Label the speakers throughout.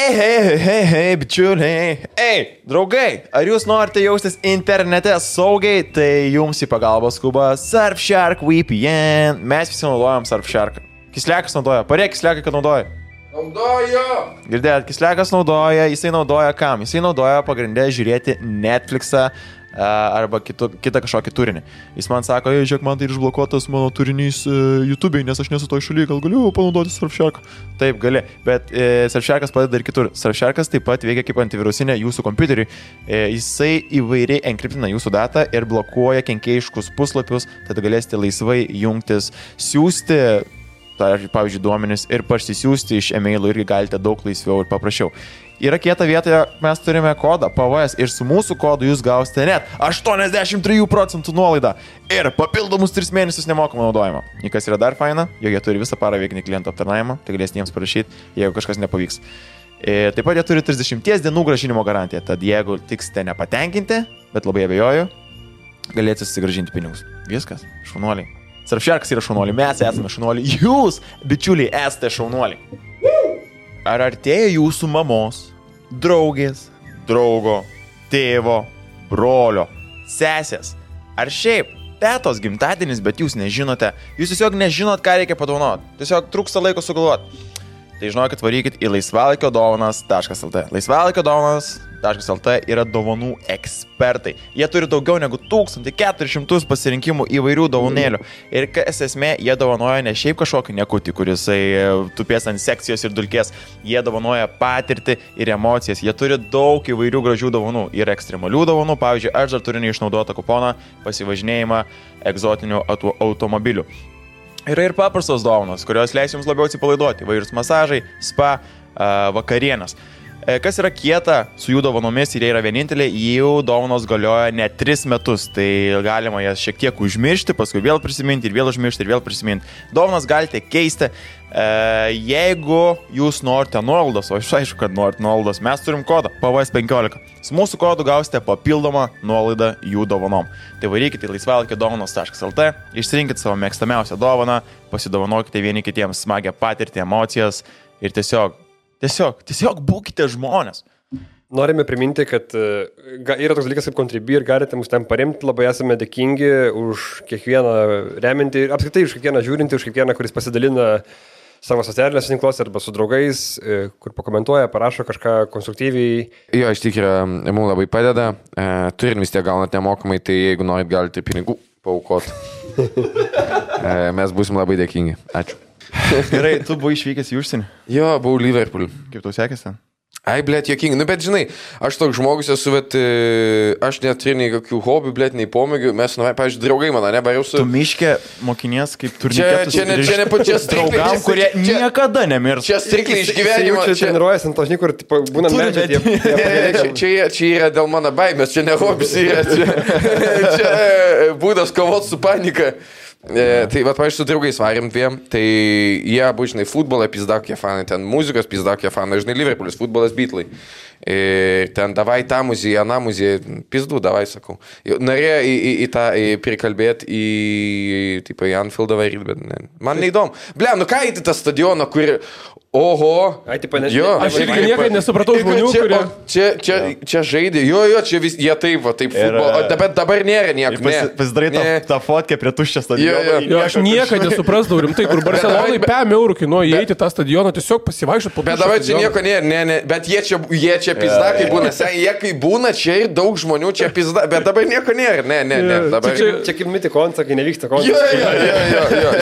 Speaker 1: Hei, bičiuliai. Ei, draugai, ar jūs norite jaustis internete saugiai, tai jums į pagalbą skuba Surfshark VPN. Mes visi naudojam Surfshark. Kislekas naudoja. Parėk Kislekai, kad naudoja.
Speaker 2: Naudoju!
Speaker 1: Girdėjot, Kislekas naudoja. Jisai naudoja kam? Jisai naudoja pagrindę žiūrėti Netflixą arba kitą kažkokį turinį. Jis man sako, žiūrėk, man tai išblokuotas mano turinys YouTube'ai, nes aš nesu toj šaly, gal galiu panaudoti Surfshark. Taip, gali, bet Surfsharkas padeda ir kitur. Surfsharkas taip pat veikia kaip antivirusinė jūsų kompiuteriui. Jisai įvairiai enkriptina jūsų datą ir blokuoja kenkėjiškus puslapius, tada galėsite laisvai jungtis, siūsti, pavyzdžiui, duomenis ir parsisiųsti iš e-mailų irgi galite daug laisviau ir paprasčiau. Yra kieta vietoje, mes turime kodą PVS ir su mūsų kodu jūs gausite net 83% nuolaidą ir papildomus 3 mėnesius nemokamą naudojimą. Ir kas yra dar faina, jog jie turi visą parą veikinį klientų aptarnavimą, tai galėsite jiems parašyti, jeigu kažkas nepavyks. Taip pat jie turi 30 dienų grąžinimo garantiją, tad jeigu tiksite nepatenkinti, bet labai abejoju, galėsite susigrąžinti pinigus. Viskas, šaunuoliai. Surfsharkas yra šaunuoliai, mes esame šaunuoliai, jūs, bičiuliai, esate šaunuoliai. Ar artėja jūsų mamos, draugės, draugo, tėvo, brolio, sesės, ar šiaip tetos gimtadienis, bet jūs nežinote, jūs tiesiog nežinot, ką reikia padovanoti, tiesiog trūksta laiko sugalvoti. Tai žinokit, varykit į laisvalaikiodovanas.lt. Laisvalaikiodovanas.lt yra dovanų ekspertai. Jie turi daugiau negu 1400 pasirinkimų įvairių dovanėlių. Ir kas esmė, jie dovanoja ne šiaip kažkokį nekutį, kuris tupės ant sekcijos ir dulkės. Jie dovanoja patirtį ir emocijas. Jie turi daug įvairių gražių dovanų. Yra ekstremalių dovanų. Pavyzdžiui, aš dar turiu neišnaudotą kuponą pasivažinėjimą egzotinių automobilių. Yra ir paprastos dovanos, kurios leis jums labiau atsipalaiduoti. Įvairūs masažai, spa, vakarienės. Kas yra kieta su jų dovanomis ir jie yra vieninteliai, jų dovanos galioja net 3 metus. Tai galima jas šiek tiek užmiršti, paskui vėl prisiminti ir vėl užmiršti ir vėl prisiminti. Dovanas galite keisti. Jeigu jūs norite nuolaidos, o aš aišku, kad norite nuolaidos, mes turim kodą PVS15. Su mūsų kodu gausite papildomą nuolaidą jų dovanom. Tai varykite į laisvalaikiodovanos.lt, išsirinkite savo mėgstamiausią dovaną, pasidovanokite vieni kitiems smagią patirtį, emocijas ir tiesiog būkite žmonės.
Speaker 2: Norime priminti, kad yra toks dalykas kaip Contribui ir galite mus ten paremti, labai esame dėkingi už kiekvieną reminti, apskritai už kiekvieną žiūrinti, už kiekvieną, kuris pasidalina savo socialinėse tinkluose arba su draugais, kur pakomentuoja, parašo kažką konstruktyviai.
Speaker 3: Jo, iš tikrųjų, mums labai padeda. Turin vis tiek gaunat nemokamai, tai jeigu norit, galite pinigų paaukoti. Mes būsim labai dėkingi. Ačiū.
Speaker 1: Gerai, tu buvai išvykęs į užsienį?
Speaker 3: Jo, buvau Liverpool.
Speaker 1: Kaip tau sekėsi ten?
Speaker 3: Ai, blėt, jokingai. Nu, bet žinai, aš toks žmogus esu, bet aš neturiu nei kokių hobių, blėt, nei pomėgių. Mes, pavyzdžiui, draugai mano, nebariau su...
Speaker 1: Tu miške mokinies kaip turniketus.
Speaker 3: Čia ne pačias
Speaker 1: draugam, kurie niekada nemirs.
Speaker 3: Čia strikliai iš gyvenimo.
Speaker 2: Čia treniruojasi ant tožny, kur būna medžiai.
Speaker 3: Čia yra dėl mano baimės, čia ne hobis yra. Čia būdas kovoti su panika. Tai va, pavyzdžiui, su draugais varėm dviem, tai jie abu, žinai, futbolą pizdakokie fanai, ten muzikos pizdakokie fanai, žinai, Liverpoolis, futbolas Beatlai. Ir ten davai tą muziją, aną muziją, pizdu, davai, sakau. Norėjo į tą prikalbėti į Anfieldą varyti, bet ne. Man neįdomu. Ble, nu ką į tą stadioną, kur... Oho.
Speaker 2: Ai, tipo,
Speaker 4: aš irgi niekada nesupratau žmonių, kurie...
Speaker 3: Čia žaidė, jo, čia vis, jie taip, va, taip futbolo, bet dabar nėra nieko.
Speaker 1: Pasidarai tą fotkę prie tuščio stadiono.
Speaker 4: Jo, aš niekada nesuprasdavau rimtai, kur Barcelonai 5 eurų kainuoja įeiti tą stadioną, tiesiog pasivaikščioti po tuščio.
Speaker 3: Bet dabar čia nieko nėra, bet jie čia pizdakai būna, jie kai būna, čia ir daug žmonių čia pizda, bet dabar nieko nėra, ne.
Speaker 2: Čia kaip miti koncą, kai nevyksta koncą.
Speaker 3: Jo,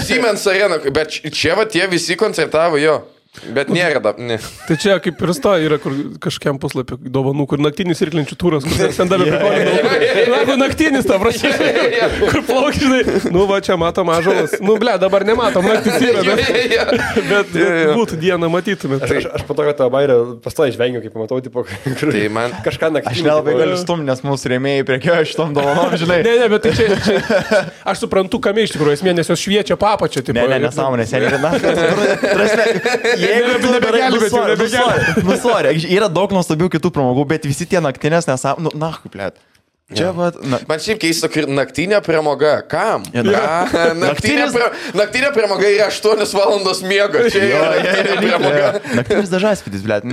Speaker 3: Siemens Arena, bet čia va tie visi koncertavo, jo. Bet nėra ne.
Speaker 4: Tai čia kaip ir sta yra kur kažkiam puslapį dovanų, kur naktinis irklinčių turas, kur ten davė prikolį. Naktinis, ta prasme, kur plaukžinai. Nu va, čia matom ąžuolas. Nu ble, dabar nematom, naktis yra, bet būtų dieną matytumėt.
Speaker 2: Aš po to, kad tą bairę pastoji žvengiu, kaip pamatau, tipo,
Speaker 3: tai man
Speaker 2: kažką naktinį.
Speaker 1: Aš nelabai galiu stumti, nes mūsų rėmėjai priekioja šitom dovanom, žinai.
Speaker 4: Ne, bet tai čia aš suprantu, kame iš tikrųjų esmė, nes jos šviečia papačią.
Speaker 1: Ne, nesąmonės, jeigu tu nebegelbėti, yra daug nuostabių kitų pramogų, bet visi tie naktinės nesąmonės, kaip plėt. Čia,
Speaker 3: Man šiaip keista, kad naktinė pramoga. Kam? Naktinė pramoga yra 8 valandos miego. Čia yra naktinė pramoga.
Speaker 1: Naktinis dažasvidis, blėt.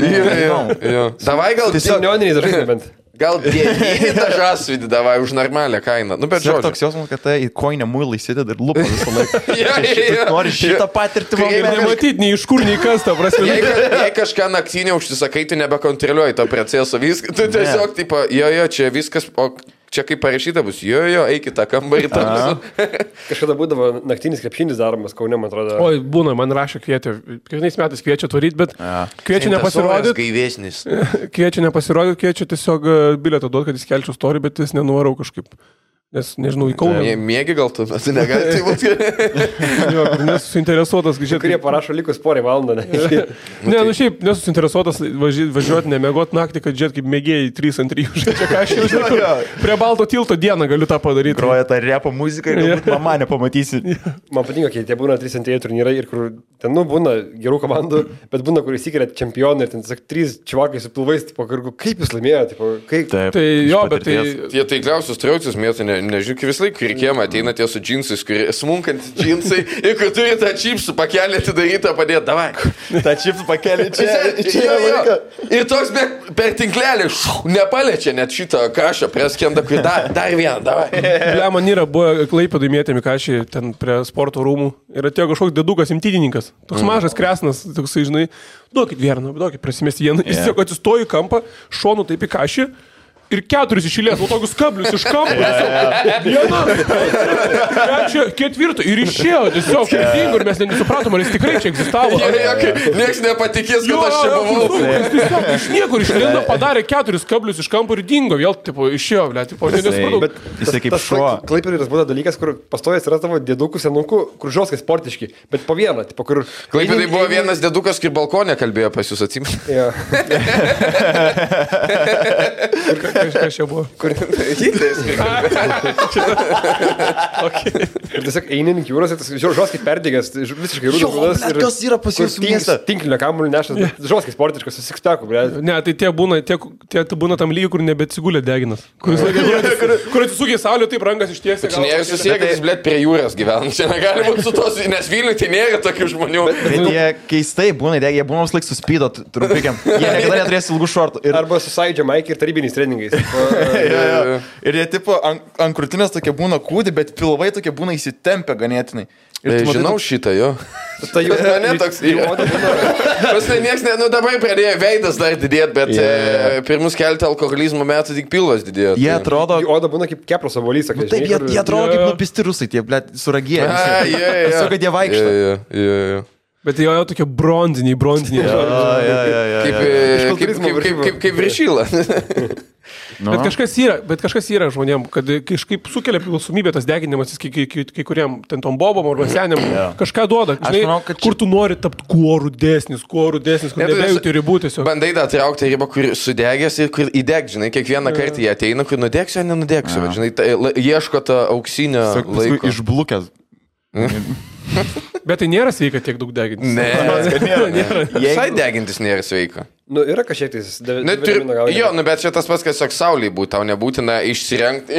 Speaker 3: Davai gal...
Speaker 2: Neoniniai dažai bent.
Speaker 3: Gal 9 dažasvidį davai už normalią kainą. Nu, bet
Speaker 1: Čia
Speaker 3: žodžiu.
Speaker 1: toks jausmas, kad tai į koinę muilą įsideda ir lupa visą laiką.
Speaker 3: Jo.
Speaker 1: Nori šitą patirtį
Speaker 4: Kaip nematyti, nei iš kur, nei kas, ta prasme.
Speaker 3: Jei kažką naktinį užsisakai, tu nebekontroliuoji to proceso. Tu tiesiog, tipo, jo, čia viskas, o čia kaip parašyta bus, jo, eikit tą kambarį.
Speaker 2: Kažkada būdavo naktinis krepšinis daromas Kaune, man atrodo.
Speaker 4: Oi, būna, man rašė kvietė. Kiekvienais metais kviečia tvaryti, bet kviečia nepasirodyti.
Speaker 3: Gaivesnis.
Speaker 4: Kviečia nepasirodyti, kviečia tiesiog bilietą duoti, kad jis kelčiau storį, bet jis nenuvarau kažkaip. Nes, nežinau, į Kauną.
Speaker 3: Mėgi gal tu, bet negali tai būti.
Speaker 4: Nesusinteresuotas, žiūrėk.
Speaker 2: Kurie parašo likus porą valandą.
Speaker 4: Ne, nu šiaip nesusinteresuotas važiuoti, nemėgoti naktį, kad žiūrėt kaip mėgėjai 3 ant 3 žaidžia, ką aš jau žinau. Prie Balto tilto dieną galiu tą padaryti.
Speaker 1: Groja tą repo muziką ir galbūt mama nepamatysi.
Speaker 2: Man patinka, kai tie būna 3 ant 3 turnyrai ir kur ten, nu, būna gerų komandų, bet būna, kur įsikelia čempionai ir ten, sak, 3 čiuvakai su pilvais, tipo, kaip jūs laimėjote, tipo, kaip...
Speaker 1: Taip,
Speaker 4: Tai jo, bet tai...
Speaker 3: Tie taikliausius traucis mėtų, nežinau, kaip vis laik reikėjama, ateina tie su džinsais, smunkant džinsai ir kur turi tą čipsų pakelį atidarytą padėti, davai.
Speaker 1: tą čipsų pakelį čia.
Speaker 3: Ir toks per tinklelį nepaliečia net šito kašio preskendą, kur dar vieną, davai.
Speaker 4: Ble, man yra, buvo Klaipėdai mėtėmi kašį ten prie sporto rūmų ir atėjo kažkoks dedukas imtydininkas. Toks mažas kresnas, toksai, žinai, duokit vieną, duokit prasimesti vieną. Jis tiesiog atsistojo į kampą, šonu taip į kašį. Ir 4 išėlės, o tokius kablius iš kampo. Viena, 4 ir išėjo tiesiog širdingo ir mes nesupratom, ar jis tikrai čia egzistavo.
Speaker 3: Niekas nepatikės, kad aš čia buvau.
Speaker 4: Jis tiesiog iš niekur išlėdo, padarė 4 kablius iš kampo ir dingo, vėl tipo, išėjo, ble, tipo, nesupratau.
Speaker 2: Bet
Speaker 1: Jisai kaip šuo.
Speaker 2: Klaipėdai būna dalykas, kur pastovės yra tavo dėdukų senukų, kur žoskai sportiški, bet po vieną, tipo, kur...
Speaker 3: Klaipėdai buvo vienas dėdukas, kur balkonė kalbėjo pas jūs, atsimenu.
Speaker 4: Kas čia buvo?
Speaker 3: Kur Hitleris.
Speaker 2: Ir tiesiog eini ant jūros, tas žoskai perdėgęs, visiškai rūdas.
Speaker 1: Kas yra pas jūs miestą?
Speaker 2: Tinklinio kamuolį nešas, žoskai sportiškas, susikspekų, ble.
Speaker 4: Ne, tai tie būna tam lygiai, kur nebeatsigulė deginas. Kur atsisukė saulė, taip rankas ištiesė.
Speaker 3: Čia nėra susiekas, blėt, prie jūros gyvena. Čia negali būti su tos, nes Vilniuje tai nėra tokių žmonių.
Speaker 1: Bet jie keistai būna, jie būna vis laik suspydo trumpikiam. Jie niekada neturės ilgų šortų.
Speaker 2: Arba su Sąjūdžio Maikį ir tarybiniais treningais.
Speaker 1: Ir jie tipo ant krūtinės tokie būna kūdi, bet pilvai tokie būna įsitempę ganėtinai.
Speaker 3: Žinau šitą, jo.
Speaker 2: Tai jūs
Speaker 3: mane toks Pastai nieks, nu dabar pradėjo veidas dar didėti, bet pirmus keletą alkoholizmo metų tik pilvas didėjo.
Speaker 1: Jie atrodo...
Speaker 2: Oda būna kaip kepros avolys, sakai.
Speaker 1: Taip, jie atrodo kaip nupisti rusai, tie, blėt, suragėję. Tiesiog, kad jie vaikšto.
Speaker 4: Bet jo tokie bronziniai.
Speaker 3: Kaip viršyla.
Speaker 4: Bet kažkas yra žmonėm, kad kažkaip sukelia priklausomybę tas deginimas, kai kuriem ten tom bobom arba senėm kažką duoda. Žinai, manau, kur tu nori tapti kuo rudesnis, kur nebejauti ribų tiesiog.
Speaker 3: Bandai da traukti ribą, kur sudegęs ir kur įdeg, žinai, kiekvieną kartą jie ateina, kur nudegsiu, ar nenudegsiu. Žinai, ieško to auksinio laiko.
Speaker 1: Išblukęs.
Speaker 4: Bet tai nėra sveika tiek daug degintis.
Speaker 3: Nėra. Visai degintis nėra sveika.
Speaker 2: Nu, yra kažkiek tais...
Speaker 3: Jo, bet čia tas pats, kad tiesiog sauliai būtų, tau nebūtina išsirengti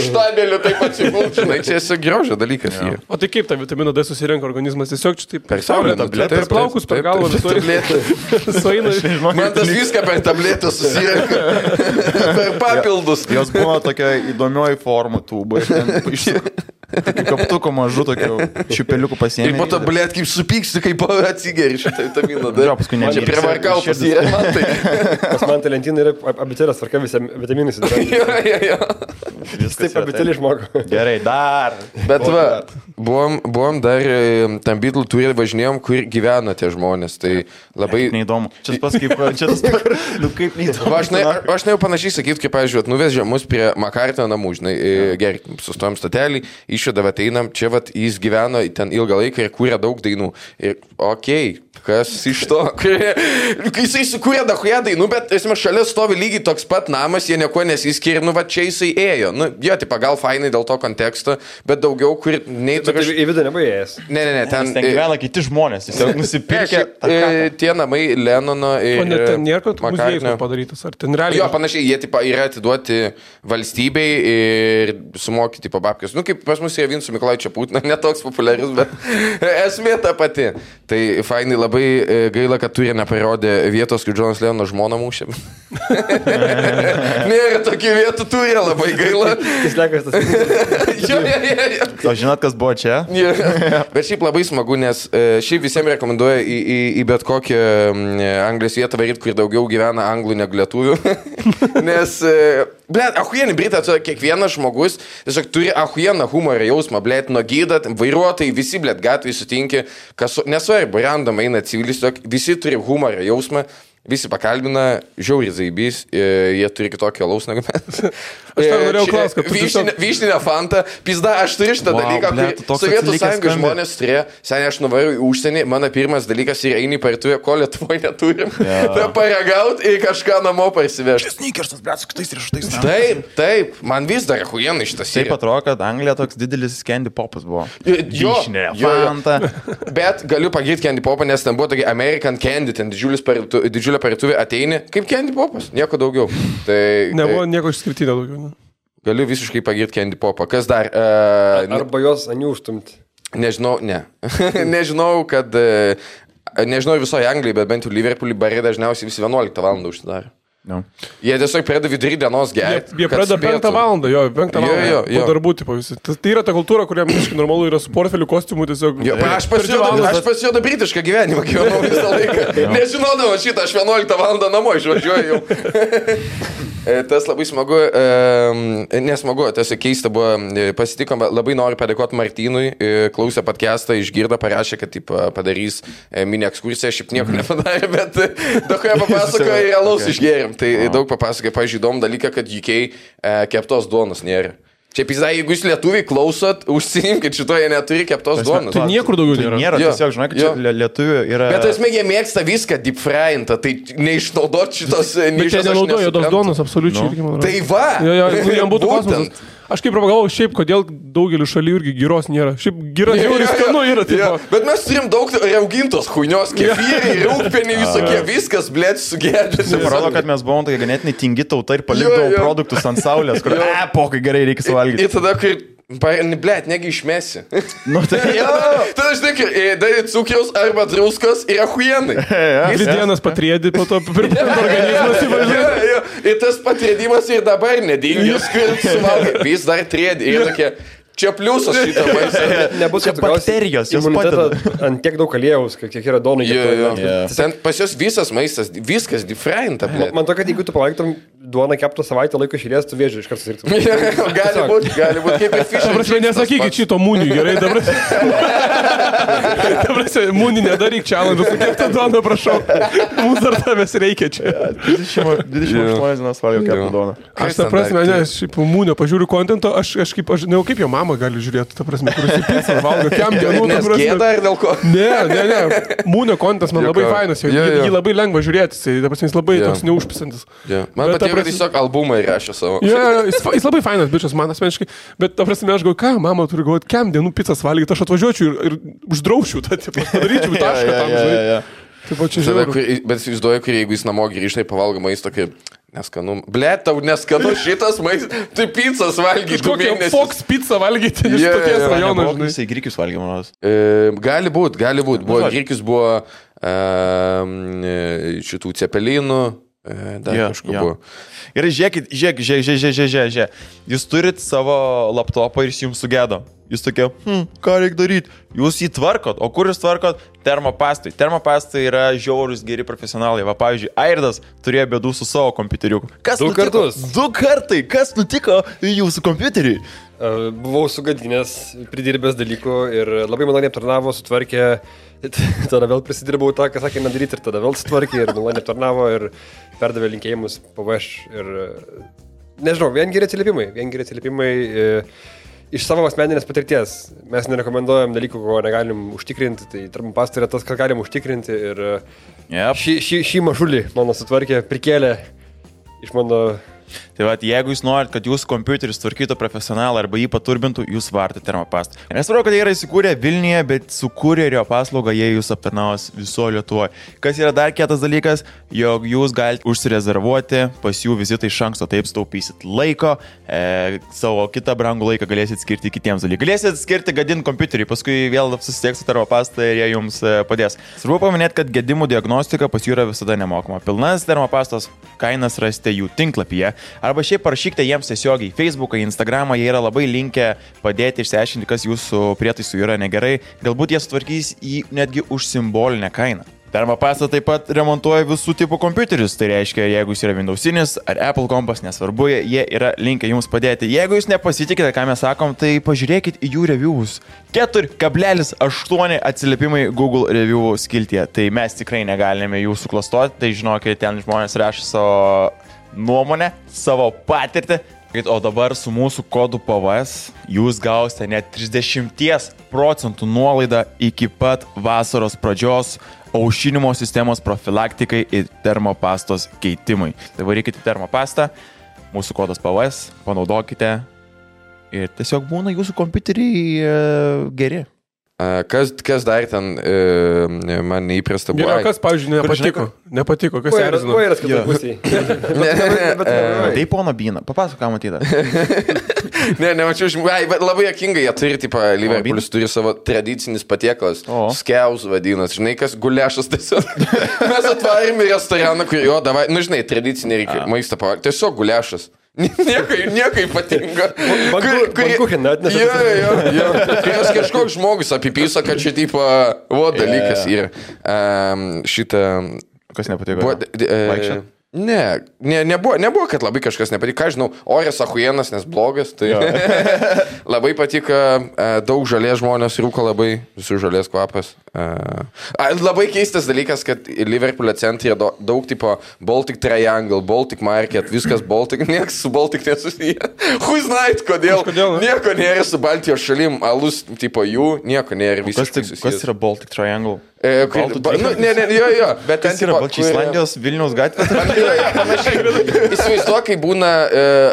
Speaker 3: štabeliu taip atsipult, žinai, čia esi grožio dalykas.
Speaker 4: O tai kaip tą vitaminą D susirenka organizmas? Tiesiog čia taip...
Speaker 3: Per saulę,
Speaker 4: per plaukus, per galvą,
Speaker 3: Man tas viską per tabletę susirenka. Per papildus.
Speaker 1: Jos buvo tokia įdomioji forma tūba. Kaip kaptuko mažu tokiu čiupeliuku pasiėmė.
Speaker 3: Ir po to, blėt, kaip supyksti, kaip atsigeri šitą vitaminą D. Čia prie varkautas yra.
Speaker 2: Pas man tai lentynai yra abitėlės tvarka visi vitaminais.
Speaker 3: Jo.
Speaker 2: Taip abitėlį išmoko.
Speaker 1: Gerai, dar.
Speaker 3: Bet va, buvom dar tam Beatle turė važinėjom, kur gyvena tie žmonės. Tai labai...
Speaker 1: Neįdomu. Čia tas kaip neįdomu.
Speaker 3: Aš nejau panašiai sakyti, kaip, pavyzdžiui, nuvežė mus prie Makartino namų, žinai, gerai, sustojom statelį, išėdavę ateinam, čia vat jis gyveno ten ilgą laiką ir kūrė daug dainų. Ir okei, Kas iš to? Kai jisai sukūrė dahuja dainų, bet esmė šalia stovi lygiai toks pat namas, jie nieko nesiskiria, nu va čia jisai ėjo. Nu, jo, tai gal fainai dėl to konteksto, bet daugiau, kur nei
Speaker 2: tu kažkaip į vidų nebaigęs.
Speaker 3: Ne,
Speaker 1: ten gyvena kiti žmonės, jis jau nusipirkė.
Speaker 3: Tie namai Lenono ir...
Speaker 4: O net ten nėra, kad muziejus padarytas, ar ten realiai?
Speaker 3: Jo, panašiai, jie tipo, yra atiduoti valstybei ir sumokyti po babkės. Nu, kaip pas mus yra Vinco Mikolaičio Putino, netoks populiarus, bet esmė ta pati. Tai fainai labai gaila, kad turė neparodė vietos, kai Džonas Lenono žmona mūšė. Nėra tokių vietų, turė labai gaila.
Speaker 2: Jis lekas tas.
Speaker 1: O žinot, kas buvo čia?
Speaker 3: Bet šiaip labai smagu, nes šiaip visiems rekomenduoja į bet kokią Anglijos vietą varyti, kur daugiau gyvena anglų negu lietuvių. Nes, blėt, ahuienį Britą, kiekvienas žmogus tiesiog turi ahujieną humorą jausmą, blėt, nuo gydat, vairuotojai, visi, blėt, gatvėje sutinki, nesvarbu, random eina civilis, visi turi humorą jausmą, visi pakalbina, žiauriai zaibys, jie turi kitokį alaus negu mes.
Speaker 4: Aš tau norėjau klausti, kad tu...
Speaker 3: Vyšninę fantą, pizda, aš turiu šitą dalyką, kai Sovietų Sąjungos žmonės turėjo, seniai aš nuvariu į užsienį, mano pirmas dalykas yra eini parduotuvę, ko Lietuvoje neturim, tai paragaut ir kažką namo parsivežti.
Speaker 1: Sneakersas, blėt, su kitais riešutais.
Speaker 3: Taip, man vis dar huienai šitas yra.
Speaker 1: Taip atrodo, kad Anglija toks didelis candy popas buvo.
Speaker 3: Vyšninė fanta. Bet galiu pagirti candy popą, nes ten buvo tokia American Candy, ten didžiulė parduotuvė ateini, kaip candy popas, nieko daugiau.
Speaker 4: Nebuvo nieko išskirtinio daugiau.
Speaker 3: Galiu visiškai pagirti candy popą. Kas dar?
Speaker 2: Arba jos anių užtumti.
Speaker 3: Nežinau, ne. Nežinau, kad... Nežinau visoje Anglijai, bet bent jau Liverpoolį barai dažniausiai visi 11 valandą užsidaro.
Speaker 1: No.
Speaker 3: Jie tiesiog pradeda vidury dienos gerti.
Speaker 4: Jie pradeda 5 valandą, 5 valandą. Po darbų, tipo visi. Tai yra ta kultūra, kuriam visiškai normalu yra su portfeliu kostiumu tiesiog.
Speaker 3: Aš pasijodu britišką gyvenimą gyvenau visą laiką. Nežinodavo šitą, aš 11 valandą namo išvažiuoju jau. Tas labai smagu, nesmagu, tiesiog keista buvo, pasitikom, labai noriu padėkoti Martynui, klausė podcastą, išgirdo, parašė, kad taip, padarys mini ekskursiją, šiaip nieko nepadarė, bet daug ką papasakoja ir alaus išgėrim. Tai daug papasakoja, pavyzdžiui, įdomų dalyką, kad UK keptos duonos nėra. Čia pizda, jeigu jūs lietuviai klausot, užsiimkit šitoje neturi keptos duonos.
Speaker 4: Tai niekur daugiau nėra.
Speaker 1: Nėra, tiesiog, žinai, kad čia lietuvių yra...
Speaker 3: Bet esmė, jie mėgsta viską deep fryintą, tai neišnaudot šitos...
Speaker 4: Bet čia nenaudojo tos duonos, absoliučiai.
Speaker 3: No. Tai va!
Speaker 4: Jam būtų klausimas. Aš kaip pagalvojau, šiaip, kodėl daugeliu šalių irgi gyros nėra. Šiaip gyra žiauriai skanu yra.
Speaker 3: Bet mes turim daug raugintos huinios, kefyrai, rūgpeniai, visokie, viskas, blėt, sugėdžiasi.
Speaker 1: Parodo, kad mes buvom tokia ganėtinai tingi tauta ir palikdavom produktus ant saulės, kur, pokai gerai reikia suvalgyti.
Speaker 3: Ir tada, kai... Blėt, negi išmesi.
Speaker 1: Nu tai jau.
Speaker 3: Tada aš tik, darė cukiaus arba druskos ir ahuienai.
Speaker 4: Dvi dienas patriedi, po to pirmant organizmas įvažiuoja.
Speaker 3: Ir tas patriedimas ir dabar nedingęs, kur suvalgai. Vis dar triedi. Ir tokie... Čia pliusas šitą maistą.
Speaker 2: Nebus
Speaker 1: bakterijos, jos padeda.
Speaker 2: Ant tiek daug aliejaus, kiek yra donų.
Speaker 3: Ten pas jos visas maistas, viskas differenta.
Speaker 2: Man to, kad jeigu tu pavalgytum duoną keptą savaitę laiko išėlės, tu vėžiu iš karto sirgtum.
Speaker 3: Gali būt kaip ir fish.
Speaker 4: Dabar nesakykit šito mūniui, gerai, dabar. Dabar mūnį nedaryk challenge, keptą duoną, prašau. Mums dar tavęs reikia čia.
Speaker 1: 28 dienas valgiau keptą duoną.
Speaker 4: Aš tą prasme, nes šiaip mūnio pažiūriu kontento, aš kaip jo mama gali žiūrėti, ta prasme, kuris į pizzą valgo, kiam dienų, ta prasme.
Speaker 3: Gėda ir dėl ko?
Speaker 4: Ne. Mūnio kontas man labai fainas, jį labai lengva žiūrėti, ta prasme, jis labai toks neužpisantis.
Speaker 3: Man patiko, kad tiesiog albumą įrašė savo.
Speaker 4: Jis labai fainas bičias, man asmeniškai, bet ta prasme, aš galvoju, ką mama turi galvoti, kiam dienų pizzas valgyti, aš atvažiuočiau ir uždraušiu tą, padaryčiau tašką tam, žinai. Taip, čia žiūrėjau.
Speaker 3: Bet įsivaizduoju, kur jeigu jis namo grįžtai, pavalgo maisto, kaip neskanu. Blet, tau neskanu šitas maistas, tai pizzas valgyti.
Speaker 4: Kokią Fox pizzą valgyti iš tokies rajono, žinai.
Speaker 1: Jisai grikius valgė, manos.
Speaker 3: Gali būt. Grikius buvo šitų cepelinų, dar kažko buvo.
Speaker 1: Gerai, žiūrėkit. Jūs turit savo laptopą ir jis jums sugėdo. Jūs tokie, ką reikia daryti? Jūs jį tvarkot. O kur jūs tvarkot? Termopastai. Termopastai yra žiaurus geri profesionalai. Va, pavyzdžiui, Airdas turėjo bėdų su savo kompiuteriu.
Speaker 2: Du kartus.
Speaker 1: 2 kartai. Kas nutiko jūsų kompiuteriui?
Speaker 2: Buvau sugadinęs, pridirbęs dalykų ir labai maloniai aptarnavo, sutvarkė. Tada vėl prisidirbau tą, ką sakė nedaryti, ir tada vėl sutvarkė ir maloniai aptarnavo ir perdavė linkėjimus PVŠ. Ir nežinau, vien geri atsiliepimai. iš savo asmeninės patirties mes nerekomenduojam dalykų, ko negalim užtikrinti, tai termopasta yra tas, ką galim užtikrinti ir šį mažulį mano sutvarkė, prikėlė iš mano...
Speaker 1: Tai va, jeigu jūs norit, kad jūsų kompiuteris tvarkytų profesionalą arba jį paturbintų, jūs vartate termopastą. Nesvarbu, kad jie yra įsikūrę Vilniuje, bet su kurjerio paslauga jie jūs aptarnaus viso Lietuvoje. Kas yra dar kietas dalykas, jog jūs galite užsirezervuoti pas jų vizitą iš anksto, taip staupysit laiko, savo kitą brangų laiką galėsit skirti kitiems dalykams. Galėsit skirti gadinti kompiuterį, paskui vėl susisieks su termopasta ir jie jums padės. Svarbu paminėti, kad gedimų diagnostika pas jų yra visada nemokama. Pilnas termopastos kainas rasite jų tinklapyje. Arba šiaip parašykite jiems tiesiogiai į Facebooką, į Instagramą, jie yra labai linkę padėti išsiaiškinti, kas jūsų prietaisų yra negerai. Galbūt jie sutvarkys jį netgi už simbolinę kainą. Termopasta taip pat remontuoja visų tipų kompiuterius, tai reiškia, jeigu jis yra Windowsinis ar Apple kompas, nesvarbu, jie yra linkę jums padėti. Jeigu jūs nepasitikite, ką mes sakom, tai pažiūrėkit į jų reviewus. 4,8 atsiliepimai Google review skiltyje, tai mes tikrai negalime jų suklastoti, tai žinokit, ten žmonės rašo savo nuomonę, savo patirtį. O dabar su mūsų kodu PVS jūs gausite net 30% nuolaidą iki pat vasaros pradžios aušinimo sistemos profilaktikai ir termopastos keitimui. Tai varykite termopastą, mūsų kodas PVS, panaudokite ir tiesiog būna jūsų kompiuteriai geri.
Speaker 3: Kas dar ten man neįprasta buvo?
Speaker 4: Yra kas, pavyzdžiui, nepatiko, kas erzino.
Speaker 2: Kuo yra skirtai pusiai?
Speaker 1: Tai pono Byną, papasako, ką matyta.
Speaker 3: Nemačiau, bet labai jokingai jie turi, tipo, Liverpoolis turi savo tradicinis patiekalas, skeus vadinas, žinai, kas gulešas tiesiog. Mes atvarėm į restoraną, kur jo, davai, nu žinai, tradicinį reikia maistą pavarti, tiesiog gulešas. Nieko ypatinga.
Speaker 2: Bankucheną atnešė.
Speaker 3: Jo. Kai kažkoks žmogus apipyso, kad čia tipo, dalykas yra. Šitą...
Speaker 1: Kas nepatiko? Vaikščiat?
Speaker 3: Nebuvo, kad labai kažkas nepatiko. Ką žinau, oras ahujienas, nes blogas. Tai labai patiko, daug žalės žmonės rūko labai, visų žalės kvapas. Labai keistas dalykas, kad Liverpoolio centre daug tipo Baltic Triangle, Baltic Market, viskas Baltic, niekas su Baltic nesusiję. Who's night, kodėl? Nieko nėra su Baltijos šalim, alus tipo jų, nieko nėra visiškai susijęs.
Speaker 1: Kas yra Baltic Triangle?
Speaker 3: Jo. Bet
Speaker 1: kas yra Balčia Islandijos Vilniaus gatvė?
Speaker 3: Įsivaizduoju, kai būna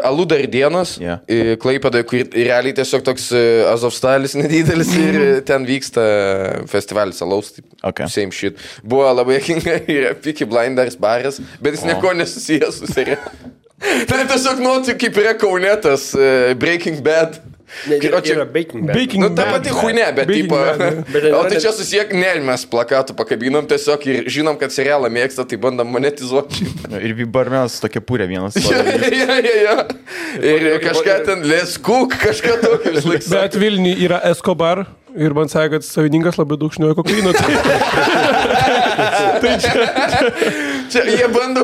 Speaker 3: aludar dienos, Klaipėdoje, kur realiai tiesiog toks Azovstalis nedidelis ir ten vyksta festivalis alaus, same shit. Buvo labai jokinga ir Peaky Blinders baras, bet jis nieko nesusijęs su serija. Tai tiesiog kaip yra Kaunetas Breaking Bad.
Speaker 2: Yra Baking Bad.
Speaker 3: Nu, ta pati huinė, bet tipo... O tai čia susiek, mes plakatų pakabinom tiesiog ir žinom, kad serialą mėgsta, tai bandom monetizuoti.
Speaker 1: Ir barmenas tokia pūrė vienas.
Speaker 3: Jo. Ir kažką ten Let's Cook, kažką tokio vis laiks.
Speaker 4: Bet Vilniui yra Escobar ir man sakė, kad savininkas labai daug šnioja kokaino. Tai
Speaker 3: čia jie bando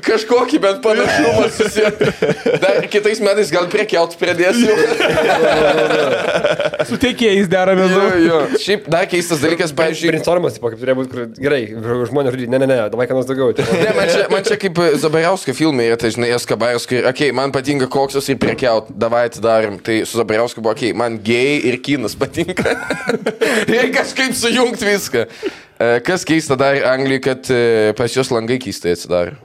Speaker 3: kažkokį bent panašumą susijęti. Dar kitais metais gal prekiaut pradėsiu.
Speaker 4: Su tiekėjais deramės.
Speaker 3: Jo. Šiaip dar keistas dalykas, pavyzdžiui...
Speaker 2: Brainstormas, kaip turėjo būti, kur gerai, žmonės žudyti, ne, davai ką nors daugiau.
Speaker 3: Man čia kaip Zabariausko filmai yra, tai žinai, Eskabaras, kur, man patinka koksas ir prekiaut, davai atidarim. Tai su Zabariausko buvo, man gėjai ir kinas patinka. Ir kažkaip sujungt viską. Kas keista dar Anglijai, kad pas jos langai keistai atsidaro.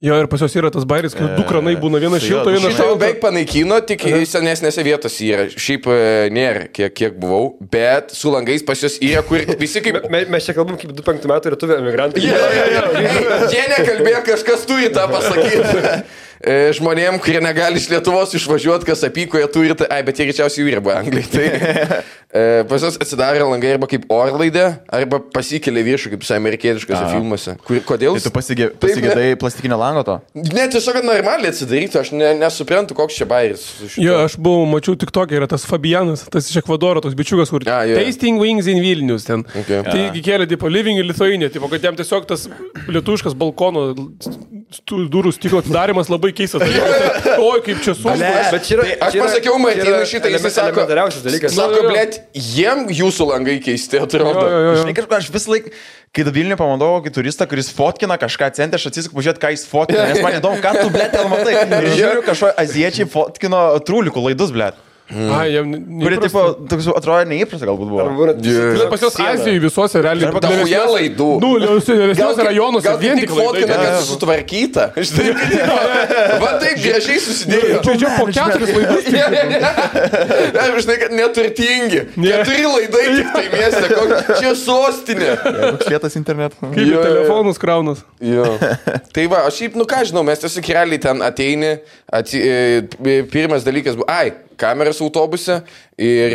Speaker 4: Jo, ir pas jos yra tas bairis, kad du kranai būna, vienas šilto, vienas šalto.
Speaker 3: Beveik panaikino, tik senesnėse vietose yra. Šiaip nėra, kiek buvau, bet su langais pas jos yra, kur visi kaip...
Speaker 2: Mes čia kalbam kaip 25 metų lietuvė emigrantai.
Speaker 3: Jie nekalbėjo, kažkas turi tą pasakyti. Žmonėm, kurie negali iš Lietuvos išvažiuoti, kas apyko, jie turi, bet jie greičiausiai jų yra Anglijai. Tai pas jos atsidarė langai arba kaip orlaidė, arba pasikėlė viršų, kaip amerikietiškose filmuose. Kodėl?
Speaker 1: Tai tu pasigėdai plastikinio lango to?
Speaker 3: Ne, tiesiog normaliai atsidaryti, aš nesuprantu, koks čia bairis.
Speaker 4: Jo, aš mačiau tik tokia, yra tas Fabianas, tas iš Ekvadoro, toks bičiukas, kur Tasting Wings in Vilnius ten. Tai kėlė, tipo, Living in Lithuania, tipo, kad jam tiesiog tas lietuviškas balkono durų stiklo atidarimas labai keistas. Oi, kaip čia sunku.
Speaker 3: Aš pasakiau Martynui šitą, jis sako, blėt, jiem jūsų langai keisti, atrodo.
Speaker 1: Žinai, aš vis laik, kai Vilniuje pamatau kokį turistą, kuris fotkina kažką centre, aš atsisuku pažiūrėti, ką jis fotkina, nes man įdomu, ką tu, blėt, ten matai. Ir žiūriu, kažko aziečiai fotkino trūlikų laidus, blėt.
Speaker 4: Jam
Speaker 1: Kuri, tipo, toks atrodo neįprasta galbūt buvo.
Speaker 4: Pas jos Azijoje visuose realiai.
Speaker 3: Daugia laidų.
Speaker 4: Nu, didesniuose rajonuose
Speaker 3: Gal
Speaker 4: vien
Speaker 3: tik
Speaker 4: tik
Speaker 3: fotkina,
Speaker 4: laidai.
Speaker 3: kad sutvarkyta. Va taip gražiai susidėjo.
Speaker 4: Čia po 4 laidus.
Speaker 3: Žinai, kad neturtingi. 4 laidai tik tai mieste. Čia sostinė.
Speaker 1: Šlietas internetu.
Speaker 4: Kaip į telefonus kraunas.
Speaker 3: Jo. Tai va, aš šiaip, ką žinau, mes tiesiog realiai ten ateini, pirmas dalykas buvo, kameras autobuse ir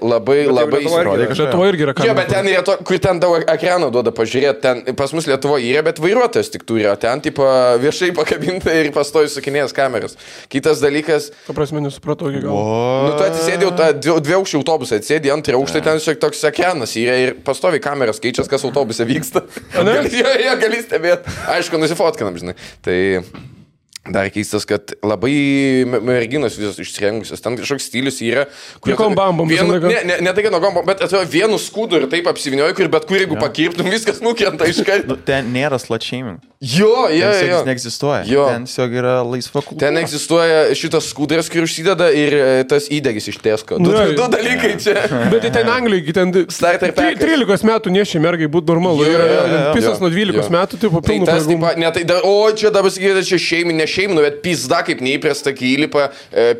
Speaker 3: labai
Speaker 2: Lietuvoje
Speaker 4: Lietuvoje irgi yra
Speaker 3: Jo,
Speaker 4: kamera.
Speaker 3: bet ten yra to, kur ten daug ekrano duoda pažiūrėti, ten pas mus Lietuvoje yra, bet vairuotojas tik turi, o ten tipo viešai pakabinta ir pastoji sukinėjęs kameras. Kitas dalykas,
Speaker 4: Ta prasme, nesupratau iki galo.
Speaker 3: nu tu atsisėdėjau tą dviaukštį autobusą, atsisėdė antrą aukštą, ten šiek toks ekranas yra ir pastovi kameras keičias, kas autobuse vyksta. Gali stebėti. Aišku, nusifotkinam, žinai. Tai dar keistas, kad labai merginos visos išsirengusios. Ten kažkoks stilius yra.
Speaker 4: Kokiom bambom visą laiką?
Speaker 3: Ne tai, kad nuo bambom, bet atrodo vienu skūdu ir taip apsivinioju, kur bet kur jeigu pakirptum, viskas nukrenta iš karto.
Speaker 1: Ten nėra slut shaming.
Speaker 3: Jo.
Speaker 1: Ten neegzistuoja.
Speaker 3: Jo.
Speaker 1: Ten tiesiog yra laisva kultūra.
Speaker 3: Ten egzistuoja šitas skūdras, kur užsideda ir tas įdegis iš Tesco. Du dalykai čia.
Speaker 4: Bet tai ten Anglijoje, ten
Speaker 3: Starter packas.
Speaker 4: 13 metų nešia mergai būti normalu. Pisas nuo 12 metų, tai po
Speaker 3: Tai
Speaker 4: pilnų
Speaker 3: tas,
Speaker 4: pajėgumų.
Speaker 3: ne, tai o čia dabar sakyti, čia šeiminė, bet pizda kaip neįprasta, kai įlipa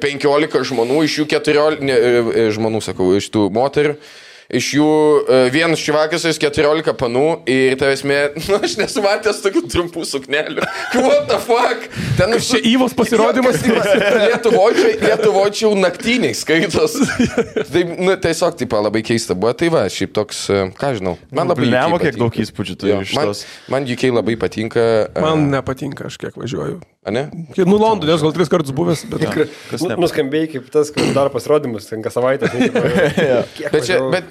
Speaker 3: 15 žmonių, iš jų 14 žmonių, sakau, iš tų moterų. Iš jų vienas šivakas, 14 panų ir tavęsmė, nu aš nesumatęs tokių trumpų suknelių. What the fuck? Ten
Speaker 4: Čia Įvos pasirodymas.
Speaker 3: Lietuvoje čia jau naktiniai skaitos. Taip, nu, tiesiog taip labai keista buvo. Tai va, šiaip toks, ką žinau. Man labai
Speaker 1: Nemo, kiek
Speaker 3: patinka.
Speaker 1: daug įspūdžių turi iš tos.
Speaker 3: Man UK labai patinka.
Speaker 4: Man nepatinka, aš kiek važiuoju.
Speaker 3: Ne?
Speaker 4: Nu, Londone, aš gal 3 kartus buvęs, bet...
Speaker 2: Nuskambėjai kaip tas, kai daro pasirodymus, ten kas savaitę.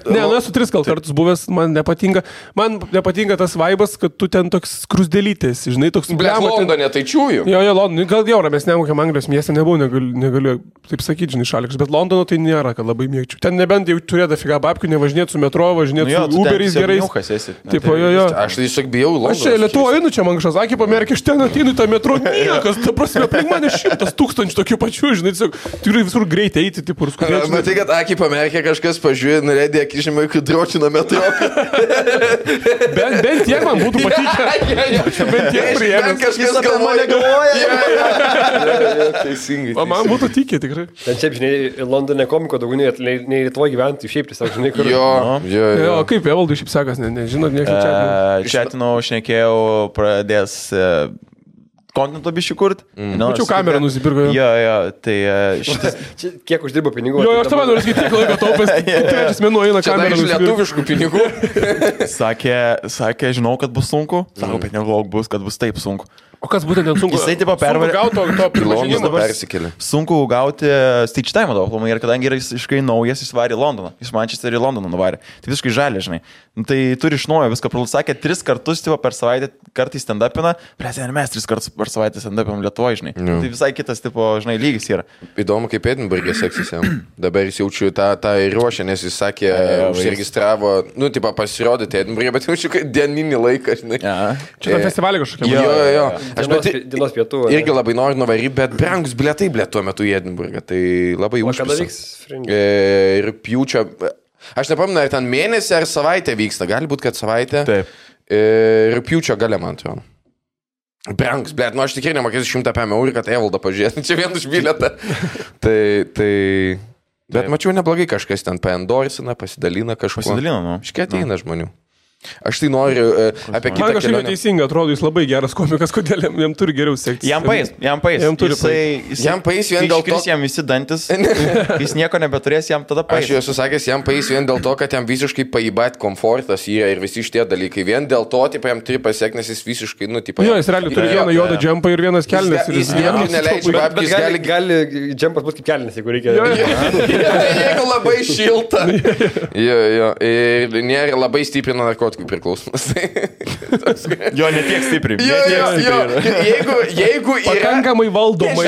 Speaker 4: Ne, nu esu 3 kartus buvęs, man nepatinka. Man nepatinka tas vaibas, kad tu ten toks krusdelytės, žinai, toks...
Speaker 3: Blet, Londone tai čiūju.
Speaker 4: Jo, Londone, gal jau ramesniam kokiam Anglijos mieste nebuvau, negaliu taip sakyti, žinai, šalikas, bet Londono tai nėra, kad labai mėgčiau. Ten nebent jau turėtų figa babkių, nevažinėti su metro, važinėti su Uberiais gerais. Taip, jo.
Speaker 3: Aš tai tiesiog bijau Londoną.
Speaker 4: Aš čia Lietuvoje einu, čia man kažkas sakė, pamerkė, aš ten ateinu į tą metro, niekas, ta prasme, aplink mane 100 000 tokių pačių, žinai, tikrai visur greitai eiti, taip, ir skubėti.
Speaker 3: Matai, kad akį pamerkė kažkas, pažiūrė, norėdė akį žemai, kad dročino metro.
Speaker 4: Bent tiek man būtų patikę. Bent tiek priėmęs.
Speaker 3: Kažkas apie mane galvoja. Teisingai.
Speaker 4: O man būtų tikė, tikrai.
Speaker 2: Ten šiaip, žinai, Londone komiko daugiau nei Lietuvoje gyventi, šiaip tiesiog, žinai, kur...
Speaker 3: Jo.
Speaker 4: O kaip Evaldui šiaip sekas, nežinot, niekas čia.
Speaker 1: Čiatinau, šnekėjau, pradės kontento bišį kurt.
Speaker 4: Mačiau kamerą nusipirko.
Speaker 1: Jo, tai šitas...
Speaker 2: Kiek uždirbo pinigų?
Speaker 4: Jo, aš tavai noriu sakyti, kiek laiko taupęs. Trečias mėnuo eina
Speaker 3: Čia
Speaker 4: kamerą
Speaker 3: iš
Speaker 4: nusipirko.
Speaker 3: lietuviškų pinigų.
Speaker 1: Sakė, žinau, kad bus sunku. Sako, bet negalvok bus, kad bus taip sunku.
Speaker 4: O kas būtent ten sunku?
Speaker 1: Jisai tipo pervarė.
Speaker 4: Sunku gauti to pripažinimo.
Speaker 3: Persikėlė.
Speaker 1: Sunku gauti stage time daug, ir kadangi yra visiškai naujas, jis varė į Londoną. Iš Manchesterio į Londoną nuvarė. Tai visiškai žalė, žinai. Tai turi iš naujo viską pralų. Sakė, 3 kartus tipo, per savaitę kartais stand-upina. Prasė, mes 3 kartus per savaitę stand-upinam Lietuvoje, žinai. Tai visai kitas, tipo, žinai, lygis yra.
Speaker 3: Įdomu, kaip Edinburgė seksis jam. Dabar jis jaučiu tą ir ruošę, nes jis sakė, užsiregistravo, nu, tipo, pasirodyti Edinburgė, bet jaučiu, kad dieninį laiką, žinai.
Speaker 4: Čia ta festivalė kažkokia.
Speaker 3: Jo. Aš
Speaker 2: Dienos pietų.
Speaker 3: Irgi labai noriu nuvaryti, bet brangus bilietai tuo metu į Edinburgą. Tai labai
Speaker 2: O kada
Speaker 3: užpisa.
Speaker 2: vyks Fringe?
Speaker 3: Rugpjūčio. Aš nepamenu, ar ten mėnesį ar savaitę vyksta. Gali būti, kad savaitę.
Speaker 1: Taip.
Speaker 3: Rugpjūčio gale, man atrodo. Brangus, blėt, nu aš tikrai nemokėsiu 100 eurų, kad Evaldą pažiūrėti. Čia vien už bilietą. Bet mačiau neblogai kažkas ten paendorina, pasidalina kažkuo.
Speaker 1: Pasidalina, nu.
Speaker 3: Iškiai ateina žmonių. Aš tai noriu apie kitą
Speaker 4: Man kažkaip
Speaker 3: kelionę.
Speaker 4: neteisinga, atrodo, jis labai geras komikas, kodėl jam turi geriau sekti.
Speaker 1: Jam pais.
Speaker 4: Jam turi
Speaker 3: Jam pais vien dėl to,
Speaker 1: jam visi dantis, jis nieko nebeturės, jam tada pais.
Speaker 3: Aš jau esu sakęs, jam pais vien dėl to, kad jam visiškai paibait komfortas yra ir visi šitie dalykai. Vien dėl to, tipo, jam turi pasiekti, nes jis visiškai, nu, tipo...
Speaker 4: Jo, jis realiai turi vieną juodą džempą ir vienas kelnes.
Speaker 3: Jis niekur neleidžia babkis,
Speaker 2: Gali džempas būti kaip kelinis, jeigu reikia.
Speaker 3: Jeigu labai šilta. Jo. Ir nėra labai stiprina narkotikų narkotikų priklausomas.
Speaker 1: Jo, ne tiek stipriai.
Speaker 3: Jeigu yra...
Speaker 4: Pakankamai valdomai.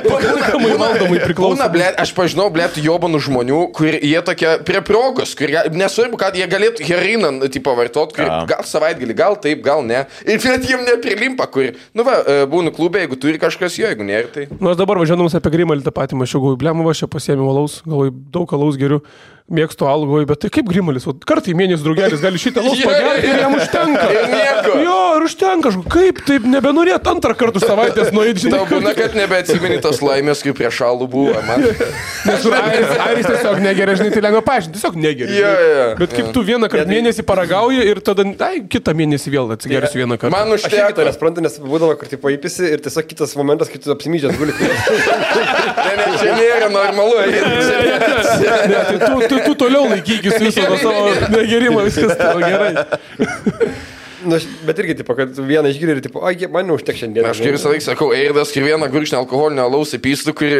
Speaker 4: Pakankamai valdomai priklauso.
Speaker 3: Aš pažinau, jobanų žmonių, kur jie tokie prie progos, kur nesvarbu, kad jie galėtų heriną, tipo, vartot, gal savaitgalį, gal taip, gal ne. Ir net jiem neprilimpa, kur, būnu klube, jeigu turi kažkas jo, jeigu nėra, tai...
Speaker 4: Aš dabar važiuodamas apie Grimalį tą patį mačiau, galvoju, blemu, aš čia pasiėmiau alaus, galvoju, daug alaus geriu. Mėgstu alų, galvoju, bet tai kaip Grimalis, kartą į mėnesį draugelis gali šitą alaus pagerti ir jam užtenka. Jo, ir užtenka, kaip taip nebenorėt antrą kartą už savaitės nueiti, žinai.
Speaker 3: Tau būna, kad nebeatsimeni tos laimės, kaip prieš alų buvo, man.
Speaker 4: Nes Airis tiesiog negeria, žinai, tai lengva paaiškinti, tiesiog negeria. Bet kaip tu vieną kartą mėnesį paragauji ir tada, kitą mėnesį vėl atsigersiu vieną kartą.
Speaker 3: Man užteko.
Speaker 2: Aš suprantu, nes būdavo, kur tipo įpisi ir tiesiog kitas momentas, kai tu apsimydžias guli.
Speaker 3: Ne, čia nėra normalu.
Speaker 4: Tu toliau laikykis viso to savo negerimo, viskas tavo gerai.
Speaker 2: Bet irgi, tipo, kad vieną išgirį ir, tipo, man neužtek šiandien.
Speaker 3: Aš kaip visą laiką sakau, Eirdas ir vieną gurkšnį alkoholinio alaus įpystų, kur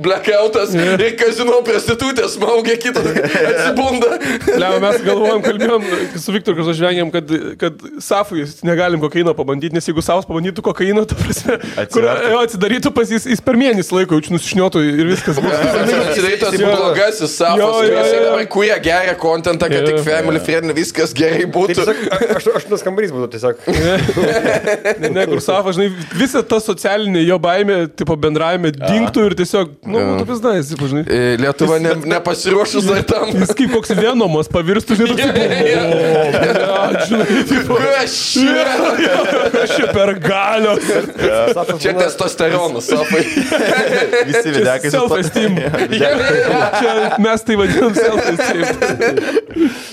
Speaker 3: blackoutas ir kazino prostitutė smaugia kitą, atsibunda.
Speaker 4: Liau, mes kalbėjom su Viktoru, kad žvengiam, kad Safui negalim kokaino pabandyti, nes jeigu Safas pabandytų kokaino, ta prasme, kur atsidarytų pas jis per mėnesį laiko, jaučiu nusišniotų ir viskas.
Speaker 3: Atsidarytų blogasis Safas, kurie geria kontentą, kad tik family friendly, viskas gerai būtų.
Speaker 2: Kambarys būtų tiesiog.
Speaker 4: Ne, kur Safas, žinai, visa ta socialinė jo baimė, tipo bendravime dingtų ir tiesiog, būtų pizdais, tipo, žinai.
Speaker 3: Lietuva nepasiruošus dar tam.
Speaker 4: Jis kaip koks Venomas pavirstų, žinai, tipo, aš čia per galios.
Speaker 3: Čia testosteronas, Safai.
Speaker 1: Visi videkai.
Speaker 4: Self-esteem. Čia mes tai vadinam self-esteem.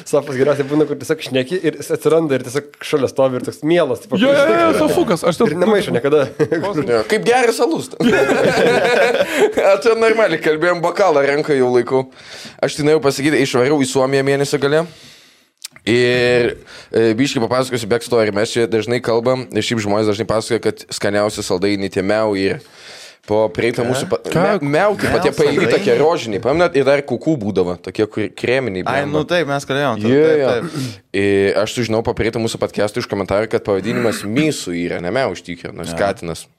Speaker 2: Safas geriausiai būna, kur tiesiog šneki ir atsiranda ir tiesiog šalia stovi ir toks mielas.
Speaker 4: Jo, sofukas.
Speaker 2: Ir nemaišo niekada.
Speaker 3: Kaip geras alus. Čia normaliai kalbėjom, bokalą renka jau laiku. Aš tai norėjau pasakyti, išvariau į Suomiją mėnesio gale. Ir biškai papasakosiu backstory. Mes čia dažnai kalbam, ir šiaip žmonės dažnai pasakoja, kad skaniausi saldainiai tie miau ir po prieitą mūsų... Miau, taip pat tie pailgi tokie rožiniai, paminat, ir dar kukų būdavo, tokie kreminiai.
Speaker 1: Ai, nu taip, mes kalbėjom.
Speaker 3: Aš sužinau po prieitą mūsų podcastų iš komentarų, kad pavadinimas Mysų yra, ne miau iš tikrųjų, nors katinas.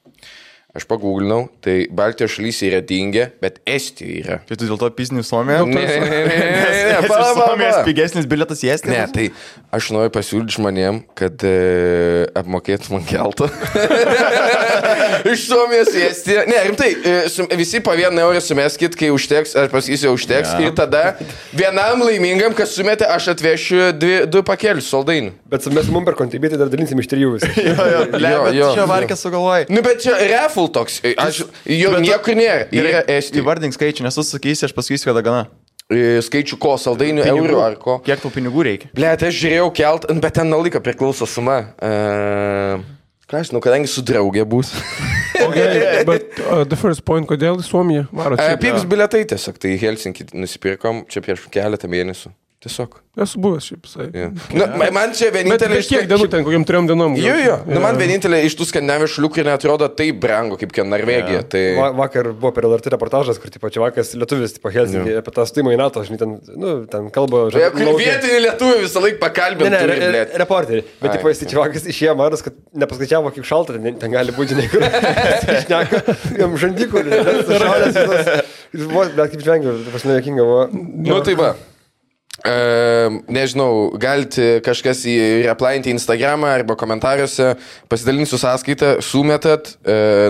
Speaker 3: Aš pagūglinau, tai Baltijos šalyse yra dingę, bet Estijoje yra.
Speaker 1: Tai tu dėl to pizni Suomiją?
Speaker 3: Ne,
Speaker 1: Suomijos pigesnis bilietas į Estiją?
Speaker 3: Ne, tai aš noriu pasiūlyti žmonėm, kad apmokėtų man keltą. Iš Suomijos į Estiją. Ne, rimtai, visi po 1 eurą sumeskit, kai užteks, aš pasakysiu, užteks. Ir tada vienam laimingam, kas sumetė, aš atvešiu 2 pakelius saldainių.
Speaker 2: Bet mes mum per kontributį dar dalinsim iš 3 visi.
Speaker 1: Jo, čia varkės sugalvojai.
Speaker 3: Nu, bet čia reful toks. Jo niekur nėra. Yra Estija.
Speaker 1: Įvardink skaičių, nes tu sakysi, aš pasakysiu, kada gana.
Speaker 3: Skaičių ko, saldainių, eurų ar ko.
Speaker 1: Kiek tau pinigų reikia?
Speaker 3: Blet, aš žiūrėjau kelt, bet ten nuo laiko priklauso suma. Ką aš žinau, kadangi su draugė bus.
Speaker 4: Okay, but the first point, kodėl į Suomiją varot?
Speaker 3: Pigus biletai tiesiog, tai Helsinkį nusipirkom čia prieš keletą mėnesių. Tiesiog.
Speaker 4: Esu buvęs šiaip visai.
Speaker 3: Nu, man čia vienintelė...
Speaker 4: Bet kiek dienų ten, kokiam 3 dienom?
Speaker 3: Jo. Nu, man vienintelė iš tų skandinavijos šalių, kurie neatrodo taip brangu, kaip Norvegija. Tai...
Speaker 2: Vakar buvo per LRT reportažas, kur tipo Čiavakas lietuvis, tipo Helsinkį, apie tą stojimą į NATO, žinai, ten kalba...
Speaker 3: Vietinį lietuvį visą laiką pakalbė.
Speaker 2: Ne, reporterį. Bet tipo jis Čiavakas išėjo maras, kad nepaskaičiavo, kaip šalta, ten gali būti, žinai, kur išneka, jam žandikulį, šalės visas. Bet kaip žvengiu, pas mane jokinga buvo.
Speaker 3: Nu, tai va. Nežinau, galite kažkas replainti Instagramą arba komentaruose, pasidalinsiu sąskaitą, sumetat,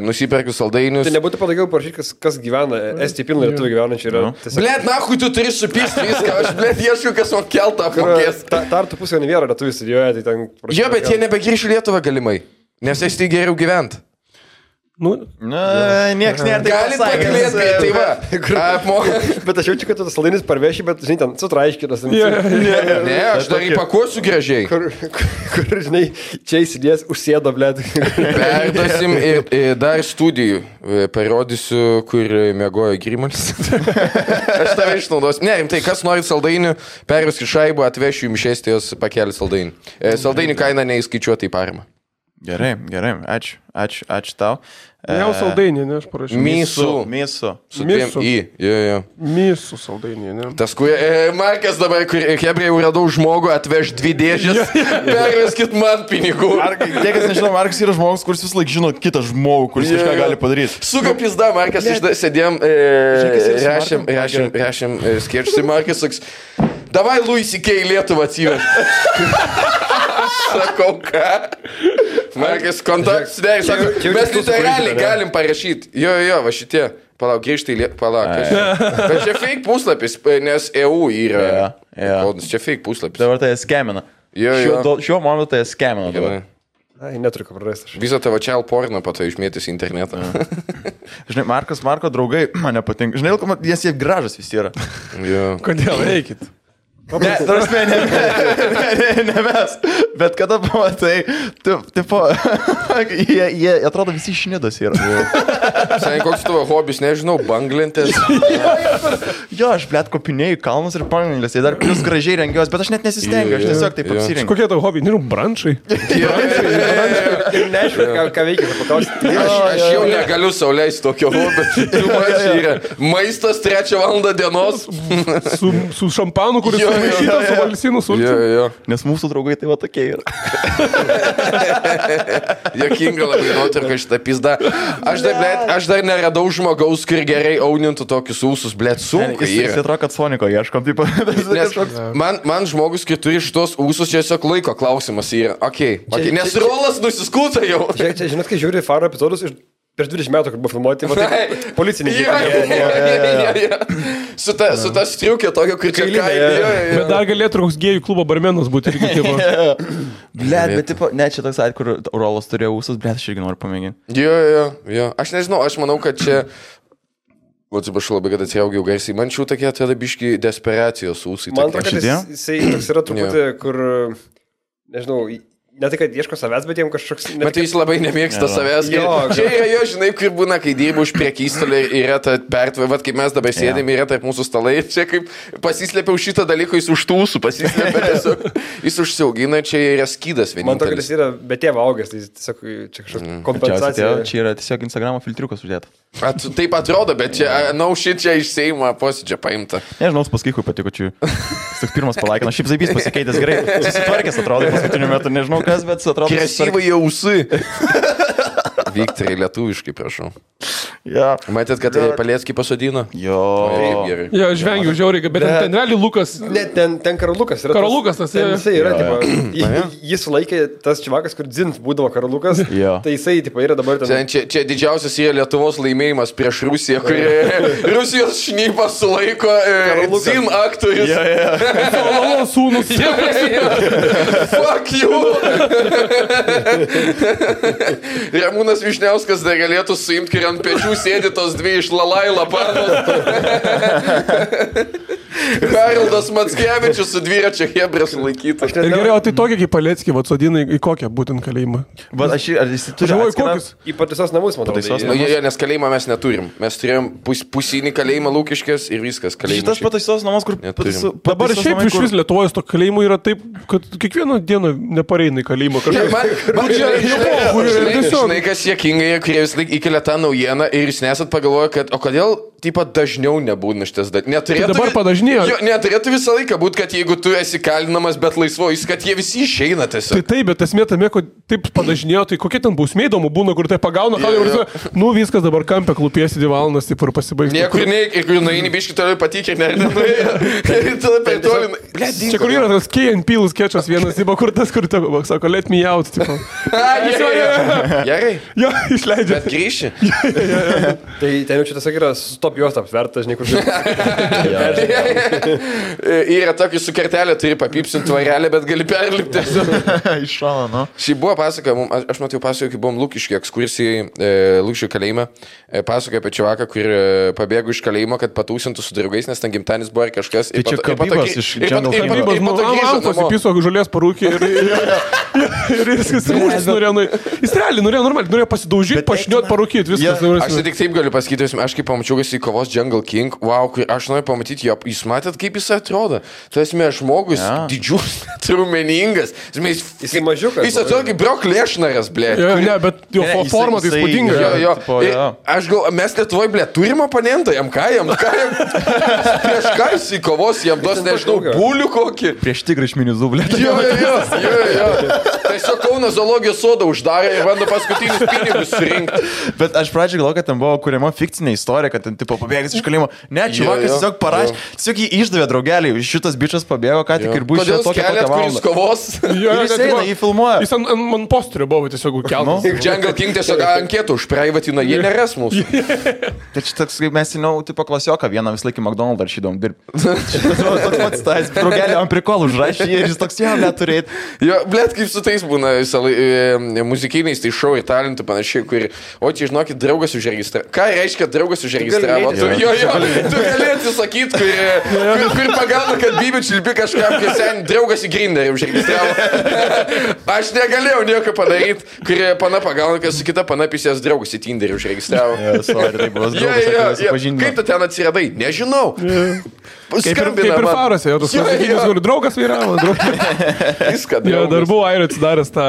Speaker 3: nusiperkiu saldainius.
Speaker 2: Tai nebūtų patogiau parašyti, kas gyvena, Estija pilna lietuvių gyvenančių yra.
Speaker 3: Blet, nahui, tu turi supirsti viską, aš blet ieškiu, kas man keltą apmokės.
Speaker 2: Tartu pusė nevėra lietuvių studijuoja, tai ten...
Speaker 3: Jo, bet jie nebegrįš į Lietuvą galimai, nes Estija geriau gyvent.
Speaker 4: Nu,
Speaker 1: nieks nėra taip
Speaker 3: pasakęs. Galit pakilėti, tai va.
Speaker 2: Bet aš jaučiu, kad tu saldainis parveši, bet, žinai, ten sutraiškinas.
Speaker 3: Ne, aš dar įpakuosiu gražiai.
Speaker 2: Kur, žinai, čia įsidės, užsėdo, blėt.
Speaker 3: Perduosim ir dar studijų. Parodysiu, kur miegojo Grimalis. Aš tave išnaudosiu. Ne, rimtai, kas nori saldainių, perveskit šaibą, atvešiu jums Estijos pakelį saldainių. Saldainių kaina neįskaičiuota į paramą.
Speaker 1: Gerai, ačiū tau.
Speaker 4: Jau saldainį, ne, aš parašiau.
Speaker 1: Mėsų.
Speaker 3: Su dviem į. Jo.
Speaker 4: Mėsų saldainį, ne.
Speaker 3: Tas, kur Markas dabar, kur Hebrai jau radau žmogų, atveš 2 dėžės, perveskit man pinigų.
Speaker 1: Tie, kas nežinau, Markas yra žmogus, kuris vis laik žino kitą žmogų, kuris kažką gali padaryti.
Speaker 3: Suka pizda, Markas, sėdėjom, rašėm skečtai, Markas saks, davai Louis C.K. Lietuvą atsiveš. Sakau, ką? Markas, kontaktus dėri, sako, mes literaliai galim parašyti. Jo, va šitie. Palauk, grįžtai, Bet čia fake puslapis, nes EU yra. Čia fake puslapis.
Speaker 1: Dabar tai skemina. Šiuo momentu tai skemina dabar.
Speaker 2: Ai, neturiu ką prarasti.
Speaker 3: Visą tavo child porno po to išmėtys į internetą.
Speaker 1: Žinai, Marko draugai man nepatinka. Žinai, jie gražas visi yra.
Speaker 4: Kodėl eikit?
Speaker 1: Ne, tarsi, ne mes, bet kada pamatai, tipo, jie atrodo visi šnidas yra.
Speaker 3: Seniai, koks tavo hobis, nežinau, banglentės.
Speaker 1: Jo, aš blėt kopinėjau kalnus ir banglentės, jie dar plus gražiai rengiuos, bet aš net nesistengiu, aš tiesiog taip apsirengiu.
Speaker 4: Kokie tavo hobiai, nežinau, brančai?
Speaker 2: Ir neaišku, ką veikia, paklausti.
Speaker 3: Aš jau negaliu sau leisti tokio hobio. Maistas 3 valandą dienos.
Speaker 4: Su šampanu, kuris maišytas su valsinų sulčiu.
Speaker 1: Nes mūsų draugai tai va tokie yra.
Speaker 3: Jokinga labai nuotrauka šitą pizdą. Aš dar neradau žmogaus, kur gerai aunintų tokius ūsus, blėt, sunku.
Speaker 1: Jis atrodo, kad Soniko ieškom, taip.
Speaker 3: Man žmogus, kai turi šitos ūsus, čia tiesiog laiko klausimas yra. Nes rolas nusiskūta jau.
Speaker 2: Žinot, kai žiūri Faro epizodus iš prieš 20 metų, kur buvo filmuoti, policininkai.
Speaker 3: Su ta striukė tokio, kur čia
Speaker 4: Bet dar galėtų koks gėjų klubo barmenas būti.
Speaker 1: Bet tipo, ne, čia toks atveju, kur rolas turėjo ūsus, bet aš irgi noriu pamėginti.
Speaker 3: Jo. Aš nežinau, aš manau, kad čia... Atsiprašau labai, kad atsiraugiau garsiai. Man šių tokie atrodo biški desperacijos ūsai.
Speaker 2: Man atrodo, kad jisai toks yra truputį, kur, nežinau... Ne tai, kad ieško savęs, bet jiems kažkoks...
Speaker 3: Bet jis labai nemėgsta savęs. Čia yra jo, žinai, kur būna, kai dirbu už priekystolį, yra ta pertva, kaip mes dabar sėdėm, yra tarp mūsų stalai. Čia kaip pasislėpiau šitą dalyką, jis už tūsų pasislėpė, tiesiog jis užsiaugina, čia yra skydas vienintelis.
Speaker 2: Man to, kad jis yra be tėvo augęs, tai tiesiog čia kažkokia kompensacija.
Speaker 1: Čia yra tiesiog Instagramo filtriukas uždėta.
Speaker 3: Taip atrodo, bet čia, čia iš Seimo posėdžio paimta.
Speaker 1: Nežinau, paskui, kai patiko čia. Jis tik pirmas palaikino, šiaip Zaibys pasikeitęs gerai. Susitvarkęs atrodo paskutiniu metu, nežinau kas, bet atrodo...
Speaker 3: Kresyvai jausai. Viktorai, lietuviškai, prašau.
Speaker 1: Ja.
Speaker 3: Matėt, kad Paleckį pasodino?
Speaker 1: Jo.
Speaker 4: Jo, aš vengiu žiauriai, bet ten realiai Lukas...
Speaker 2: Ne, ten Karolukas yra.
Speaker 4: Karolukas tas
Speaker 2: yra, tipo, jis laikė tas čivakas, kur dzint būdavo Karolukas. Tai jisai, tipo, yra dabar ten...
Speaker 3: Čia didžiausias yra Lietuvos laimėjimas prieš Rusiją, kur Rusijos šnypas sulaiko dzin aktorius.
Speaker 4: Salalo sūnus.
Speaker 3: Fuck you! Ramūnas Višniauskas dar galėtų suimti, kai ant pečių sėdi tos 2 iš Lalaila panos. Haroldas Mackevičius su dviračio Hebra sulaikytas.
Speaker 4: Gerai, o tai tokia kaip Paleckį, atsodina į kokią būtent kalėjimą?
Speaker 1: Bet ar jis turi
Speaker 4: kokius?
Speaker 2: Į pataisos namus, matau.
Speaker 3: Nes kalėjimą mes neturim. Mes turėjom pusinį kalėjimą Lūkiškės ir viskas.
Speaker 1: Šitas pataisos namus, kur...
Speaker 4: Dabar šiaip iš vis Lietuvoje to kalėjimų yra taip, kad kiekvieną dieną nepareina į kalėjimą.
Speaker 3: Žinai, kas jėkingai, kurie vis laik įkelia tą naujieną ir jūs nesat pagalvoję, kad o kodėl tipo dažniau nebūna šitas dalykas.
Speaker 4: Dabar padažnėjo.
Speaker 3: Neturėtų visą laiką būti, kad jeigu tu esi kalinamas, bet laisvojus, kad jie visi išeina tiesiog.
Speaker 4: Tai taip, bet esmė tame, kad taip padažnėjo, tai kokie ten bausmė įdomu būna, kur tai pagauna, nu viskas dabar kampė klūpėsi 2 valandas, taip ir pasibaigti.
Speaker 3: Niekur ir nueini biškį toliau patikė,
Speaker 4: čia kur yra tas Key and Peele skečas vienas, tipo, kur tas, kur tavo, sako, let me out, tipo.
Speaker 3: Gerai.
Speaker 4: Jo, išleidžia.
Speaker 3: Bet grįši.
Speaker 2: Tai ten jau čia tiesiog yra stop juostą apsvertas, žinai, kur
Speaker 3: yra tokį su kertelė, turi papipsinti tvarelę, bet gali perlipti.
Speaker 1: Iš šalo, nu.
Speaker 3: Šį buvo pasakoja, aš matau pasakoju, kai buvom Lūkiškių ekskursijai, Lūkiškių kalėjime, pasakoja apie čiavaką, kur pabėgo iš kalėjimo, kad patūsintų su draugais, nes ten gimtanis buvo ar kažkas.
Speaker 1: Tai čia kabybas iš Džangal
Speaker 4: Amfos įpiso žolės parūkį ir viskas norėjo. Jis realiai norėjo normaliai, norėjo pasidaužyti, pašniot, parūkyti, viskas.
Speaker 3: Aš tik taip galiu pasakyti, aš kaip pamačiau, kad jis kovos Jungle King, wow, kur aš noriu pamatyti jo, jūs matėt, kaip jis atrodo? Tu esi žmogus, didžiulis, trumeningas,
Speaker 2: jis mažiukas.
Speaker 3: Jis atrodo kaip Brock Lesnaras, blė.
Speaker 4: Ne, bet jo forma tai įspūdinga.
Speaker 3: Aš gal, mes Lietuvoje, blė, turim oponentą, jam prieš ką jis į kovos, jam duos, nežinau, bulių kokį.
Speaker 1: Prieš tigrišminius dublė.
Speaker 3: Jo. Tiesiog Kauno zoologijos sodą uždarė ir bando paskutinius pinigus surinkti.
Speaker 1: Bet aš pradžiai galvoju, kad ten buvo kuriama fikcinė istorija, kad ten tipo pabėgęs iš kalėjimo. Ne, čiuvakas tiesiog parašė, tiesiog jį išdavė draugeliai. Šitas bičas pabėgo, ką tik ir buvo iš tokia valandą.
Speaker 3: Kovos.
Speaker 1: Jis eina, jį filmuoja.
Speaker 4: Jis ant posterio buvo tiesiog keltas.
Speaker 3: Jungle King tiesiog anketų užpraivatina, jie neras mūsų.
Speaker 1: Tai čia toks, kaip mes žinau, tipo klasioką vieną vis laikį McDonald's rašydom dirbti. Šitas buvo toks pats tas, draugelį ant prikolų užrašė ir jis toks jau neturėt.
Speaker 3: Jo, blėt, kaip su tais būna muzikiniais, tai šou ir talentų panašiai, kur, o čia žinokit, draugas užregistravo. Ką reiškia draugas užregistravo? Tu gali atsisakyti, kur pagauna, kad Bibi Čilpi kažkam, kai sen draugas į Grinderį užregistravo. Aš negalėjau nieko padaryti, kur pana pagauna, kad su kita pana pisės draugas į Tinderį užregistravo. Kaip tu ten atsiradai? Nežinau.
Speaker 4: Kaip ir Farose, tas muzikinis, kur draugas vyravo.
Speaker 3: Viską.
Speaker 4: Dar buvo Airio atsidaręs tą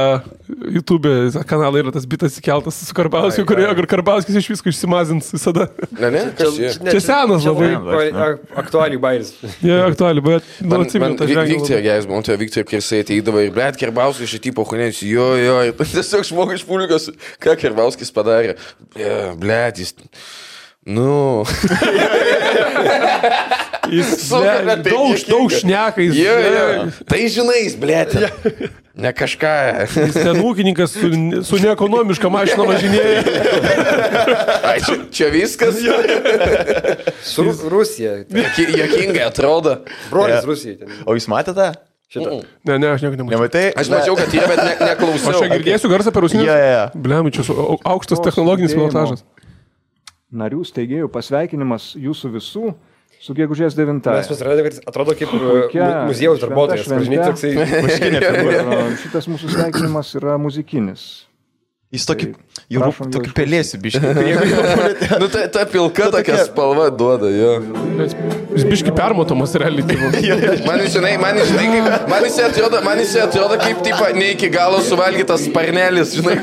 Speaker 4: YouTube kanalą, yra tas bitas įkeltas su Karbauskiu, kur Karbauskis iš visko išsimazins visada.
Speaker 3: Ne, kas jie?
Speaker 4: Čia senas labai.
Speaker 2: Aktualiai bairis.
Speaker 4: Aktualiai, bet atsimenu tą žvengį.
Speaker 3: Viktor, geras, man tai Viktor, kai jisai ateidavo ir blėt, Karbauskis iš tipo hunėtis, jo, tiesiog žmogus iš publikos, ką Karbauskis padarė. Blėt, jis... Nu.
Speaker 4: Jis daug šneka.
Speaker 3: Tai žinai, blėtė. Ne kažką.
Speaker 4: Jis ten ūkininkas su neekonomiška mašina važinėja.
Speaker 3: Čia viskas.
Speaker 2: Su Rusija.
Speaker 3: Jokingai atrodo.
Speaker 2: Brolis Rusija.
Speaker 1: O jūs matėte?
Speaker 4: Ne, aš nieko nemačiau.
Speaker 1: Nematai?
Speaker 3: Aš mačiau, kad jie, bet neklausiau.
Speaker 4: Aš čia girdėsiu garsą per rusinius. Bliam, čia aukštas technologinis pilotažas.
Speaker 5: Narių steigėjų pasveikinimas jūsų visų su gegužės 9.
Speaker 2: Mes susiradėme, kad atrodo kaip muziejaus darbuotojas.
Speaker 5: Šitas mūsų sveikinimas yra muzikinis.
Speaker 1: Jis tokį pelėsių biškį.
Speaker 3: Nu, ta pilka tokia spalva duoda, jo.
Speaker 4: Jis biškį permatomas realiai.
Speaker 3: Man jis atrodo kaip, tipo, ne iki galo suvalgytas sparnelis, žinai,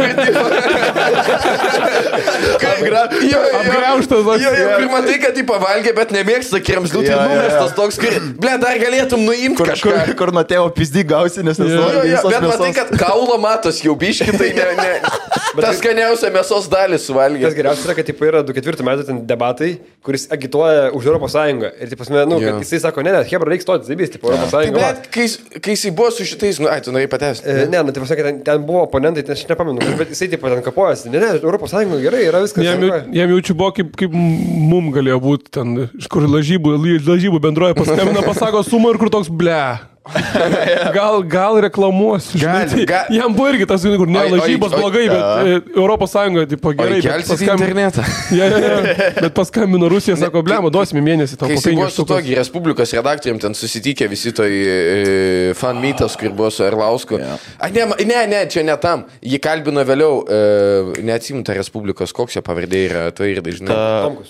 Speaker 4: apgraužtas.
Speaker 3: Ir matai, kad jį pavalgė, bet nemėgsta kremzlių, tai numestas toks, ble, dar galėtum nuimti kažką.
Speaker 1: Kur nuo tėvo pizdį gausi, nes nesuvalgai visos mėsos.
Speaker 3: Bet matai, kad kaulo matos jau biškį, tai ne. Tas skaniausia mėsos dalis suvalgė.
Speaker 2: Tas geriausia yra, kad tipo, yra 2004 metų ten debatai, kuris agituoja už Europos Sąjungą. Ir taip, kad jisai sako, ne, Hebra reikia stoti, zaibys, tipo, Europos Sąjunga.
Speaker 3: Bet kai jisai buvo su šitais, tu norėjai patęsti.
Speaker 2: Ne, taip pasakė, ten buvo oponentai, aš nepamenu, bet jisai taip ten kapojasi. Ne, Europos Sąjunga gerai, yra viskas.
Speaker 4: Jam jaučiu buvo, kaip mum galėjo būti ten, iš kur lažybų bendroje paskambina, pasako sumą ir kur toks ble. Gal reklamuosiu. Jam buvo irgi tas, kur ne lažybos blogai, bet Europos Sąjunga, tipo, gerai.
Speaker 3: Kelsis į internetą.
Speaker 4: Bet paskambino Rusija, sako, blema, duosime mėnesį tau.
Speaker 3: Kai jis buvo su togi Respublikos redaktorium, ten susitikė visi toj fan meetas, kur buvo su Erlausku. Ne, čia ne tam. Jį kalbino vėliau, neatsimta Respublikos, koks jo pavardė yra, to ir dažnai.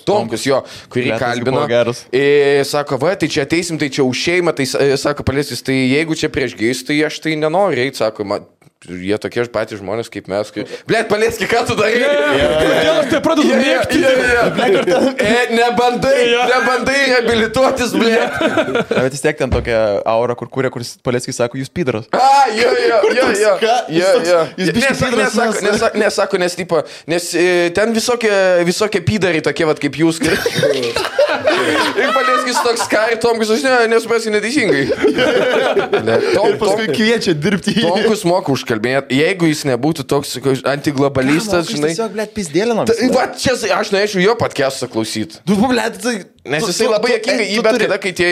Speaker 3: Tomkus, jo, kurį kalbino. Sako, va, tai čia ateisim, tai čia už šeimą, tai sako, Palėskis, tai jeigu čia prieš gėjus, tai aš tai nenoriu eiti, sako, jie tokie patys žmonės kaip mes. Blėt, Palėski, ką tu darai?
Speaker 4: Kodėl aš tai pradedu mėgti?
Speaker 3: Nebandai reabilituotis, blėt.
Speaker 1: Bet vis tiek ten tokia aura, kur kūrė, kuris Palėskis sako, jūs pidaras.
Speaker 3: Nesako, nes tipo, nes ten visokie pidarai tokie, vat kaip jūs. Ir Palėskis toks ir Tomkus, aš nesuprasiu neteisingai.
Speaker 1: Paskui kviečia dirbti.
Speaker 3: Tomkus moka užkalbėti. Jeigu jis nebūtų toks antiglobalistas, žinai.
Speaker 1: Tiesiog, blėt, pizdėlino.
Speaker 3: Va, čia aš norėčiau jo podcast'ą klausyti. Nes jisai labai jokingai, bet kada, kai tie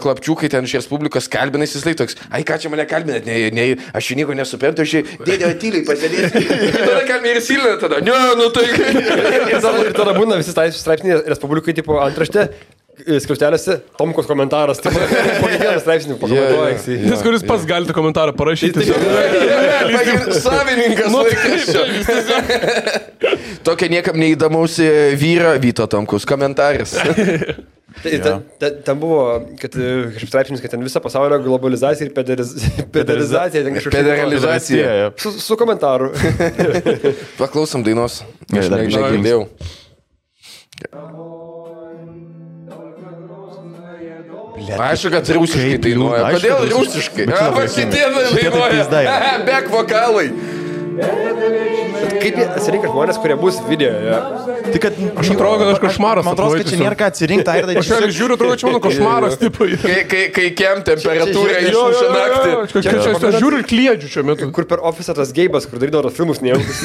Speaker 3: klapčiukai ten iš Respublikos kalbina, jisai toks, ai ką čia mane kalbinat, aš nieko nesuprantu, aš dėdė tyliai pasėdėsiu. Ir tada kalbina ir silina tada, ne, nu tai.
Speaker 2: Ir tada būna visi straipsniai Respublikai, tipo, antraštė. skliaustelėse Tomkos komentaras, tai po kiekvieną straipsnį pakomentuoja.
Speaker 4: Nes kuris pats galite komentarą parašyti.
Speaker 3: Savininkas laikraščio. Tokia niekam neįdomaus vyro Vyto Tomkus komentaras.
Speaker 2: Ten buvo, kad kažkaip straipsnis, kad ten visa pasaulio globalizacija ir pedalizacija.
Speaker 3: Federalizacija.
Speaker 2: Su komentaru.
Speaker 3: Paklausom dainos. Aš negirdėjau. Aišku, kad rusiškai dainuoja. Kodėl rusiškai? Šitie dainuoja. Back vokalai.
Speaker 2: Kaip jie atsirinka žmonės, kurie bus video?
Speaker 1: Tai kad
Speaker 4: Aš atrodo, kad aš košmaras.
Speaker 1: Man atrodo, kad čia nėra ką atsirinkti.
Speaker 4: Aš jau žiūriu, atrodo, čia mano košmaras.
Speaker 3: Kai kem temperatūra išmuša naktį.
Speaker 4: Aš žiūriu ir kliedžiu šiuo metu.
Speaker 2: Kur per ofisą tas geibas, kur darydavo tos filmus nejaukus.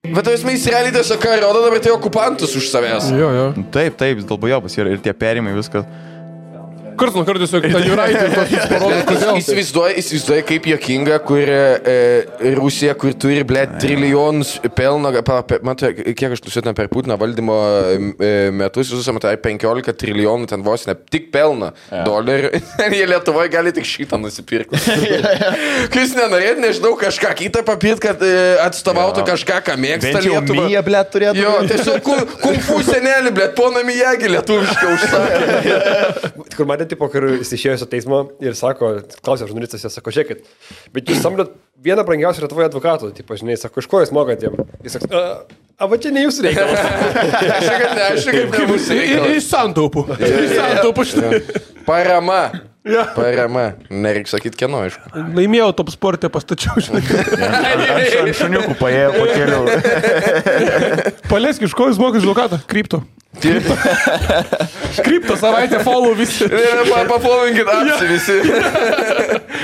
Speaker 3: Bet tu esmai realiai tiesiog ką rodo dabar tai okupantus už savęs.
Speaker 4: Jo.
Speaker 1: Taip, dulbujobas ir tie perimai viskas.
Speaker 4: Karts nuo karto tiesiog tą Juraitį tokį parodo, kodėl.
Speaker 3: Įsivaizduoja kaip jokinga, kur Rusija, kur turi, trilijonus pelno, matai, kiek aš nusitina per Putino valdymo metus, visus, matai, 15 trilijonų ten vos ne tik pelno dolerių. Jie Lietuvoje gali tik šitą nusipirkti. Kai jūs nenorėt, nežinau, kažką kitą papirkti, kad atstovautų kažką, ką mėgsta Lietuva.
Speaker 1: Bent jau Mija, blėt, turėtų.
Speaker 3: Jo, tiesiog kung-fu senelį, blėt, pona Mijagi lietuvišką užsakė.
Speaker 2: Kur matė, tipo, kur jis išėjo su teismo ir sako, klausė žurnalistas, jis sako, žiūrėkit, bet jūs samdot vieną brangiausią Lietuvoje advokatų, tipo, žinai, sako, iš ko jūs mokat jiem? Jis sako, va čia ne jūsų reikalas.
Speaker 3: Aš kaip ne mūsų reikalas.
Speaker 4: Iš santaupų.
Speaker 3: Parama. Nereikia sakyti, kieno, aišku.
Speaker 4: Laimėjau top sportę, pastačiau, žinai.
Speaker 1: Aš ant šuniukų paėjau po kelių.
Speaker 4: Palesk, iš ko jūs mokat advokatą? Krypto. Krypto savaitę follow visi.
Speaker 3: Paplovinkit apsi visi.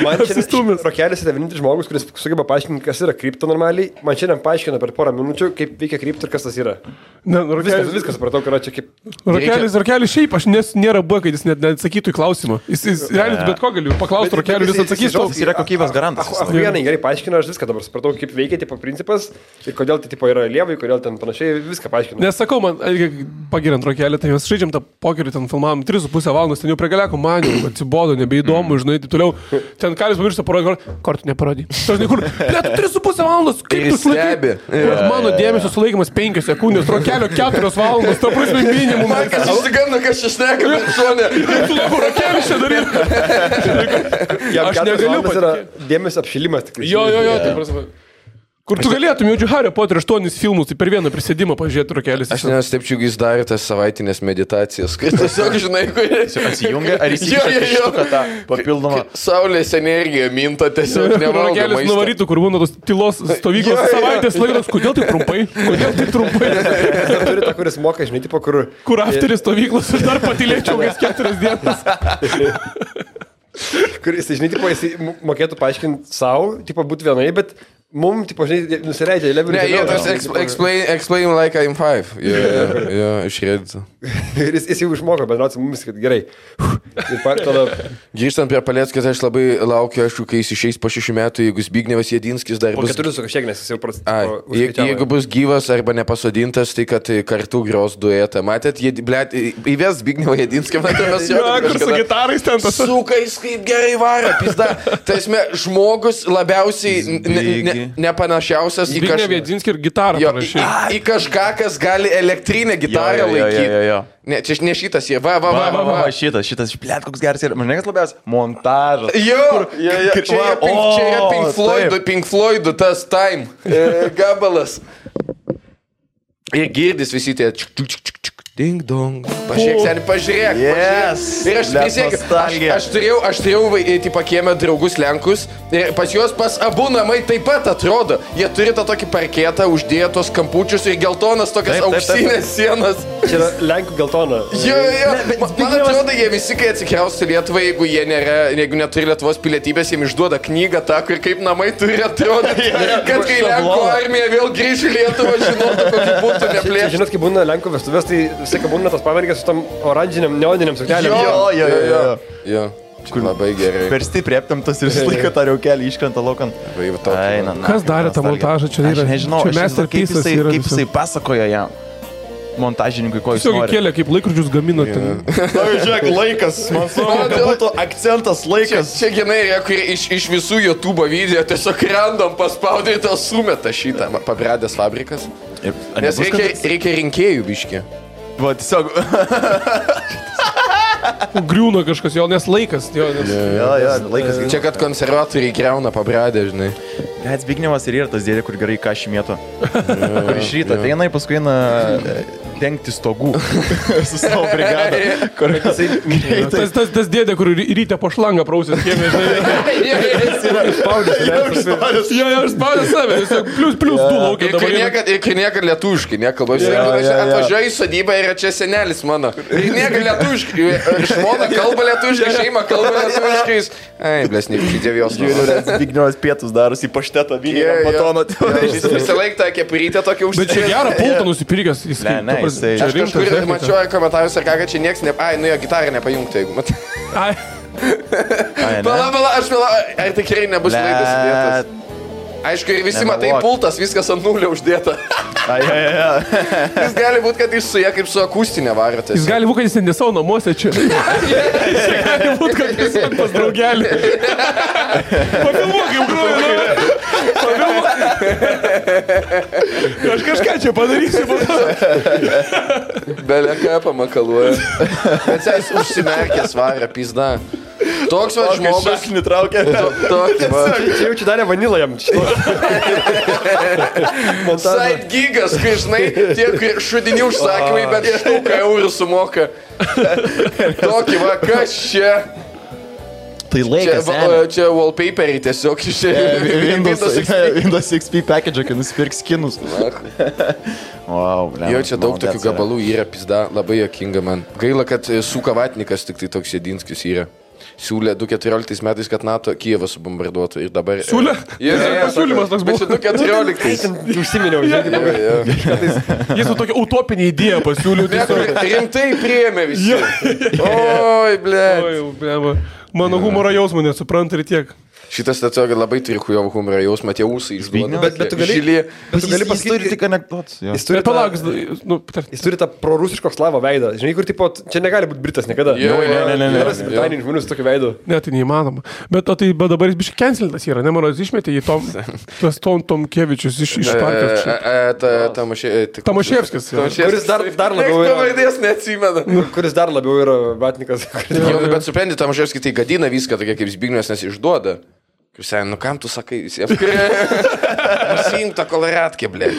Speaker 2: Man šiandien Rokelis yra vienintelis žmogus, kuris sugeba paaiškinti, kas yra krypto normaliai. Man šiandien paaiškina per porą minučių, kaip veikia krypto ir kas tas yra. Viskas supratau, kad yra čia kaip...
Speaker 4: Rokelis šiaip, aš nėra buvo, kad jis net neatsakytų į klausimą. Jis realiai bet ko galiu paklausti Rokelį, jis atsakys.
Speaker 1: Jis yra kokybės garantas.
Speaker 2: Vienai gerai paaiškina, aš viską dabar supratau, kaip veikia tipo principas ir kodėl tai tipo yra lievai, kodėl ten panašiai, viską paaiškina.
Speaker 4: Nesakau, man, pagirant Rokelį, tai mes žaidžiam tą pokerį, ten filmavom 3,5 valandos, ten jau prie galeko maniau, atsibodo, nebeįdomu, žinai, taip toliau. Ten Kalis pamiršta parodyti, kortų neparodį. Žinai, kur, 3,5 valandos, kaip tu sulaikai? Mano dėmesio sulaikimas 5 sekundės, Rokelio 4 valandos, to prasme minimum.
Speaker 3: Man kas išsigando, kas čia šneka, bet šonė.
Speaker 4: Tu laiko Rokelis čia daryti.
Speaker 2: Aš negaliu patikėti. Dėmesio apšilimas tik.
Speaker 4: Jo, tai prasme. Kur tu galėtum, jaučiu Hario Potter 8 filmus, tai per vieną prisėdimą pažiūrėti Rokelis.
Speaker 3: Aš nestepčiau, jis darė tas savaitinės meditacijas. Kai tiesiog, žinai, kurie...
Speaker 1: Atsijungia, ar įsikištuką tą papildomą...
Speaker 3: Saulės energiją minta tiesiog nevaldo maisto.
Speaker 4: Rokelis nuvarytų, kur būna tos tylos stovyklos savaitės laikas. Kodėl tai trumpai?
Speaker 2: Turi tą, kuris moka, žinai, tipo, kur...
Speaker 4: Kur afteris stovyklos ir dar patylėčiau kas 4 dienas.
Speaker 2: Kur jis, žinai, tipo, jis mokėtų paaiškinti savo, tipo, būti vienai, bet... Mums, tipo, žinai, nusileidžia į levelį.
Speaker 3: Ne, tas explain like I'm 5. Jo, išrėdžiu.
Speaker 2: Ir jis jau išmoko bendrauti su mumis, kad gerai. Ir tada...
Speaker 3: Grįžtant prie Paleckės, aš labai laukiu, aišku, kai jis išeis po 6 metų, jeigu Zbignevas Jedinskis dar bus...
Speaker 2: Po 4 su kažkiek, nes jis jau
Speaker 3: jeigu bus gyvas arba nepasodintas, tai kad kartu gros duetą. Matėt, įves Zbignevą Jedinskį, matėmės jo.
Speaker 4: Kur su gitarais ten tas...
Speaker 3: Sukais kaip gerai varo, pizda. Tai esmė, žmogus labiausiai... nepanašiausias į kažką.
Speaker 4: Viedzinskį ir gitarą parašyti.
Speaker 3: Į kažką, kas gali elektrinę gitarą laikyti. Ne, čia ne šitas, jie, va.
Speaker 1: Šitas, blėt, koks geras yra. Man nekas labiausiai, montažas.
Speaker 3: Čia yra Pink Floydų tas Time gabalas. Ir girdis visi tie ding dong. Pažiūrėk. Ir aš prisiekiu, aš turėjau tipo kiemę draugus Lenkus ir pas juos pas abu namai taip pat atrodo. Jie turi tą tokį parketą, uždėtos kampučius ir geltonas tokias auksinės sienas.
Speaker 2: Čia yra Lenkų geltona.
Speaker 3: Jo. Man atrodo, jie visi, kai atsikraustų Lietuvą, jeigu neturi Lietuvos pilietybės, jiems išduoda knygą tą, kur kaip namai turi atrodyti. Kad kai Lenkų armija vėl grįž į Lietuvą, žinotų, kokį būtų neplėšti.
Speaker 2: Žinot, kai būna Lenkų vestuvės, tai visai, kai būna tas pavargės su tam oranžiniam, neoniniam suknelėm.
Speaker 3: Jo. Labai gerai.
Speaker 1: Per stipriai aptamtas ir visą laiką tą reukelį iškrenta laukan.
Speaker 4: Kas darė tą montažą? Čia yra,
Speaker 1: aš nežinau,
Speaker 4: čia masterpiece'as yra
Speaker 1: kaip jisai pasakojo jam. Montažininkui, ko jis
Speaker 4: tiesiog
Speaker 1: nori.
Speaker 4: kėlė, kaip laikrodžius gamino ten.
Speaker 1: Žiūrėk, laikas. Man svarbu, kad būtų akcentas laikas.
Speaker 3: Čia genai, kur iš visų YouTube video tiesiog random paspaudė ir tą sumeta šitą. Pabradęs fabrikas. Nes reikia rinkėjų biškį.
Speaker 1: Va, tiesiog.
Speaker 4: Griūna kažkas, jo, nes laikas. Jo,
Speaker 1: laikas.
Speaker 3: Čia, kad konservatoriai greuna pabradę, žinai.
Speaker 1: Bet Zbignevas ir yra tas dėdė, kur gerai kašį mėto. Kur iš ryto ateina, paskui eina dengti stogų su savo brigada.
Speaker 4: Tas dėdė, kur ryte po šlangą prausės kiemė, žinai.
Speaker 1: Jis yra išspaudęs.
Speaker 4: Jo, išspaudęs save, plius du laukia dabar.
Speaker 3: Ir niekad lietuviškai nekalba. Atvažiuoju į sodybą ir čia senelis mano. Ir niekad lietuviškai. Ir žmona kalba lietuviškai, šeima kalba lietuviškais. Ai, blesnik, dėvijos.
Speaker 1: Zbignevas pietus darosi į paštetą vynį, batoną.
Speaker 3: Jis visą laiką tą kepurytę tokia užsidėjo.
Speaker 4: Bet čia gerą pultą nusipirkęs.
Speaker 3: Aš kažkur mačiau komentarus ir ką, kad čia nieks ne... Ai, nu jo, gitarą nepajungti, jeigu mat.
Speaker 4: Ai.
Speaker 3: Pala, aš vėl... Ar tikrai nebus laidas įdėtas? Aišku, ir visi matai pultas, viskas ant nulio uždėta. Jis gali būti, kad jis su jie kaip su akustinė varotės.
Speaker 4: Jis gali būti, kad jis ne savo namuose čia. Jis gali būti, kad jis pas draugelį. Pafilmuok, jau groju. Aš kažką čia padarysiu.
Speaker 3: Belė ką pamakaluoja. Bet jis užsimerkęs varą, pizda. Toks va žmogus.
Speaker 1: Aš nitraukia.
Speaker 3: Toks va.
Speaker 2: Čia jau čia darė vanilą jam.
Speaker 3: Side gigas, kai žinai, tie šudinių užsakymai, bet štuką eurų sumoka. Tokį va, kas čia?
Speaker 1: Tai laikas.
Speaker 3: Čia wallpaperiai tiesiog iš
Speaker 1: Windows XP package, kai nusipirks skinus. Wow,
Speaker 3: jo, čia daug tokių gabalų yra, pizda, labai jokinga man. Gaila, kad Suka Vatnikas tik tai toks Jedinskis yra. Siūlė 2014 metais, kad NATO Kijevą subombarduotų ir dabar...
Speaker 4: Siūlė? Siūlymas toks buvo.
Speaker 3: Bet čia 2014.
Speaker 2: Užsiminiau, žinai.
Speaker 4: Jis su tokia utopinė idėja pasiūlė.
Speaker 3: Rimtai priėmė visi. Oi, ble.
Speaker 4: Mano humoro jausmą nesupranta ir tiek.
Speaker 3: Šitas tiesiog labai turi hujovo humoro jausmą, tie ūsai išduoda.
Speaker 2: Bet tu gali
Speaker 1: pasakyti, turi tik anekdotus.
Speaker 2: Jis turi tą prorusiško slavo veidą. Žinai, kur tipo, čia negali būti Britas niekada.
Speaker 3: Ne.
Speaker 2: Britanijos žmonių su tokiu veidu.
Speaker 4: Ne, tai neįmanoma. Bet dabar jis biškai cancelintas yra, ne, mano, jis išmetė į Tomkevičius iš partijos. Tomaševskis.
Speaker 2: Kuris dar labiau yra...
Speaker 3: Pavardės neatsimena.
Speaker 2: Kuris dar labiau yra Vatnikas.
Speaker 3: Bet supranti, Tomaševskis tai gadina viską, tokia kaip Zbignevas, nes išduoda. Krisai, nu kam tu sakai visiems? Nusiimk tą koloratkę, blė.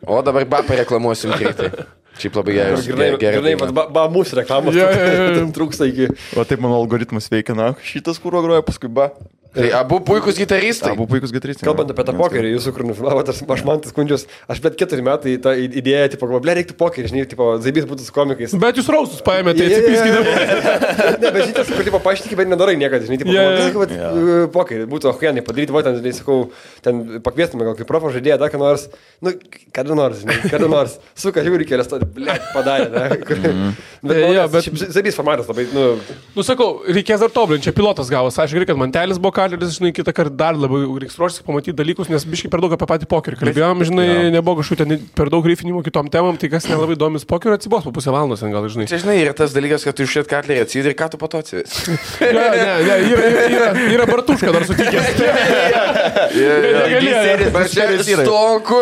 Speaker 3: O dabar bapą reklamuosim greitai. Šiaip labai gerai.
Speaker 2: Ba mūsų reklamos. Trūksta iki.
Speaker 1: O taip mano algoritmas veikia, na, šitas kūro groja, paskui ba.
Speaker 3: Tai abu puikus gitaristai.
Speaker 2: Kalbant apie tą pokerį, jūsų kur nufilmavote, aš man tas skundžius, aš bet 4 metai tą idėją, tipo, ble, reiktų pokerį, žinai, tipo, zaibys būtų su komikais.
Speaker 4: Bet jūs rausus paėmėte, tai atsipiskite.
Speaker 2: Ne, bet šitas, kur, tipo, paaiškinti, bet nedarai niekada, žinai, tipo, pokerį, būtų ohuienai padaryti, va, ten, žinai, sakau, ten pakviestume gal kaip profo žaidėją, dar ką nors, nu, kada nors, suka, žiūri kelias, ble, padarė, ne. Bet zaibys formatas labai,
Speaker 4: nu, sakau, reikės dar tobulinti, čia pilotas gavos, aš gerai, kad mantelis buvo kaleris, žinai, kitą kartą dar labiau reiks ruoštis pamatyti dalykus, nes biškai per daug apie patį pokerį kalbėjom, žinai, nebuvo kažkokių ten per daug grifinimo kitom temam, tai kas nelabai domis pokerio atsibos po pusę valandos, gal, žinai.
Speaker 3: Čia, žinai, yra tas dalykas, kad tu išėt katlerį atsidai ir ką tu po to atsivis.
Speaker 4: Yra bartuška dar sutikęs.
Speaker 3: Stonku,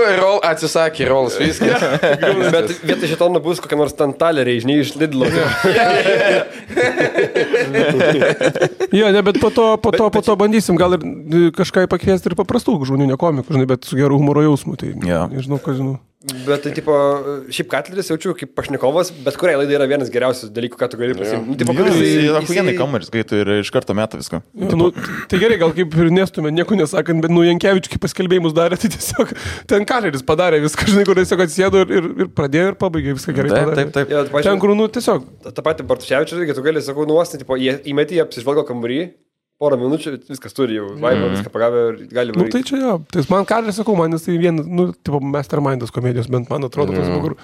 Speaker 3: atsisakė rolas, viskas.
Speaker 2: Bet vietoj šitono bus kokia nors ten taleriai, žinai, iš Lidlo.
Speaker 4: Jo, ne, bet po to bandysim gal ir kažką pakviesti ir paprastų žmonių, ne komikų, žinai, bet su geru humoro jausmu, tai nežinau, ką žinau.
Speaker 2: Bet tai, tipo, šiaip Katleris jaučiu kaip pašnekovas, bet kuriai laidai yra vienas geriausių dalykų, ką tu gali pasiimti. Tipo,
Speaker 1: Ahuienai kameris, kai tu ir iš karto meta viską.
Speaker 4: Tai gerai, gal kaip ir nestume, nieko nesakant, bet Jankevičius kaip paskelbėjimus darė, tai tiesiog ten Katleris padarė viską, žinai, kur tiesiog atsėdo ir pradėjo ir pabaigė viską gerai padarė.
Speaker 1: Taip.
Speaker 4: Ten, kur, tiesiog.
Speaker 2: Ta pati Bartuševičius, tu gali, sakau, nuostinti, tipo, įmetį, apsižvalgo kambarį. Porą minučių, viskas turi jau, vaibą, viską pagavę ir gali varyti.
Speaker 4: Tai čia jo, tai man Katleris, sakau, man jis tai vienas, tipo, mastermindas komedijos, bent man atrodo, tas kur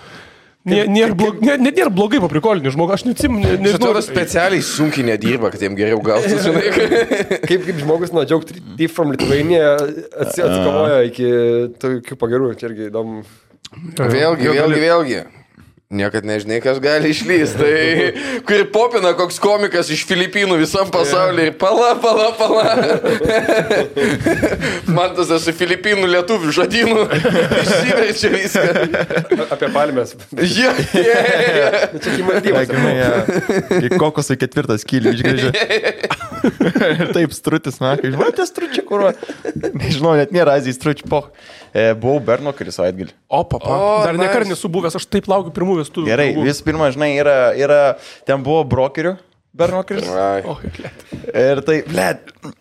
Speaker 4: Nėra blogai paprikolinį žmogų, aš nežinau.
Speaker 3: Atrodo, specialiai sunkiai nedirba, kad jiem geriau gautų, žinai.
Speaker 2: Kaip žmogus nuo Joke Thief from Lithuania atsikovoja iki tokių pagerų, čia irgi įdomu.
Speaker 3: Vėlgi. Niekad nežinai, kas gali išlysti. Tai kur popina koks komikas iš Filipinų visam pasaulyje ir pala. Man tas esu Filipinų lietuvių žodynų. Išsiverčia viską.
Speaker 2: Apie palmės.
Speaker 3: Čia
Speaker 2: Čia Maldyvas.
Speaker 1: Į kokosą 4 skylį išgrėžė. Ir taip strutis, na, kai žinau, tie stručiai, kur... Nežinau, net nėra Azijai stručiai, poch. Buvau Bernokeris savaitgalį.
Speaker 4: Dar nekart nesu buvęs, aš taip laukiu pirmų vestuvių.
Speaker 1: Gerai, vis pirma, žinai, yra ten buvo brokerių. Bernokeris. Ir tai,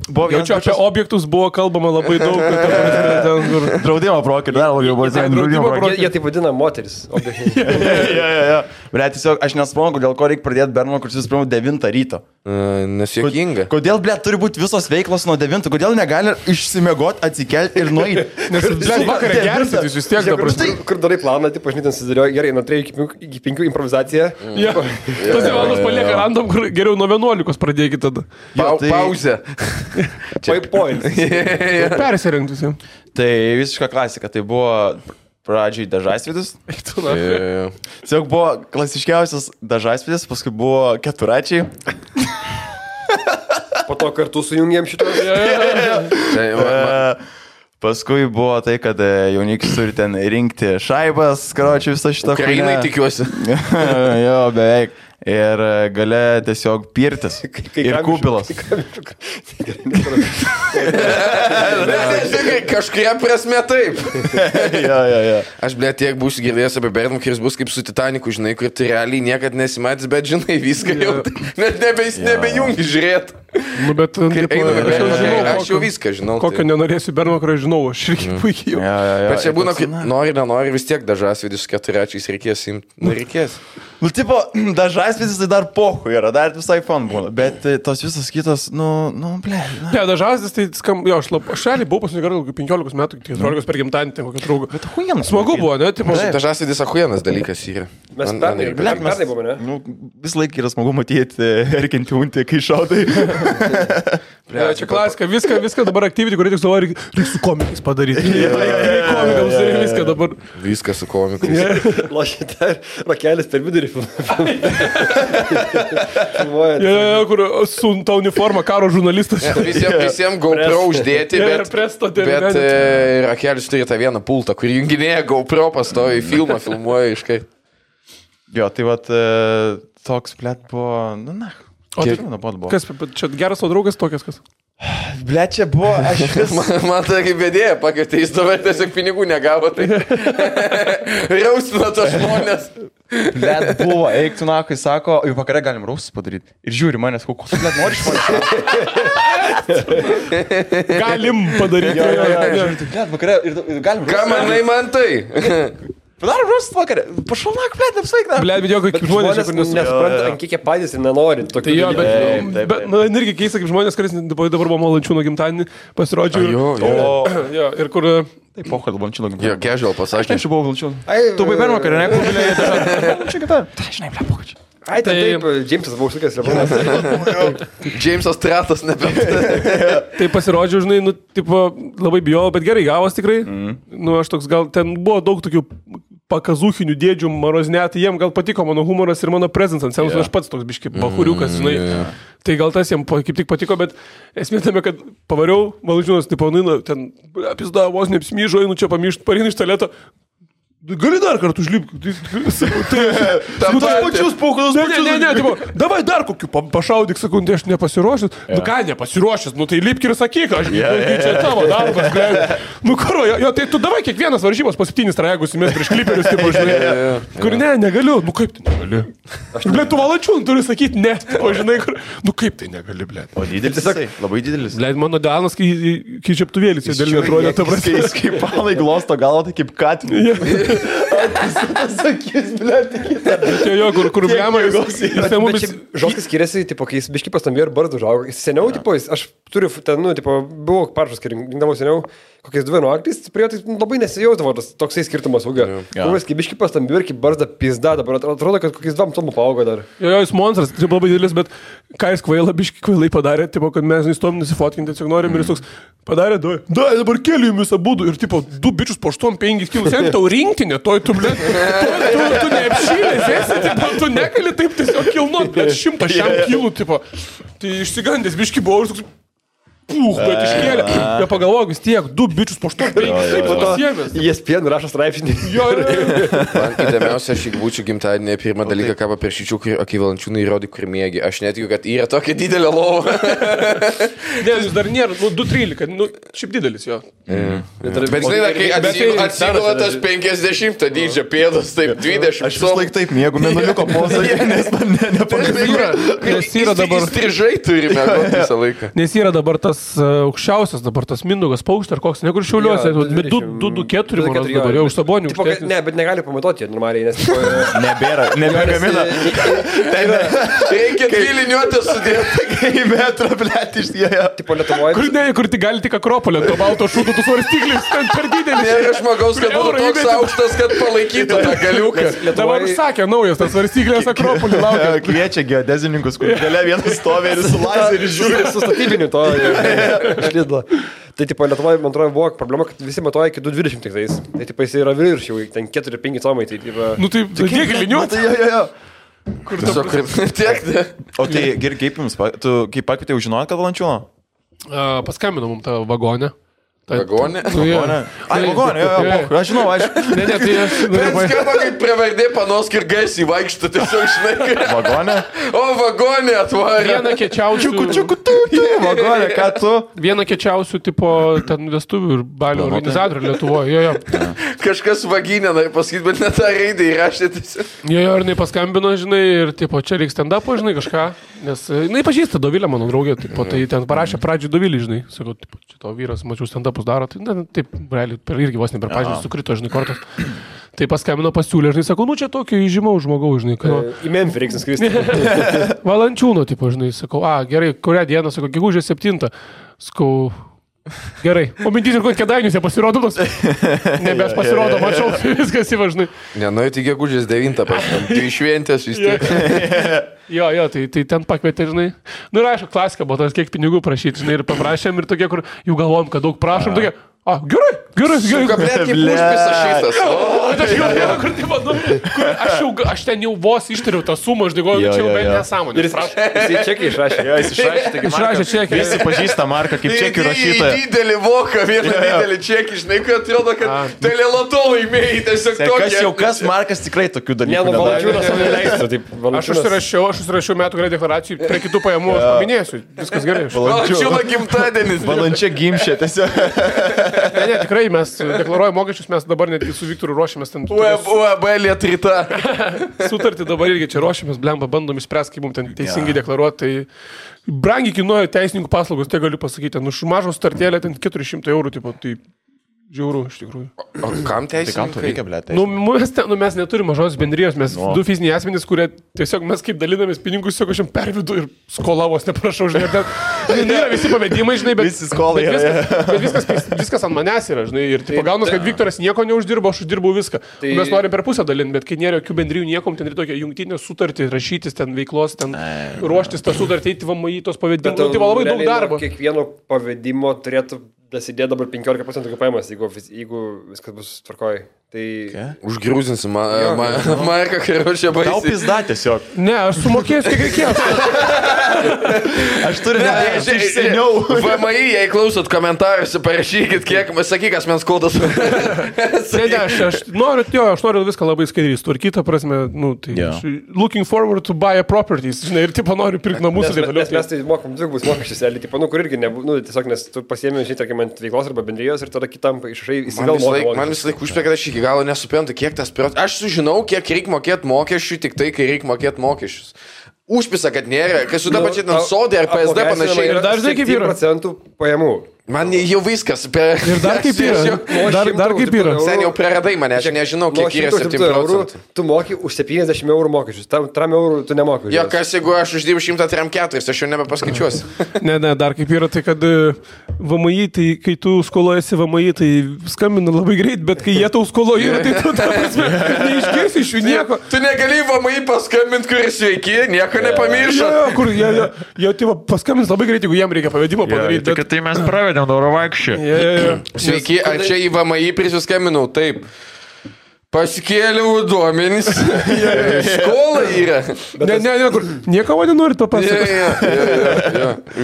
Speaker 1: buvo
Speaker 4: vienas... Jaučiu, apie objektus buvo kalbama labai daug.
Speaker 1: Draudimo brokerių, dar labiau buvo draudimo brokerių.
Speaker 2: Jie taip vadina moteris.
Speaker 1: Tiesiog aš nesuprantu, dėl ko reikia pradėti Bernokeris vis pirma 9 ryto.
Speaker 3: Nesėkinga.
Speaker 1: Kodėl, turi būti visos veiklos nuo 9? Kodėl negali išsimiegot, atsikelti ir nueiti?
Speaker 4: Nes vakarą gersit, jūs vis tiek dabar.
Speaker 2: Kur darai planą, taip, aš net susidėlioju, gerai, nuo 3 iki 5 improvizacija.
Speaker 4: Tas valandas palieka random, kur geriau nuo 11 pradėkite tada.
Speaker 3: Pauzė.
Speaker 2: Points.
Speaker 4: Persirinkti visi.
Speaker 1: Tai visiška klasika, tai buvo pradžiai dažasvidis. Tiesiog buvo klasiškiausias dažasvidis, paskui buvo keturačiai.
Speaker 2: Po to kartu sujungėm šitą.
Speaker 1: Paskui buvo tai, kad jaunikis turi ten rinkti šaibas, karočiui visą šitą.
Speaker 3: Ukrainai tikiuosi.
Speaker 1: Jo, beveik. Ir gale tiesiog pirtis. Ir kubilas.
Speaker 3: Kažkuria prasme taip.
Speaker 1: Jo.
Speaker 3: Aš, tiek būsiu girdėjęs apie Bernokeris, bus kaip su Titaniku, žinai, kur tu realiai niekad nesimatys, bet žinai viską jau. Net nebejungi žiūrėti.
Speaker 4: Nu, bet
Speaker 3: aš jau viską žinau.
Speaker 4: Kokio nenorėsiu Bernokerio, žinau, aš irgi puikiai jau.
Speaker 3: Bet čia būna, nori, vis tiek dažasvidis su keturačiais reikės imti. Nu, reikės.
Speaker 1: Nu, tipo, dažasvidis tai dar pohu yra, dar visai fun būna, bet tos visos kitos, ble.
Speaker 4: Ne, dažasvidis tai skamba, jo, aš realiai buvau pasinigarą 15 metų, 14 per gimtadienį, ten kokią draugą.
Speaker 1: Bet ahuienas.
Speaker 4: Smagu buvo, ne?
Speaker 3: Dažasvidis ahuienas dalykas yra.
Speaker 2: Mes pernai buvome, ne?
Speaker 1: Nu, vis laik yra smagu matyti erkinti untį, kai šaudai.
Speaker 4: Čia klasika, viską dabar aktyviai, kurie tik savo reikia su komikais padaryti. Komikams ir viską dabar.
Speaker 3: Viską su komikais.
Speaker 2: Lošite, rakelis per vidurį.
Speaker 4: Kur su ta uniforma karo žurnalistas.
Speaker 3: Visiems GoPro uždėti, bet rakelis turi tą vieną pultą, kur junginėja GoPro pastovi, filmuoja iškai.
Speaker 1: Jo, tai vat toks buvo,
Speaker 4: Kas, čia geras o draugas tokias kas?
Speaker 1: Blet, čia buvo, aš vis...
Speaker 3: Man tai kaip bėdėja, pakvietė, jis dabar tiesiog pinigų negavo, tai raustina tos žmonės.
Speaker 1: Blet, buvo, eik tu nakai, sako, jau vakarą galim raustus padaryti. Ir žiūri manęs, kokios, blet, nori iš manęs.
Speaker 4: Galim padaryti.
Speaker 1: Blet, vakarą, ir galim raustus.
Speaker 3: Ką manai man tai?
Speaker 1: Padarom raustus vakarą. Pašalnak, blet, apsvaigna.
Speaker 4: Blet, bet jo, kaip žmonės, kur
Speaker 2: nesupranta, ant kiek jie patys ir nenori.
Speaker 4: Tai jo, bet, irgi keista, kaip žmonės, kuris dabar buvo Malančiūno gimtadienį, pasirodžiu. Jo, ir kur...
Speaker 1: Tai pochą dėl Malančiūno gimtadienį.
Speaker 3: Jo, casual pasakė.
Speaker 1: Aš buvau Malančiūno. Tu buvai Bernokerį, ne? Kur bilėjai dažnai. Čia kita. Tai, žinai, ble, pochą.
Speaker 2: Ai, taip, Džeimsas buvo užlikęs, Lebronas.
Speaker 3: Džeimsas Tratas nebent.
Speaker 4: Tai pasirodžiau, žinai, labai bijau, bet gerai gavos tikrai. Aš toks gal, ten buvo daug tokių pakazūchinių dėdžių maroznetai, jiem gal patiko mano humoras ir mano prezencas, aš pats toks biški bahuriukas, žinai. Tai gal tas jiem kaip tik patiko, bet esmė tame, kad pavariau, Malančiūnas, ten apizda, vos neapsmyžo, einu čia pamiršti, pareinu iš tualeto. Gali dar kartą užlipti.
Speaker 1: Tam tas pačius paukalas.
Speaker 4: Ne, davai dar kokiu pašaudyk, sakau, aš nepasiruošęs. Nu ką, nepasiruošęs, tai lipk ir sakyk, aš čia tavo darbas. Nu karo, tai tu davai kiekvienas varžybos po 7 trajegus įmės prieš kliperius, tipo, žinai. Kur negaliu, nu kaip tai negali. Blet, tu Malančiūnų turi sakyti ne, tipo, žinai, kur, nu kaip tai negali, blet.
Speaker 1: O didelis, labai didelis.
Speaker 4: Blet, mano Danas, kai čiaptuvėlis, jie dėl netrodė, ta prasme.
Speaker 1: Kaip palai glosto galvo, tai kaip katinė. Sakys, blėt, kitą.
Speaker 4: Jo, kur blemą jis.
Speaker 2: Žoskas skiriasi, tipo, kai jis biški pastambėjo ir bardą užaugo. Jis seniau, tipo, aš turiu ten, nu, tipo, buvau parašas, kai rinkdavau seniau, kokias 2 nuaklys, prie jo tai labai nesijausdavo tas toksai skirtumas ūgio. Kai biški pastambėjo ir kai barzda pizda, dabar atrodo, kad kokias 2 tomų paaugo dar.
Speaker 4: Jo, jis monstras, tai labai didelis, bet ką jis biški kvailai padarė, tipo, kad mes neįstom nusifotkinti, tiesiog norim ir jis toks padarė, dabar keliu jums abudu ir, tipo, 2 bičius po 8-5 kilus, jeigu tau rinktinė, toj tu, blė, tu neapšylės, esi, tipo, tu negali taip tiesiog kilnuot, blė, 100 kilų, tipo, tai išsigandęs biški buvau ir toks, bet iškėlė. Jie pagalvojo, vis tiek, 2 bičius po 8, taip pat pasiemės.
Speaker 2: Jis pienų rašo straipsnį.
Speaker 4: Jo,
Speaker 3: Man įdomiausia, aš jeigu būčiau gimtadienį, pirmą dalyką, ką paprašyčiau, kai Valančiūnai įrodė, kur mėgi. Aš netikiu, kad yra tokia didelė lova.
Speaker 4: Ne, jis dar nėra, 2,13, šiaip didelis jo.
Speaker 3: Bet žinai, kai atsigula tas 50 dydžio pėdas, taip 20.
Speaker 1: Aš vis laik taip mėgau, menuliuko pozą, nes man nepagailėjo.
Speaker 4: Nes yra dabar...
Speaker 3: Strižai turime visą laiką.
Speaker 4: Nes yra dabar tas aukščiausias, dabar tas Mindaugas Paukštė ar koks, nekur Šiauliuose, bet 2,4 dabar jau už Sabonių.
Speaker 2: Ne, bet negali pamatuoti normaliai, nes...
Speaker 1: Nebegamina.
Speaker 3: Reikia dviliniuotę sudėti.
Speaker 1: Kai metrą, blėt, išdėjo.
Speaker 2: Tipo Lietuvoje...
Speaker 4: Kur tik gali tik Akropolė, to balto šūdo, tu svarstyklis, ten per didelis.
Speaker 3: Nėra žmogaus, kad būtų toks aukštas, kad palaikytų tą galiuką.
Speaker 4: Dabar užsakė naujas, tas svarstyklės Akropolį laukia.
Speaker 1: Kviečia geodezininkus, kur galia vienas stovė ir su lazeriu žiūri.
Speaker 2: Su statybiniu to išlydlo. Tai, tipo, Lietuvoje, man atrodo, buvo problema, kad visi matuoja iki 2,20 tik tais. Tai, tipo, jis yra virš jau, ten 4-5 tomai, tai, tipo...
Speaker 4: Nu, tai kiek liniuoti?
Speaker 1: Jo.
Speaker 3: Kur tiesiog tiek.
Speaker 1: O tai, kaip jums, tu kaip pakvietėjau žinot, kad Valančiūno?
Speaker 4: Paskambino mums tą vagonę.
Speaker 3: Vagonė?
Speaker 1: Ai, vagonė, jo, aš žinau, aš...
Speaker 4: Ne, tai aš...
Speaker 3: Bet skamba, kaip prevardė panos ir gaisiai vaikšto, tiesiog žinai.
Speaker 1: Vagonė?
Speaker 3: O, vagonė atvarė.
Speaker 4: Vieną kečiausių...
Speaker 1: Vagonė, ką tu?
Speaker 4: Vieną kečiausių, tipo, ten vestuvių ir balių organizatorių Lietuvoje, jo.
Speaker 3: Kažkas vaginė, nori pasakyti, bet net tą raidą įrašė tiesiog.
Speaker 4: Jo, ir jinai paskambino, žinai, ir, tipo, čia reikia stand-upo, žinai, kažką. Nes, jinai pažįsta Dovilę, mano draugė, tipo, tai ten parašė pradžią Dovilį, žinai. Sakau, tipo, čia tavo vyras, mačiau stand-upus daro, tai, na, taip, realiai, irgi vos ne per pažymį sukrito, žinai, kortas. Tai paskambino, pasiūlė, žinai, sakau, nu, čia tokio įžymaus žmogaus, žinai.
Speaker 2: Į Memphį reikia skristi.
Speaker 4: Valančiūno, tipo, žinai, sakau, gerai, kurią dieną, sakau, gegužės 7. Sakau, gerai. O mintys ir kokie Kėdainius jie pasirodo, nebes pasirodo, mačiau, viskas įvažnai.
Speaker 3: Ne, nu, tai gegužės 9, paštam, tai šventės vis tiek.
Speaker 4: Jo, tai ten pakvietė, žinai. Nu ir aišku, klasika buvo, tas kiek pinigų prašyti, žinai, ir paprašėm, ir tokie, kur jau galvom, kad daug prašom, tokie, gerai.
Speaker 3: Kablėt kaip užpisa šitas.
Speaker 4: Kur tai manu, aš ten jau vos ištariau tą sumą, aš dėgoju, čia jau bent nesąmonė.
Speaker 2: Ir jis čekį išrašė.
Speaker 1: Jo, jis išrašė čekį. Visi pažįsta Marką kaip čekį rašytoją.
Speaker 3: Didelį voką, vieną didelį čekį, žinai, kai atrodo, kad teleloto laimėjai, tiesiog tokie.
Speaker 1: Kas Markas tikrai tokių dalykų.
Speaker 2: Ne, nu, Valančiūnas savo neleistų.
Speaker 4: Aš užsirašiau metų gale deklaracijų, prie kitų pajamų aš paminėsiu. Viskas gerai.
Speaker 3: Valančiūno gimtadienis.
Speaker 1: Valančia gimšė tiesiog.
Speaker 4: Ne, tikrai mes deklaruojame mokesčius, mes dabar netgi su Viktoru ruošiamės ten.
Speaker 3: UAB Lietrita.
Speaker 4: Sutartį dabar irgi čia ruošiamės, blemba, bandom išspręsti, kaip mums ten teisingai deklaruoti. Tai brangiai kainuoja teisininkų paslaugos, tai galiu pasakyti. Nu, mažo startėlė ten 400 eurų, tipo, tai žiauru, iš tikrųjų.
Speaker 3: O kam teisininkai?
Speaker 1: Tai kam to reikia, blėt?
Speaker 4: Mes neturime mažos bendrijos, mes du fiziniai asmenys, kurie tiesiog mes kaip dalinamės pinigus, tiesiog aš jam pervidu ir skolavos, neprašau, žinai, nėra visi pavedimai, žinai, bet viskas ant manęs yra, žinai, ir pagaunas, kad Viktoras nieko neuždirbo, aš uždirbau viską. Mes norim per pusę dalinti, bet kai nėra jokių bendrijų niekom, ten ir tokia jungtinė sutartį, rašytis ten veiklos, ten ruoštis tą sutartį, eiti VMI tos pavedimus, tai labai daug darbo.
Speaker 2: Kiekvieno pavedimo turėtų dasidėti dabar 15% kaip pajamas, jeigu viskas bus tvarkoj. Tai...
Speaker 3: Užgrūzinsim Marką, kai ruošia baisiai.
Speaker 1: Tau pizda tiesiog.
Speaker 4: Ne, aš sumokėsiu, kiek reikės.
Speaker 1: Aš turiu nedėti iš seniau.
Speaker 3: VMI, jei klausot komentaruose, parašykit, kiek, sakyk, asmens kodas.
Speaker 4: Ne, aš noriu viską labai skaidriai tvarkyti, prasme, nu, tai looking forward to buy a properties, žinai, ir tipo noriu pirkti namus ir taip toliau.
Speaker 2: Mes tai mokam dvigubus mokesčius, tipo, nu, kur irgi, tiesiog, nes tu pasiėmė, žinai, tarkim, ant veiklos arba bendrijos ir tada kitam išrašai įsigalvoji. Man
Speaker 3: vis laik užpė, kad aš iki galo nesuprantu, kiek tas procentas. Aš sužinau, kiek reikia mokėti mokesčių, tik tai, kai reikia mokėti mokesčius. Užpisa, kad nėra, kai su dabar čia sodė ar PSD panašiai.
Speaker 2: Ir dar žinai, kaip yra 1% pajamų.
Speaker 3: Man jau viskas.
Speaker 4: Ir dar kaip yra. Dar kaip yra.
Speaker 3: Sen jau praradai mane, aš nežinau, kiek yra 7%.
Speaker 2: Tu moki už 70 eurų mokesčius, tam 3 eurų tu nemoki.
Speaker 3: Jo, kas jeigu aš uždirbu 104, aš jau nebepaskaičiuosiu.
Speaker 4: Ne, dar kaip yra, tai kad VMI, tai kai tu skolojasi VMI, tai skambina labai greit, bet kai jie tau skoloja, tai tu tą prasme neišgirsi iš jų nieko.
Speaker 3: Tu negali VMI paskambinti, kuris sveiki, nieko nepamiršo.
Speaker 4: Kur jie paskambins labai greit, jeigu jiem reikia pavedimą padaryti.
Speaker 1: Bet... Tai mes pravedėm Dauro vaikščią.
Speaker 3: Sveiki, ar čia į VMI prisiskambinau? Taip. Pasikėliau duomenys. Skola yra.
Speaker 4: Ne, kur nieko man nenorit
Speaker 3: papasakoti.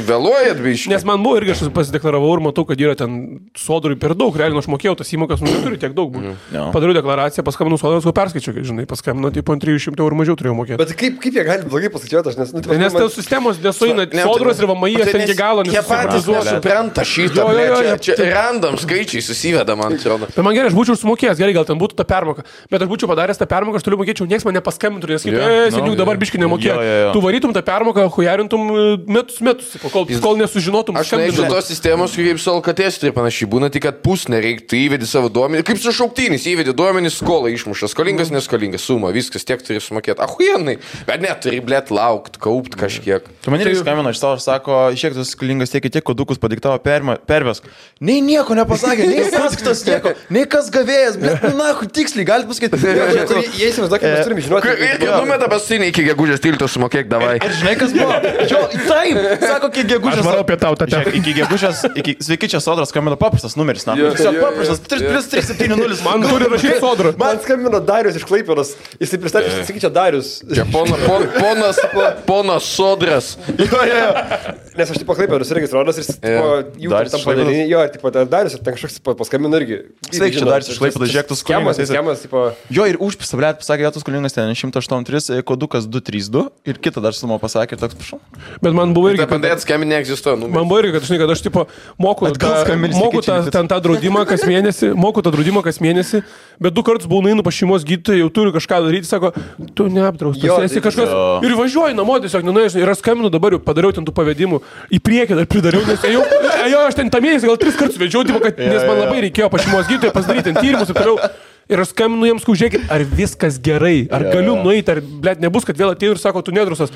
Speaker 3: Vėluojat, biškai.
Speaker 4: Nes man buvo irgi aš pasideklaravau ir matau, kad yra ten sodrui per daug. Realiai aš mokėjau tas įmokas, neturi tiek daug. Padariau deklaraciją, paskambinau sodros, perskaičiau, žinai, paskambinau, tai po 300 eurų mažiau turėjau mokėti.
Speaker 2: Bet kaip jie gali blogai paskaičiuoti?
Speaker 4: Nes tos sistemos nesuina, sodros ir VMI, aš ten iki galo
Speaker 3: nesupranta. Jie patys nesupranta šitą. Čia random skaičiai susiveda, man atrodo.
Speaker 4: Bet man gerai, aš būčiau sumokėjęs, gerai, gal ten būtų ta permoka. Bet aš būčiau padaręs tą permoką, aš toliau mokėčiau, nieks man nepaskambintų, nes seniuk dabar biškai nemokėjau. Tu varytum tą permoką, hujarintum metus, kol nesužinotum.
Speaker 3: Aš nežinau tos sistemos, kaip su Alkatės ir panašiai būna, tik kad pusne reikia, tu įvedi savo duomenį, kaip su šauktynys, įvedi duomenį, skolą išmuša, skolingas, neskolingas, suma, viskas tiek turi sumokėti. Ahujenai, bet net turi, blėt, laukti, kaupti kažkiek.
Speaker 1: Tu man irgi skambino iš tavo, sako, iškiek tu skolingas tiek kodukus padiktavo pervesk. Nei nieko nepasakė, nei sąskaitos nieko, nei kas gavėjas, blėt, na, tiksliai, gali pasakyti.
Speaker 2: Jie įsivaizduoja, mes turime žinoti.
Speaker 3: Ir numeta pastinį iki gegužės 13 sumokėk, davai.
Speaker 1: Ir žinai, kas buvo? Jo, taip, sako, iki gegužės.
Speaker 4: Aš varau apie tau tą temą.
Speaker 1: Iki gegužės, sveiki, čia sodras skambino paprastas numeris, na. Tiesiog paprastas, 370.
Speaker 4: Man turi rašyti sodrą.
Speaker 2: Man skambino Darius iš Klaipėdos. Jisai pristatė, sakyčia, Darius.
Speaker 3: Čia ponas sodras.
Speaker 2: Nes aš tipo Klaipėdos registruotas ir jų tam padalinį. Jo, tipo Darius ir ten kažkoks paskambino irgi.
Speaker 1: Sveiki, čia Darius iš Klaipėdos, žiūrėk, tu skolingas. Jo, ir užpisa, blėt, pasakė, tu skolingas ten 183, kodukas 232 ir kitą dar sumą pasakė ir toks, prašau.
Speaker 4: Bet man buvo irgi...
Speaker 3: Bandai atskambinti neegzistuoja.
Speaker 4: Man buvo irgi, kad aš tipo moku tą draudimą kas mėnesį, bet 2 kartus buvau nueinu pas šeimos gydytoją, jau turiu kažką daryti, sako, tu neapdraustas, esi kažkas. Ir važiuoju namo, tiesiog nenuėžinai, ir aš skambinu dabar, jau padariau ten tų pavedimų, į priekį dar pridariau, nes aš ten tą mėnesį gal 3 kartus vedžiau, nes man labai reikėjo pas šeimos gydytoją pasidaryti tyrimus ir toliau. Ir aš skambinu jiems, žiūrėkit, ar viskas gerai, ar galiu nueiti, ar, blėt, nebus, kad vėl atėjau ir sako, tu nedrusas.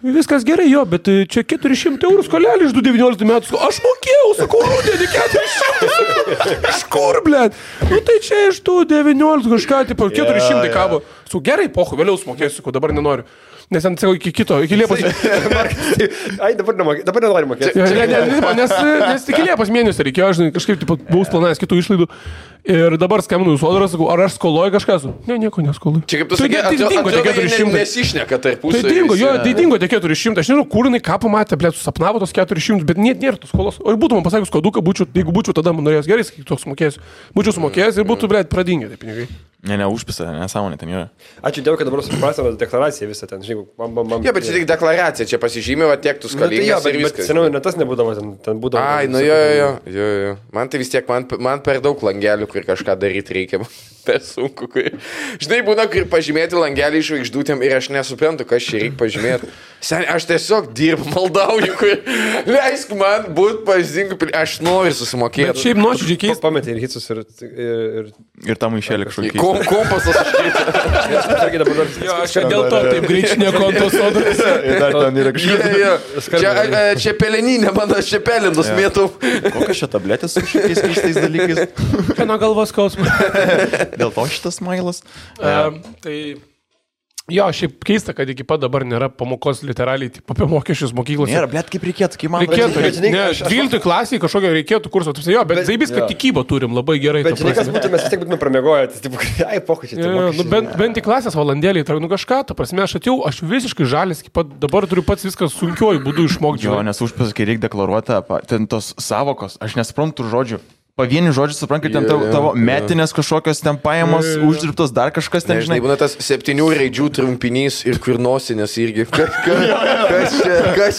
Speaker 4: Viskas gerai, jo, bet čia 400 eurų skolelį iš 2019 metų. Aš mokėjau, sakau, rudenį 400. Iš kur, blėt? Nu tai čia iš 2019 kažką, tipo, 400 kabo. Su gerai, pohu, vėliau sumokėsiu, sakau, dabar nenoriu. Nes ant savo iki Liepos.
Speaker 2: Ai, dabar nenori mokėti.
Speaker 4: Nes iki Liepos mėnesio reikėjo, aš kažkaip buvau planavęs kitų išlaidų. Ir dabar skambinu į sodrą, sakau, ar aš skoloju kažką? Ne, nieko neskoloju.
Speaker 3: Čia kaip tu sakai, atrodo, nesišneka tarpusavy.
Speaker 4: Tai dingo tie 400. Aš nežinau, kur jinai ką pamatė, blėt, susapnavo tos 400, bet nėra tos skolos. O ir būtų man pasakius koduką, jeigu būčiau tada man norėjęs gerai, sakyk, toks sumokėsiu. Būčiau sumokėjęs ir būtų, blėt, pradingę tie pinigai.
Speaker 1: Ne, užpisa, nesąmonė ten yra.
Speaker 2: Ačiū Dievui, kad dabar suprasime deklaraciją visą ten, žinai, bam.
Speaker 3: Jo, bet čia tik deklaracija, čia pasižymė, tiek tu skolingas ir viskas.
Speaker 2: Bet seniau net tas nebūdavo, ten būdavo.
Speaker 3: Ai, nu jo. Man tai vis tiek, man per daug langelių, kur kažką daryti reikia. Per sunku, žinai, būna, kur pažymėti langelį iš žvaigždutėm ir aš nesuprantu, kas čia reikia pažymėti. Sen, aš tiesiog dirbu, maldauju, leisk man būt pavyzdingu, aš noriu susimokėti.
Speaker 4: Bet šiaip nuoširdžiai keista.
Speaker 2: Pametė ir hitsus
Speaker 1: ir tam išėlė kažkokį.
Speaker 3: Kompasas aš keitė.
Speaker 4: Aš dėl to taip greičinė kontos sodras.
Speaker 1: Dar ten yra kažkas.
Speaker 3: Čia peleninė, man aš čia pelinus mėtau.
Speaker 1: Kokios čia tabletės su šitais keistais dalykais?
Speaker 4: Kieno galvos skausmas.
Speaker 1: Dėl to šitas mailas.
Speaker 4: Tai jo, šiaip keista, kad iki pat dabar nėra pamokos literaliai apie mokesčius mokyklose.
Speaker 1: Nėra, blėt, kaip reikėtų, kaip man
Speaker 4: reikėtų. Ne, 12 klasiai kažkokio reikėtų kurso. Jo, bet zaibis, kad tikybą turim labai gerai.
Speaker 2: Bet žinai, kas būtų, mes vis tiek būtume pramiegoję. Ai, pokyčiai.
Speaker 4: Bent į klasės valandėlį, kažką, ta prasme, aš visiškai žalis, dabar turiu pats viskas sunkiuoju būdu išmokti.
Speaker 1: Jo, nes užpasakė reikia deklaruoti ten tos savokos, aš nesuprantu žodžių. pavienių žodžių, suprantu, kad ten tavo metinės kažkokios ten pajamos, uždirbtos dar kažkas ten, žinai.
Speaker 3: Būna tas 7 raidžių trumpinys ir kur nosinės irgi. Kas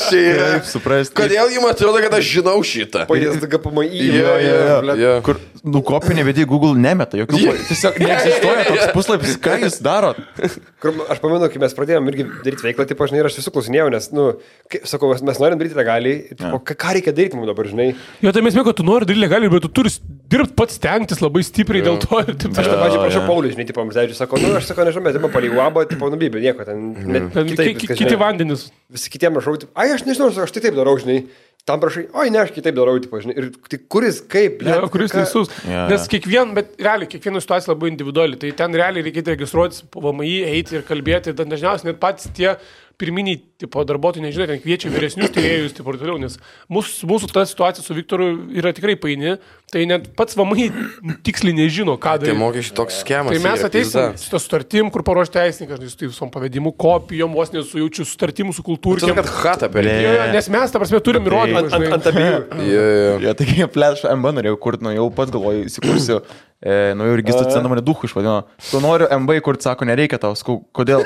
Speaker 3: čia yra?
Speaker 1: Kaip suprasti.
Speaker 3: Kodėl jums atrodo, kad aš žinau šitą?
Speaker 2: PSDGPMI.
Speaker 3: Kur
Speaker 1: nukopinė, bet į Google nemeta, jokių, tiesiog neegzistuoja toks puslapis, ką jūs darot?
Speaker 2: Aš pamenu, kai mes pradėjome irgi daryti veiklą, tipo, žinai, ir aš visų klausinėjau, nes, sakau, mes norim daryti legaliai, ką reikia daryti mums dabar, žinai.
Speaker 4: Jo, tai mes mėgau, kad tu nori daryti legaliai, bet tu turi dirbti pats stengtis labai stipriai dėl to. Ir taip,
Speaker 2: aš tą pačią prašau Paulius, žinai, tipo, mums sako, aš sakau, nežinau, bet tipo, palei uabą, tipo, nubybė, nieko ten.
Speaker 4: Kiti vandenis.
Speaker 2: Visi kitiem rašau, aš nežinau, aš tai taip darau, žinai. Tam prašai, oi, ne, aš kitaip darau, tipo, žinai. Ir tai kuris, kaip,
Speaker 4: ja, kuris teisus. Nes bet realiai, kiekviena situacija labai individuali. Tai ten realiai reikėtų registruotis po VMI, eiti ir kalbėti. Dažniausiai net patys tie pirminiai tipo, darbuotojai, nežinau, ten kviečia vyresnius tyrėjus, taip ir toliau, nes mūsų ta situacija su Viktoru yra tikrai paini, tai net pats VMI tiksliai nežino, ką daryti.
Speaker 3: Tai mokesčių toks schemas.
Speaker 4: Tai mes ateisim su to sutartim, kur paruošti teisininkai, su tai visom pavedimu, kopijom, vos nesujaučiu sutartimų su kultūriu.
Speaker 3: Tai kad hatą per
Speaker 4: nes mes, ta prasme, turim įrodymą.
Speaker 2: Ant abiejų.
Speaker 1: Jo, taigi pleš MB norėjau kurti, jau pats galvoju, įsikursiu. Naujų registrų centrą mane duchu išvadino. Tu noriu MB, kur sako, nereikia tau, skau, kodėl?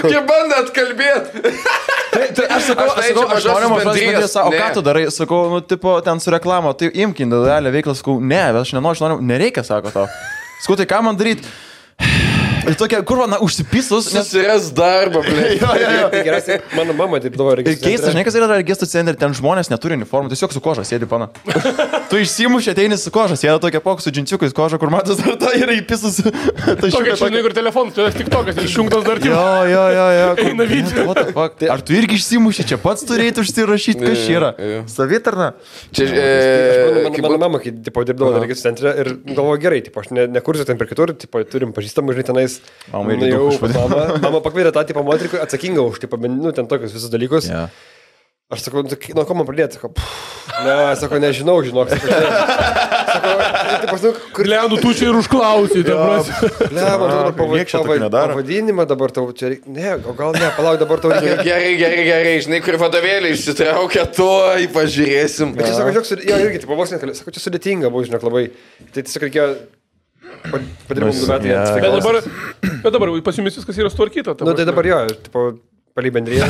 Speaker 3: Jie bando atkalbėti.
Speaker 1: Aš noriu mažas, o ką tu darai? Sakau, tipo, ten su reklamo, tai imk individualią veiklą, sakau, ne, aš noriu, nereikia, sako tau. Sakau, tai ką man daryti? Ir tokia, kur man užsipisus,
Speaker 3: nes susiras darbą, blė.
Speaker 2: Tai geriausiai, mano mama taip dabar registrų centre.
Speaker 1: Keista, žinai, kas yra registrų centre, ten žmonės neturi uniformų, tiesiog su koža sėdi, pana. Tu išsimuši, ateini su koža, sėda tokia pok su džinčiukais koža, kur matas dar ta yra įpisus.
Speaker 4: Tokia, žinai, kur telefonas, tai tik tokas, išjungtas dar tik.
Speaker 1: Jo. Ar tu irgi išsimuši, čia pats turėtų užsirašyti, kas čia yra? Savitarna.
Speaker 2: Mano mama, kai dirbdavo registrų centre ir galvoju gerai, aš nekursiu ten per kitur, turim pažįstamų, žinai, tenais. Mama pakvietė tą tipą moterį, atsakingą už, ten tokius visus dalykus. Yeah. Aš sakau, nuo ko man pradėti? Sako, nežinau, žinok.
Speaker 4: Kur Leandų tu čia ir užklausai,
Speaker 2: pavadinimą dabar tau čia reikia. Ne, gal ne, palauk, dabar tau reikia.
Speaker 3: Gerai, žinai, kur vadovėlį išsitraukia, to pažiūrėsim.
Speaker 2: Bet čia sako, jo, irgi, vos nekalė, sako, čia sudėtinga buvo, žinok, labai. Tai tiesiog reikėjo padirbom 2 metai.
Speaker 4: Bet dabar pas jumis viskas yra sutvarkyta.
Speaker 2: Tai dabar jo, palei bendriją.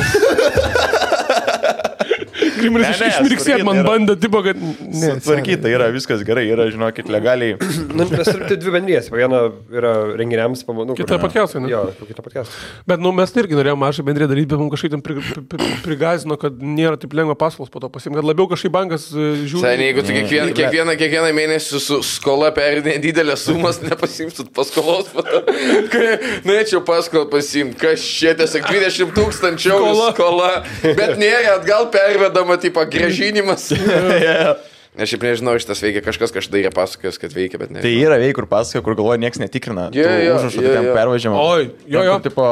Speaker 4: Grimeris išmirksėt man bandė, tipo, kad...
Speaker 1: Sutvarkyta yra, viskas gerai, yra, žinokit, legaliai.
Speaker 2: Mes turime 2 bendrijas, viena yra renginiams,
Speaker 4: kita podcast'ai, ne?
Speaker 2: Jo, kita podcast'ai.
Speaker 4: Bet, mes irgi norėjome mažą bendriją daryti, bet mums kažkaip ten prigazino, kad nėra taip lengva paskolos po to pasimti, kad labiau kažkaip bankas žiūri.
Speaker 3: Seniai, jeigu tu kiekvieną mėnesį su skola perinė didelės sumas, nepasimsit paskolos, norėčiau paskolą pasimti, kas čia tiesiog 20 000 skola, bet nėra atgal pervedama. Tipo grąžinimas. Aš šiaip nežinau, šitas veikia, kažkas kažkada yra pasakojęs, kad veikia, bet ne.
Speaker 1: Tai yra kur pasakoja, kur galvoja, nieks netikrina. Užrašų tokiam pervažiamą.
Speaker 4: Jo.
Speaker 1: Tipo,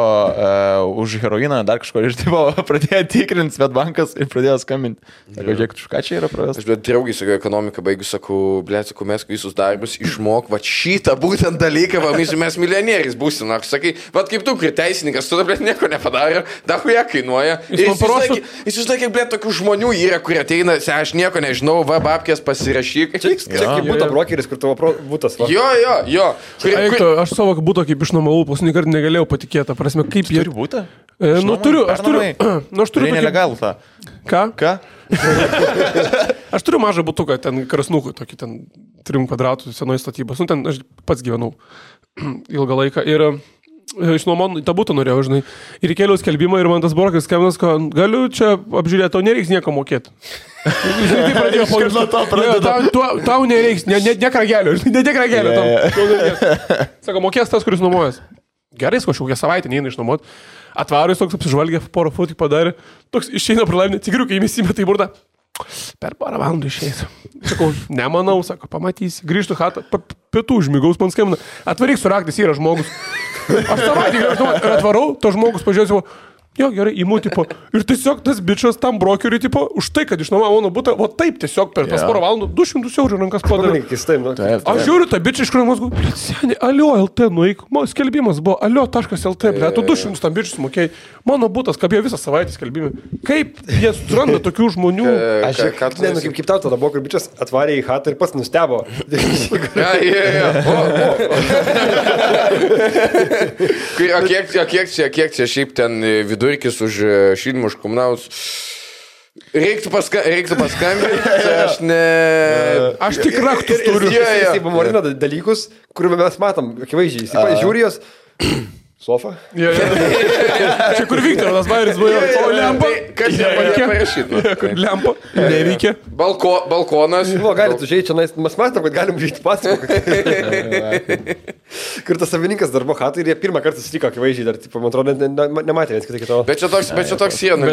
Speaker 1: už heroiną dar kažko ir tipo, pradėjo tikrinti Svetbankas ir pradėjo skambinti. Sakau, žiūrėk, už ką čia yra pravęs?
Speaker 3: Aš bet draugai sakau, ekonomiką baigiu, sakau, mes visus darbus išmok, va šitą būtent dalyką, va mes milijonieriais būsim. Aš sakai, va kaip tu, kur teisininkas, tu dabar nieko nepadarė, dahuja kainuoja. Jis užlaikė, blėt, tokių žmonių yra, kurie ateina, aš nieko nežinau, va, babkės pasirašyk.
Speaker 2: Čia kaip būtų brokeris, kur tavo būtas va.
Speaker 3: Jo.
Speaker 4: Aš savo būtų kaip išnuomavau, paskutinį kartą negalėjau patikėti, prasme, kaip jie...
Speaker 1: Turi būtą?
Speaker 4: Aš turiu
Speaker 1: nelegalų tą.
Speaker 4: Ką? Aš turiu mažą butuką, ten krasnukų, tokį ten 3 kvadratų senoji statybos. Ten aš pats gyvenau ilgą laiką ir išnuomon tą butą norėjau, žinai. Ir įkėliau skelbimą ir man tas brokeris skambinas, kad galiu čia apžiūrėti, tau nereiks nieko mokėti. Žinai, tai pradėjo tau nereiks, ne kragelio. Sako, mokės tas, kuris nuomojas. Gerai, kažkokią savaitę neina išnuomoti. Atvaro jis toks apsižvalgė, porą fotų padarė. Toks išeina pro laimę, cigriukai įmėsime tai burda. Per porą valandų išeis. Sakau, nemanau, sako, pamatysi. Grįžtu chatą, pietų užmigaus man skambina. Atvaryk su raktais, yra žmogus. Aš savaitį grįžtu ir atvarau, to žmogus pažiūrėjau, jo, gerai, įmu, tipo, ir tiesiog tas bičias tam brokeriui, tipo, už tai, kad išnuomavo mano butą, o taip tiesiog per tas porą valandų 200 eurų rankas padarė. Aš žiūriu, ta bičia iš kuriamos, seniai, alio LT, nueik, skelbimas buvo, alio.lt, ble, tu 200 tam bičius mokėjai, mano butas kabėjo visą savaitę skelbimą. Kaip jie suranda tokių žmonių?
Speaker 2: Kaip tau tada buvo, kur bičias atvarė į chatą ir pats nustebo.
Speaker 3: Kiek čia šiaip ten vidurkis už šildymus už komunalus? Reiktų paskambinti, aš ne...
Speaker 4: Aš tik raktus turiu.
Speaker 2: Jisai pamorina dalykus, kuriuo mes matom, akivaizdžiai. Jisai žiūri jos... Sofa?
Speaker 4: Čia kur Viktoras Bairis buvo, o lempa?
Speaker 3: Kas nepadėjo parašyti?
Speaker 4: Kur lempa? Neveikia.
Speaker 3: Balkonas.
Speaker 2: Galite užėjti čia, mes matom, kad galim užėjti pasakoti. Kur tas savininkas darbo hatai ir jie pirmą kartą susitiko, akivaizdžiai, dar, man atrodo, nematė vienas kitą kito.
Speaker 3: Bet čia toks sienų.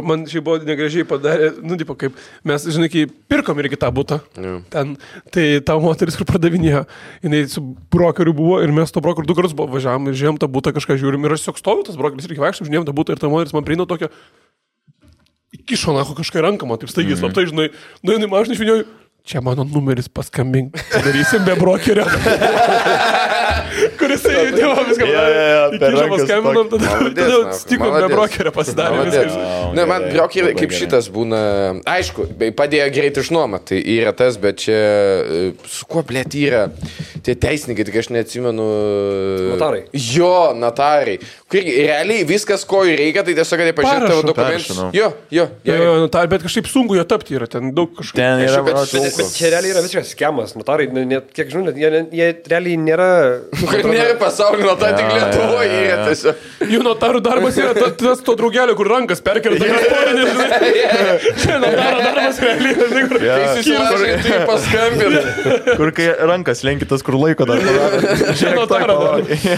Speaker 4: Man šiai buvo negražiai padarė, kaip mes, žinai, kai pirkom irgi tą butą, ten, tai ta moteris, kur pradavinėjo, jinai su brokeriu buvo ir mes to brokeriu 2 kartus važiavom ir žiūrėjom tą butą, kažką žiūrim ir aš tiesiog stoviu, tas brokeris irgi vaikščiam, žiūrėjom tą butą ir ta moteris man prieina tokia, įkišo nacho kažką ranką, man taip staigiai slaptai, žinai, nuėjau į mašiną, išvinėjau, čia mano numeris, paskambink, darysim be brokerio. Kuris įdėjo viską. Įkišo paskambinom, tada stikom be brokerio pasidarė viskas.
Speaker 3: Ne, man brokeriai kaip šitas būna, aišku, padėjo greit išnuomą, tai yra tas, bet čia, su kuo blėt yra tie teisininkai, tik aš neatsimenu.
Speaker 2: Notarai.
Speaker 3: Jo, notarai. Kur realiai viskas, ko reikia, tai tiesiog, kad jie pažiūrė tavo dokumentus. Jo,
Speaker 4: notarai, bet kažkaip sunku jo tapti yra, ten daug kažkaip.
Speaker 2: Bet čia realiai yra visiškas skemas. Notarai, kiek žinau, jie realiai nėra...
Speaker 3: Nėra pasaulio notarai, tik Lietuvoje yra tiesiog.
Speaker 4: Jų notarų darbas yra tas to draugelio, kur rankas perkelta. Čia notaro darbas realiai.
Speaker 3: Kai susilažai, tai paskambina.
Speaker 1: Kur kai rankas lenkitas, kur laiko dar.
Speaker 4: Čia notaro darbas.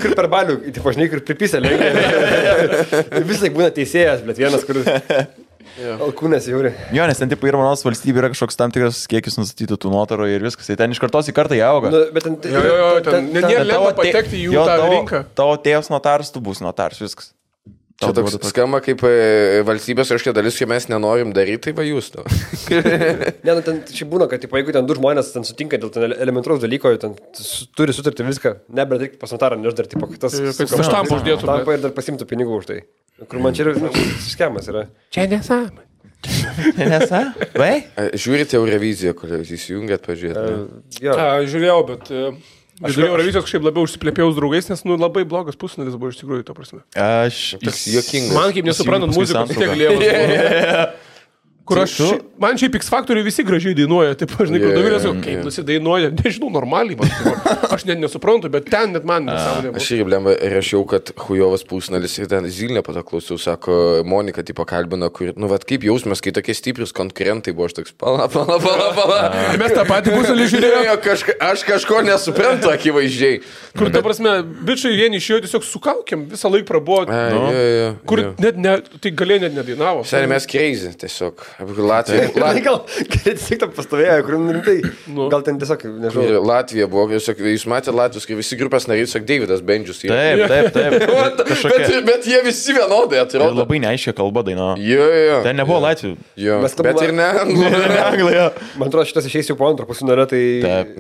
Speaker 2: Kur per balių, tipo, žinai, kur pripysė lenkia. Visai būna teisėjas, bet vienas, kur... Alkūnės žiūri.
Speaker 1: Jo, nes ten tipo ir manos valstybė yra kažkoks tam tikras kiekis nustatytų tų notarų ir viskas. Tai ten iš kartos į kartą jie auga.
Speaker 4: Ten nėra lengva patekti į jų tą rinką.
Speaker 1: Tavo tėvas notaras, tu būsi notaras, viskas.
Speaker 3: Čia toks skamba kaip valstybės kažkokia dalis, kai mes nenorim daryti, tai va jūs to.
Speaker 2: Ne, ten šiaip būna, kad jeigu ten 2 žmonės ten sutinka dėl ten elementaraus dalyko, ten turi sutarti viską, bet reikia pas notarą, nes dar tipo, tas
Speaker 4: štampą uždėtų.
Speaker 2: Štampą ir dar pasimtų pinigų už tai. Kur man čia yra skemas yra.
Speaker 4: Čia nesąmonė.
Speaker 1: Nesąmonė? Vai?
Speaker 3: Žiūrite Euroviziją, kur įsijungėt pažiūrėti.
Speaker 4: Žiūrėjau, bet... Žiūrėjau Eurovizijos kažkaip labiau užsiplėpėjau su draugais, nes labai blogas pusfinalis buvo iš tikrųjų, to prasme.
Speaker 3: Jis juokingas.
Speaker 4: Man kaip nesuprantant muzikos, tiek lievas. Kur man šiaip X Factoriui visi gražiai dainuoja, taip, žinai, kur Dovilės, kaip nusidainuoja, nežinau, normaliai, aš net nesuprantu, bet ten net man nesąmonė.
Speaker 3: Aš irgi blemba rašiau, kad hujovas pusnalis ir ten Zilnė paklausau, sako, Monika tipo kalbina, kur, nu, vat kaip jausmės, kai tokie stiprius konkurentai buvo, aš toks, pala.
Speaker 4: Mes tą patį pusnalį žiūrėjome.
Speaker 3: Aš kažko nesuprantu, akivaizdžiai.
Speaker 4: Kur, ta prasme, bičiai vieni iš jo tiesiog sukaukėm, visą laiką prabuvo. Kur net, tai galėjo net nedainavo.
Speaker 3: Seniai mes crazy, tiesiog. Latvija.
Speaker 2: Gal tiesiog tam pastovėjo, kur rimtai. Gal ten tiesiog, nežinau.
Speaker 3: Latvija buvo, jūs matėte Latvijos, kai visi grupės nariai, sak Davidas Bendžius.
Speaker 1: Taip.
Speaker 3: Bet jie visi vienodai atrodo.
Speaker 1: Labai neaiškia kalba daina.
Speaker 3: Jo.
Speaker 1: Ten nebuvo Latvių.
Speaker 3: Bet ir ne
Speaker 1: Anglija.
Speaker 2: Man atrodo, šitas išeis jau po antro pusfinalio, tai...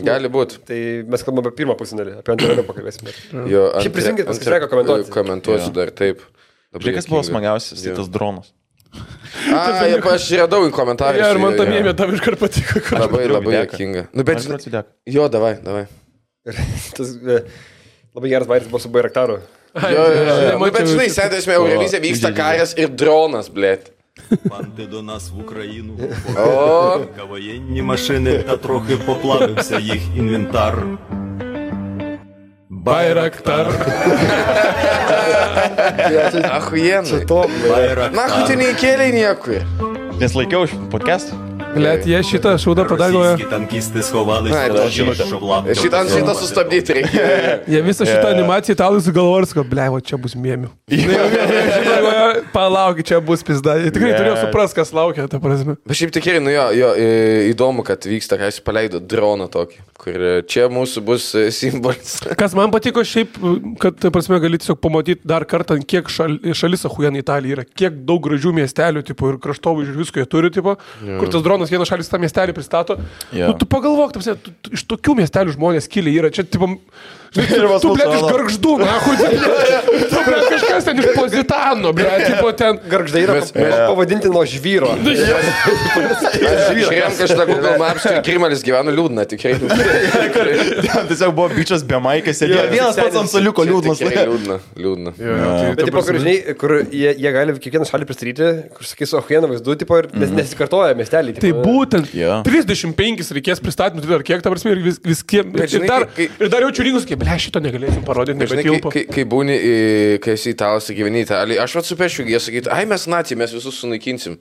Speaker 3: Gali būti.
Speaker 2: Tai mes kalbame apie pirmą pusfinalį, apie antrą pakalbėsime.
Speaker 3: Šiaip
Speaker 2: prisijungit, pasisveiką komentuoti.
Speaker 3: Komentuosiu dar, taip.
Speaker 1: Žiūrėk, kas buvo smagiausias, tai tas dronas.
Speaker 3: Aš radau į komentarus.
Speaker 4: Ir man tam jėmė tam iškart patiko.
Speaker 3: Labai juokinga. Nu, bet... Jo, davai.
Speaker 2: Tas labai geras vairis buvo su Bairaktaru.
Speaker 3: Bet žinai, sėdėsime Eurovizija, vyksta karas ir dronas, blėt.
Speaker 6: Банди до нас в Україну воєнні машини та трохи поплавився їх інвентар.
Speaker 4: Байрактар.
Speaker 3: Ахуєнно.
Speaker 6: Байрактар.
Speaker 3: Нахуй ти не įkėlė niekur.
Speaker 1: Nes laikiau podcast'ą.
Speaker 4: Blet, jie šitą šūdą padarė.
Speaker 6: Російські танкісти сховались
Speaker 3: Ai,
Speaker 6: в
Speaker 3: žinote.
Speaker 6: щоб лапти.
Speaker 3: Šitą sustabdyti reikia.
Speaker 4: Jie visą šitą animaciją italai sugalvojo, kad, ble, o čia bus mėmių. Palaukit, čia bus pizda. Jie tikrai turėjo supras, kas laukia, ta prasme.
Speaker 3: Bet šiaip tikrai, įdomu, kad vyksta, ką jis paleido droną tokį, kur čia mūsų bus simbolis.
Speaker 4: Kas man patiko šiaip, kad, ta prasme, gali tiesiog pamatyti dar kartą, kiek šalis ahujan Italija yra, kiek daug gražių miestelių, tipo, ir kraštovaizdžių visko jie turi, tipo, kur tas dronas vienas šalis tą miestelį pristato. Nu, tu pagalvok, ta prasme, iš tokių miestelių žmonės kilė yra. Čia, tipo, tu, blėt, iš Gargždų, na, tu, blėt, kažkas ten iš Pozitano, blėt, tipo, ten.
Speaker 2: Gargždai yra pavadinti nuo žvyro.
Speaker 3: Žiūrėjom kažką Google Maps, kai Krimalis gyveno liūdna, tikrai.
Speaker 1: Tiesiog buvo bičias be maikės, sėdėjo vienas pats ant soliuko liūdnas.
Speaker 3: Liūdna.
Speaker 2: Bet, tipo, kur jie gali kiekvieną šalį pristatyti, kur sakys, o hieną vaizdu, tipo, ir nesikartoja miestelį.
Speaker 4: Tai būtent 35 reikės pristatymų, ar kiek, ta prasme, ir viskiem. Ir dar jaučiu rinkus, kaip, ble, šito negalėsim parodyti, nebetilpo.
Speaker 3: Kai būni, kai esi italas, gyveni Italijai, aš atsupešiu, jie sakyti, ai mes nacijai, mes visus sunaikinsim.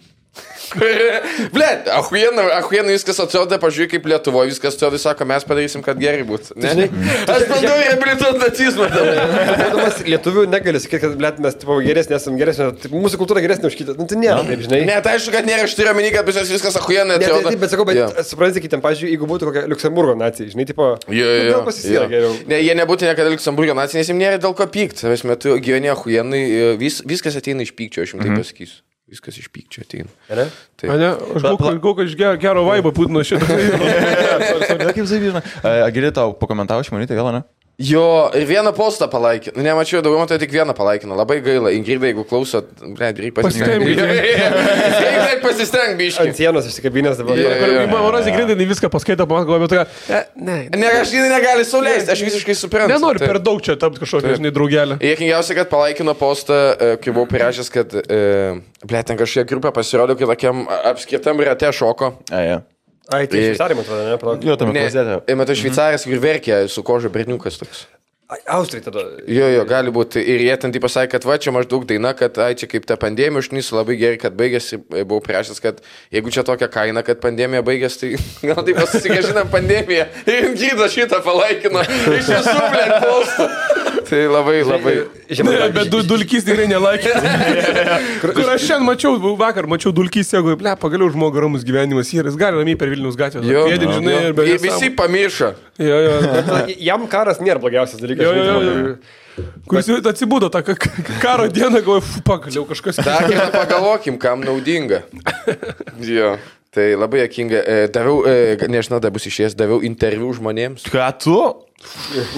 Speaker 3: Blet, ahuiena viskas atrodo, pažiūrėk, kaip Lietuvoje viskas atrodo, sako, mes padarysim, kad gerai būtų. Aš bandau reabilituoti nacizmą.
Speaker 2: Būdamas lietuvių negali sakyti, kad, blet, mes tipo, geresnė, esam geresnė, mūsų kultūra geresnė už kitą. Nu, tai nėra, taip, žinai.
Speaker 3: Ne, tai aišku, kad nėra, aš turiu omeny, kad viskas ahuiena atrodo.
Speaker 2: Taip, bet sakau, bet suprantate, kitiem, pažiūrėjau, jeigu būtų kokia Liuksemburgo nacija, žinai, tipo, gal pasisėra geriau.
Speaker 3: Ne, jie nebūtų niekada Liuksemburgo nacija, nes jiems nėra dėl ko pykti. Savęs metu gyveni ahuienai, viskas ateina iš pykčio, aš jums taip pasakysiu. Viskas iš pykčio ateina.
Speaker 2: Ne?
Speaker 4: Ne, aš galvoju, iš gero vaibą Putino šitą.
Speaker 1: Kaip savyžina. Agilė tau pakomentavo šimonytę vėl, ne?
Speaker 3: Jo, ir vieną postą palaikino. Nemačiau, daugiau tai tik vieną palaikino. Labai gaila. Ingrida, jeigu klausot, reikia pasistengti biškai.
Speaker 2: Ant sienos išsikabinės dabar.
Speaker 4: Manas Ingrida viską paskaito, man galvoju, tokia,
Speaker 3: ne, aš negali sauliaisti, aš visiškai suprantu.
Speaker 4: Nenoriu per daug čia tapti kažkokią, žinai, draugelę.
Speaker 3: Jėkingiausia, kad palaikino postą, kai buvau prirašęs, kad, ten kažkokia grupė pasirodė, kad tokiam apskritam rate šoko.
Speaker 2: Ai, tai Šveicarija, man atrodo, ne?
Speaker 1: Jo, tame klozete.
Speaker 3: Matai, Šveicarijas, kur verkia su koža berniukas toks.
Speaker 2: Austrai tada.
Speaker 3: Jo, gali būti. Ir jie ten taip pasakė, kad va, čia maždaug daina, kad ai, čia kaip ta pandemija užnysu labai gerai, kad baigėsi. Buvau priešęs, kad jeigu čia tokia kaina, kad pandemija baigėsi, tai gal taip pasisigažinam pandemiją. Ir Ingrida šitą palaikino. Iš visų, blėt, postą. Tai labai.
Speaker 4: Bet Dulkys tikrai nelaikė. Kur aš šiandien mačiau, vakar mačiau Dulkys, jeigu, ble, pagaliau žmogus ramus gyvenimas yra, jis gali ramiai per Vilniaus gatvę.
Speaker 3: Visi pamiršo.
Speaker 2: Jam karas nėra blogiausias dalykas.
Speaker 4: Kuris atsibudo tą karo dieną, galvoju, pagaliau kažkas.
Speaker 3: Dar vieną pagalvokim, kam naudinga. Jo. Tai labai jokinga. Daviau, nežinau, dar bus išėjęs, daviau interviu žmonėms.
Speaker 1: Ką tu?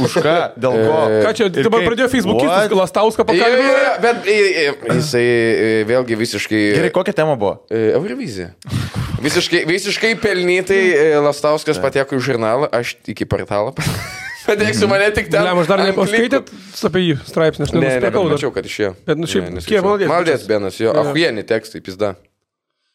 Speaker 1: Už ką? Dėl ko?
Speaker 4: Ką čia, dabar pradėjo Facebook'is Lastauską pakalbėti?
Speaker 3: Bet jisai vėlgi visiškai...
Speaker 1: Gerai, kokia tema buvo?
Speaker 3: Eurovizija. Visiškai pelnytai Lastauskas pateko į žurnalą, aš iki portalą. Padėksiu mane tik ten.
Speaker 4: Aš dar nepaskaitėt apie jį straipsnį, aš nenusipirkau.
Speaker 3: Mačiau, kad išėjo.
Speaker 4: Bet, nu šiaip, kiek maldės?
Speaker 3: Maldės benas, jo, ahuieni tekstai, pizda.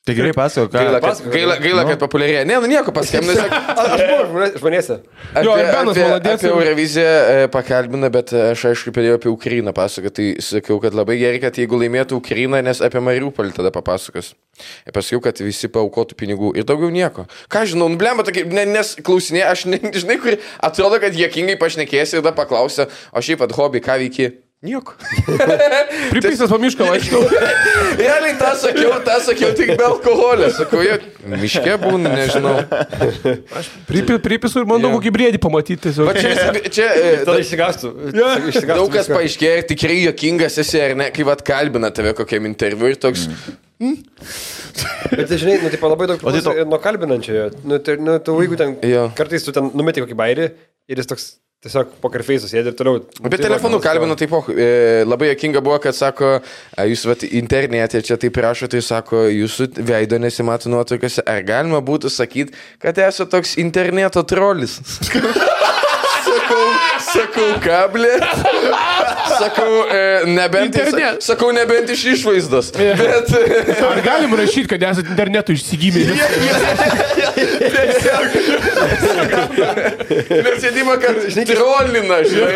Speaker 1: Tai gerai pasako,
Speaker 3: Gaila, kad populiarėja. Ne, nu nieko paskambinai.
Speaker 2: Aš buvau žmonėse.
Speaker 3: Apie Euroviziją pakalbina, bet aš aišku pradėjau apie Ukrainą pasakoti. Tai sakiau, kad labai gerai, kad jeigu laimėtų Ukrainą, nes apie Mariupolį tada papasakos. Ir pasakiau, kad visi paaukotų pinigų ir daugiau nieko. Ką žinau, nublemba tokia, nes klausinė, aš žinai, kur atrodo, kad jėkingai pašnekėsi ir tada paklausė, o šiaip at hobby, ką veiki? Nieko.
Speaker 4: Pripysęs po mišką vaikštau.
Speaker 3: Realiai tą sakiau tik be alkoholio. Sakau, miške būna, nežinau.
Speaker 4: Aš pripisu ir bandau kokį briedį pamatyti.
Speaker 2: Tada išsigastų.
Speaker 3: Daug kas paaiškėjo, tikrai jokingas esi, ar ne, kai vat kalbina tave kokiam interviu ir toks...
Speaker 2: Bet tai žinai, nu, taip labai daug nuo kalbinančiojo. Nu, tu jeigu ten, kartais tu ten numeti kokį bairį ir jis toks... Tiesiog pokerfeisų sėdė ir toliau.
Speaker 3: Bet telefonu kalbino taip, labai jokinga buvo, kad sako, jūs vat, internete čia taip rašote, tai sako, jūsų veido nesimato nuotraukose, ar galima būtų sakyti, kad esate toks interneto trolis? Sakau, kablė. nebent iš išvaizdos. Bet...
Speaker 4: Ar galim rašyti, kad esate internetu išsigymė?
Speaker 3: Nes sėdima, kad trolina, žinai.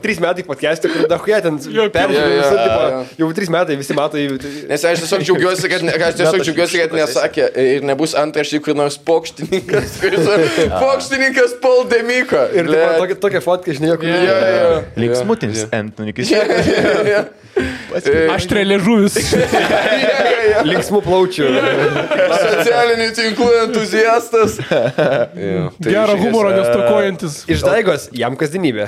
Speaker 2: 3 metai podcast'e, kur dahuja ten peržiūrėjau, jau 3 metai visi mato.
Speaker 3: Nes aš tiesiog džiaugiuosi, kad nesakė ir nebus antraštį, kur nors pokštininkas Poldemiko.
Speaker 2: Ir tokia fotka, žinai, kur...
Speaker 1: Linksmutinis Antonikis.
Speaker 4: Aš trelėžuvis.
Speaker 2: Linksmų plaučių.
Speaker 3: Socialinių tinklų entuziastas.
Speaker 4: Gero humoro nestokojantis.
Speaker 2: Iš Daigos jam kasdienybė.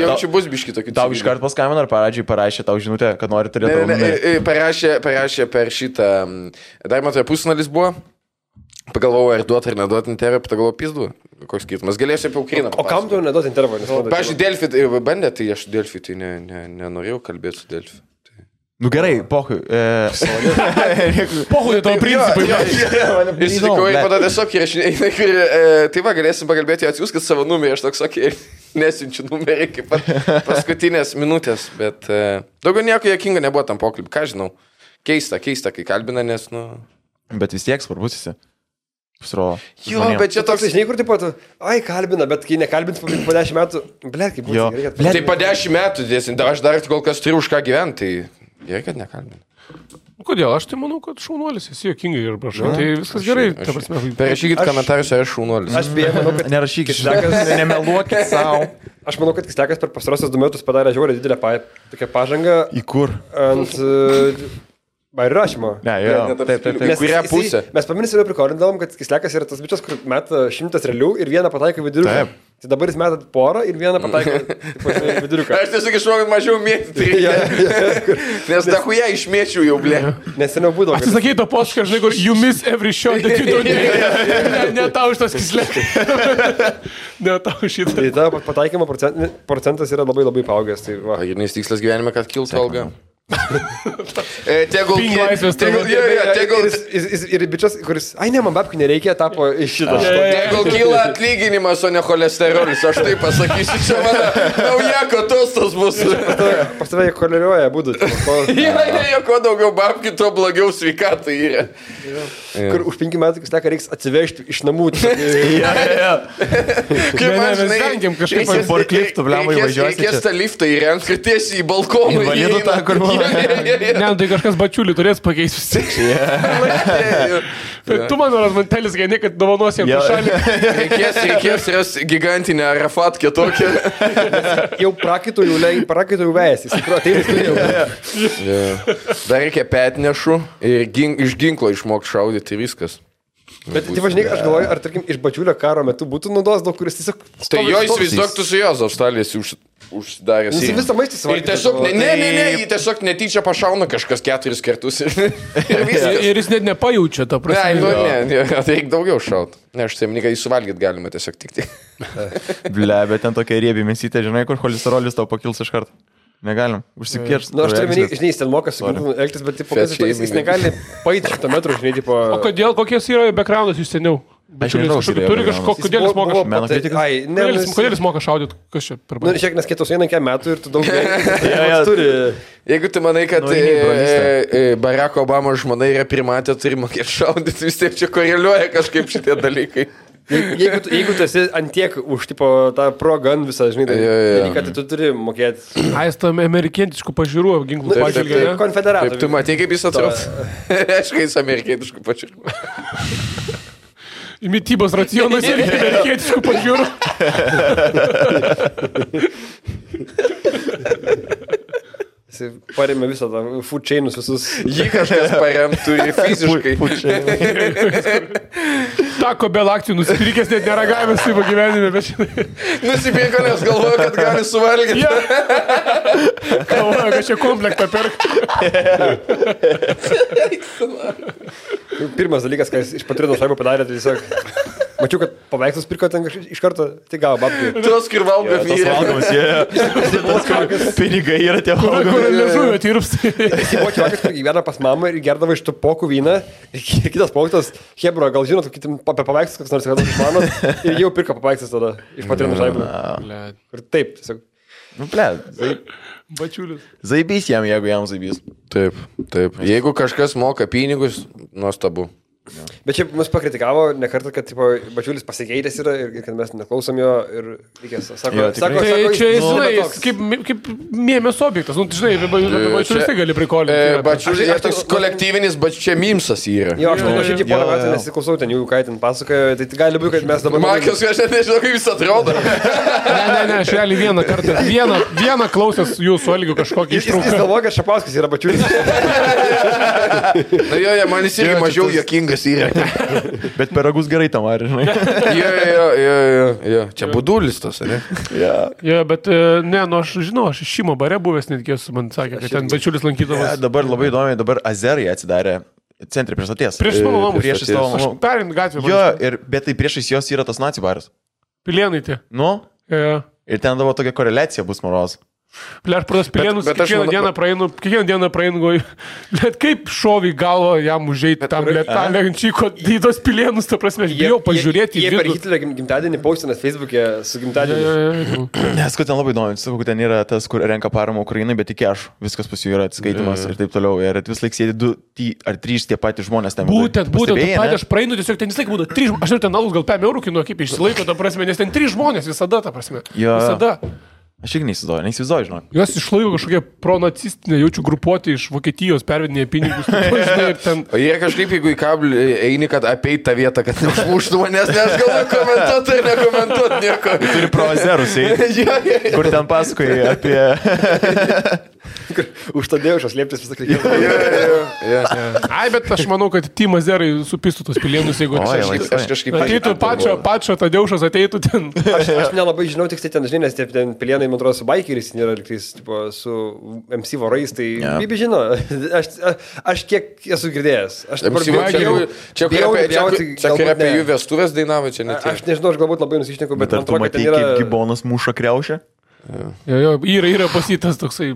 Speaker 3: Jaučiu bus biški tokių.
Speaker 1: Tau iškart paskambino ar parašė tau žinutę, kad nori turėti tavo numerį?
Speaker 3: Parašė per šitą. Dar matoje pusnalis buvo. Pagalvojau, ar duoti ar neduoti intervą, pagalvojau, pizdu. Koks skirtumas. Galėsiu apie Ukrainą.
Speaker 2: O kam tu neduoti intervą?
Speaker 3: Pavyzdžiui, Delfi bandė, tai aš Delfi tai nenorėjau kalbėti su Delfi.
Speaker 1: Nu gerai, pohui.
Speaker 4: Pohui tavo principai.
Speaker 3: Įsitikau, ir pada tiesiog įrašinėjai. Tai va, galėsim pakalbėti, atsiųskit savo numerį, aš toks sakė, nesiunčiu numerį kaip paskutinės minutės, bet daugiau nieko jokinga nebuvo tam pokalbį, ką žinau. Keista, kai kalbina, nes, nu...
Speaker 1: Bet vis tiek svarbus esi. Pasirodo.
Speaker 3: Jo, bet čia
Speaker 2: toks, žinai, kur taip pat, kalbina, bet kai nekalbins po 10 metų, blėt, kaip būtų.
Speaker 3: Tai po 10 metų, aš dar kol kas turiu už ką gyventi, tai gerai, kad nekalbina.
Speaker 4: Kodėl? Aš tai manau, kad šaunuolis, esi jokingai ir prašau. Tai viskas gerai.
Speaker 3: Parašykit komentarus, ar aš šaunuolis.
Speaker 2: Aš beje, manau, kad...
Speaker 1: Nerašykit, nemeluokit savo.
Speaker 2: Aš manau, kad Kislekas per pastarosius 2 metus padarė žiauriai didelę tokią pažangą.
Speaker 1: Į kur?
Speaker 2: Ant... Bairių rašymo.
Speaker 1: Ne, jo. Taip.
Speaker 3: Kurią pusę?
Speaker 2: Mes paminėsime prikordavom, kad Kislekas yra tas bičias, kur meta 100 realių ir vieną pataiko viduriuką. Tai dabar jis meta porą ir vieną pataiko viduriuką.
Speaker 3: Aš tiesiog išmokau mažiau mėtyti. Nes dahuja išmėčiau jau, blė.
Speaker 2: Nes seniau būdavo.
Speaker 4: Atsisakai to posūkio, žinai, kur you miss every shot that you don't need. Ne tau šitas Kislekas. Ne tau šitas.
Speaker 2: Tai ta pataikymo procentas yra labai labai paaugęs.
Speaker 3: Pagrindinis tikslas gyvenime, kad kiltų alga. Tegul
Speaker 2: ir bičias, kuris, ne, man babkių nereikia, tapo iš šito.
Speaker 3: Tegul kyla atlyginimas, o ne cholesterolis, aš tai pasakysiu, čia mano naujako tostas bus.
Speaker 2: Pas tave choleruoja būdų.
Speaker 3: Kuo daugiau babkių, tuo blogiau sveikatai yra.
Speaker 2: Kur už 5 metų Kisleką reiks atsivežti iš namų.
Speaker 3: Kaip man, žinai, reikės tą liftą įrengti, kad tiesiai į balkoną įeina.
Speaker 4: Ne, tai kažkas bačiulį turės pakeisti. Tu man mantelis gaini, kad dovanos jam šalį.
Speaker 3: Reikės ras gigantinę Arafatkę tokią.
Speaker 2: Jau prakaitų vėjęs.
Speaker 3: Dar reikia petnešų ir iš ginklo išmokti šaudyti ir viskas.
Speaker 2: Bet tai važinai, aš galvoju, ar tarkim iš bačiulio karo metu būtų naudos daug, kuris tiesiog...
Speaker 3: Tai jo įsivaizduok, tu su jos Australijos užsidaręs.
Speaker 2: Jis visą maistą
Speaker 3: suvalgė. Ir tiesiog, jį tiesiog netyčia pašauna kažkas 4 kartus.
Speaker 4: Ir jis net nepajaučia tą prasme.
Speaker 3: Ne, reikia daugiau šaut. Ne, aš saimniką jį suvalgyti galima tiesiog tik.
Speaker 1: Ble, bet ten tokia riebi mėsytė, žinai, kur cholesterolis tau pakils iš karto. Negalim, užsikirst.
Speaker 2: Na, aš turiu menį, žinai, jis ten moka su ginklu elgtis, bet jis negali paėti 100 metrų, žinai, tipo...
Speaker 4: O kodėl, kokies yra backgroundas jūs seniau?
Speaker 1: Aš nežinau,
Speaker 4: turi kažkokį, kodėl jis moka
Speaker 1: šaudyti?
Speaker 4: Kodėl jis moka šaudyti? Kas čia per baigį?
Speaker 2: Na, šiek nes kitos eina metų ir tu daug turi.
Speaker 3: Jeigu tu manai, kad Barack Obama žmona yra primatė, turi mokėti šaudyti, vis tiek čia koreliuoja kažkaip šitie dalykai.
Speaker 2: Jeigu tu esi antiek už tipo tą pro-gun visą, žinai, dalyką, tai tu turi mokėti.
Speaker 4: Jis tam amerikietiškų pažiūrų ginklų pažiūrė.
Speaker 2: Konfederatų.
Speaker 3: Taip, tu matai, kaip jis atrodo. Aišku, jis amerikietiškų pažiūrų.
Speaker 4: Mitybos racionas ir amerikietiškų pažiūrų.
Speaker 2: Jis parėmė visą tą food chainus visus.
Speaker 3: Jį kažkas paremtų ir fiziškai.
Speaker 4: Tako Bell akcijų nusipirkęs, net neragavęs savo gyvenime, bet žinai.
Speaker 3: Nusipirko, nes galvoju, kad gali suvalgyti.
Speaker 4: Galvoju, kad čia komplektą perk.
Speaker 2: Pirmas dalykas, ką jis iš Patrino šaibų padarė, tai tiesiog... Mačiau, kad paveikslus pirko ten iš karto, tai gavo babkių.
Speaker 3: Tos, kur valgo vyrai.
Speaker 1: Pinigai yra tie valgomi.
Speaker 4: Kur liežuvio tirps.
Speaker 2: Jis buvo čiakas, kur gyvena pas mamą ir gerdavo iš tų pokų vyną. Ir kitas poktas, Hebro, gal žinot, apie paveikslus, kas nors iš mano. Ir jau pirko paveikslus tada iš Patrino šaibų. Ir taip, tiesiog.
Speaker 1: Nu, ble,
Speaker 4: Bačiulis.
Speaker 1: zaibys jam, jeigu jam zaibys.
Speaker 3: Taip. Jeigu kažkas moka pinigus, nuostabu.
Speaker 2: Bet čia mus pakritikavo ne kartą, kad tipo, Bačiulis pasikeitęs yra ir kad mes neklausom jo ir reikės. Sako,
Speaker 1: Jo, tikrai.
Speaker 4: Tai čia,
Speaker 2: jis
Speaker 4: žinai,
Speaker 2: toks.
Speaker 4: kaip mėmės objektas. Nu, žinai, Bačiulis tai gali prikolinti.
Speaker 3: Bačiulis, aš toks kolektyvinis, bet čia mimsas yra.
Speaker 2: Jo, aš nuoširdžiai porą
Speaker 1: Jo,
Speaker 2: metų
Speaker 1: jo.
Speaker 2: nesiklausau ten jų, ką ten pasakoja, tai gali būti, kad mes dabar...
Speaker 3: Markius, aš net nežinau, kaip jis atrodo.
Speaker 4: Ne, aš realiai vieną kartą, vieną klausęs jūsų Algiu kažkokį
Speaker 2: Jis
Speaker 4: ištrauką.
Speaker 2: galvoja, kad Šapauskas yra Bačiulis.
Speaker 3: Na jo, man jis irgi mažiau juokingas yra.
Speaker 1: Bet peragus gerai tam, ar žinai?
Speaker 3: Jo. Čia budulis tas, ne?
Speaker 4: Jo, bet ne, nu aš žinau, aš Šimo bare buvęs netgi esu, man sakė, kad ten Bačiulis lankydavas.
Speaker 1: Dabar labai įdomi, dabar Azerai atsidarė centre prieš stoties.
Speaker 4: Prieš mano namus.
Speaker 1: Priešais tavo
Speaker 4: Aš
Speaker 1: namų.
Speaker 4: perint gatvę.
Speaker 1: Jo, bet tai priešais jos yra tas nacijų baras.
Speaker 4: Pilienai tie.
Speaker 1: Nu,
Speaker 4: Jo.
Speaker 1: ir ten dabar tokia koreliacija bus moros.
Speaker 4: Ble, aš pradas Pilienus,
Speaker 3: Bet aš
Speaker 4: kiekvieną
Speaker 3: manau-
Speaker 4: dieną praeinu, goju. Bet kaip šovį galvo jam užeiti tam lietalę ančyko į tos Pilienus, ta prasme, aš bijau pažiūrėti
Speaker 2: Jie
Speaker 4: į
Speaker 2: per Hitlerio gimtadienį paustinat Facebook'e su gimtadieniu.
Speaker 1: Nes, kad ten labai įdomu, sakau, kad ten yra tas, kur renka paramą Ukrainai, bet tik aš. Viskas pas jų yra atskaitimas ir taip toliau. Ir vis laik sėdi 2 ar 3 tie patys žmonės ten.
Speaker 4: Būtent,
Speaker 1: Pastebėjai, ne?
Speaker 4: aš praeinu tiesiog ten vis laik būtų 3, aš ir ten alus gal 5 eurų kinu, kaip išsilaiko, ta prasme, nes ten 3 žmonės visada, ta prasme.
Speaker 1: Jo.
Speaker 4: Visada.
Speaker 1: Aš irgi neįsivaizduoju, žinok.
Speaker 4: Juos išlaiko kažkokie pronacistinė, jaučiu grupuotė iš Vokietijos pervedinėje pinigus. Žinai, ir ten...
Speaker 3: O jie kažkaip, jeigu į kablį eini, kad apeit tą vietą, kad neužmuštų manęs, nes galvoju komentuoti ir nekomentuoti nieko.
Speaker 1: Turi pro Azerus, kur ten pasakoji apie...
Speaker 2: Už tą dėjušą slėptis visą krikį.
Speaker 4: Ai, bet aš manau, kad Timas Zerai supistų tos Pilienus, jeigu
Speaker 3: Aš kažkaip...
Speaker 4: ateitų pačio Tadeušas, ateitų ten.
Speaker 2: Aš nelabai žinau, tik tai ten, žinai, nes tie ten Pilienai, man atrodo, su bikeris, nėra liktais, tipo, su MC vorais, tai Bibi žino. Aš kiek esu girdėjęs. Aš dabar
Speaker 3: Čia kur apie jų vestuvės dainavo, čia net.
Speaker 2: Aš nežinau, aš galbūt labai nusišneku, bet
Speaker 1: Bet ar
Speaker 2: man
Speaker 1: tu
Speaker 2: atrodo, kad
Speaker 1: matei,
Speaker 2: ten
Speaker 1: kaip
Speaker 2: yra...
Speaker 1: gibonas muša kriaušę?
Speaker 4: Jo, yra pasitas toksai.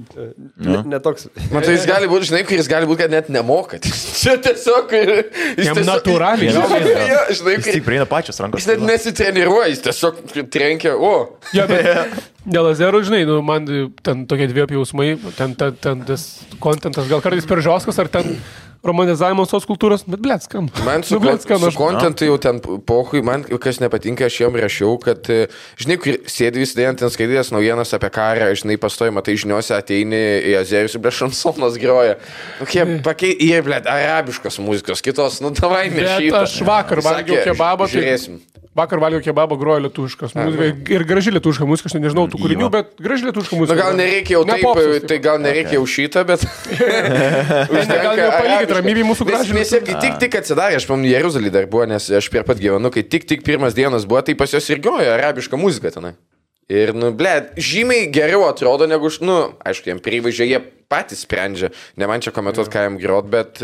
Speaker 2: Netoks.
Speaker 3: Man tai jis gali būti, žinai, kuris gali būti, kad net nemoka. Čia tiesiog...
Speaker 4: Jam natūraliai.
Speaker 3: Žinai,
Speaker 1: Jis tik prieina pačios rankos.
Speaker 3: jis net nesitreniruoja, jis tiesiog trenkia,
Speaker 4: Ja, bet dėl Azerų, žinai, nu, man ten tokie 2 jausmai, ten tas kontentas, gal kartais per žioskas, ar ten romanizavimas tos kultūros, bet blėt, skam.
Speaker 3: Man su kontentu jau ten pohui, man kas nepatinka, aš jam rašiau, kad, žinai, kur sėdi vis dėjant ten skaitydės naujienas apie karą, žinai, pastojama, tai žiniuose ateini į Azerius ir šansonas groja. Jie, blėt, arabiškos muzikos, kitos, nu, davai nešytą.
Speaker 4: Bet aš vakar valgiau kebabą,
Speaker 3: žiūrėsim.
Speaker 4: Vakar valgiau kebabą, grojo lietuviškas muzika ir graži lietuviška muzika, aš nežinau tų kūrinių, bet graži lietuviška muzika.
Speaker 3: Na gal nereikia jau taip, tai gal nereikia jau šitą, bet...
Speaker 4: Gal jau palikit ramybį mūsų gražiai.
Speaker 3: Nes kai tik atsidarė, aš pamenu, Jeruzalį dar buvo, nes aš prie pat gyvenu, kai tik pirmas dienas buvo, tai pas jos ir grojo arabiška muzika tenai. Ir, nu, blėt, žymiai geriau atrodo negu, nu, aišku, jiem privažiai, jie patys sprendžia, ne man čia komentuoti, ką jam grot, bet,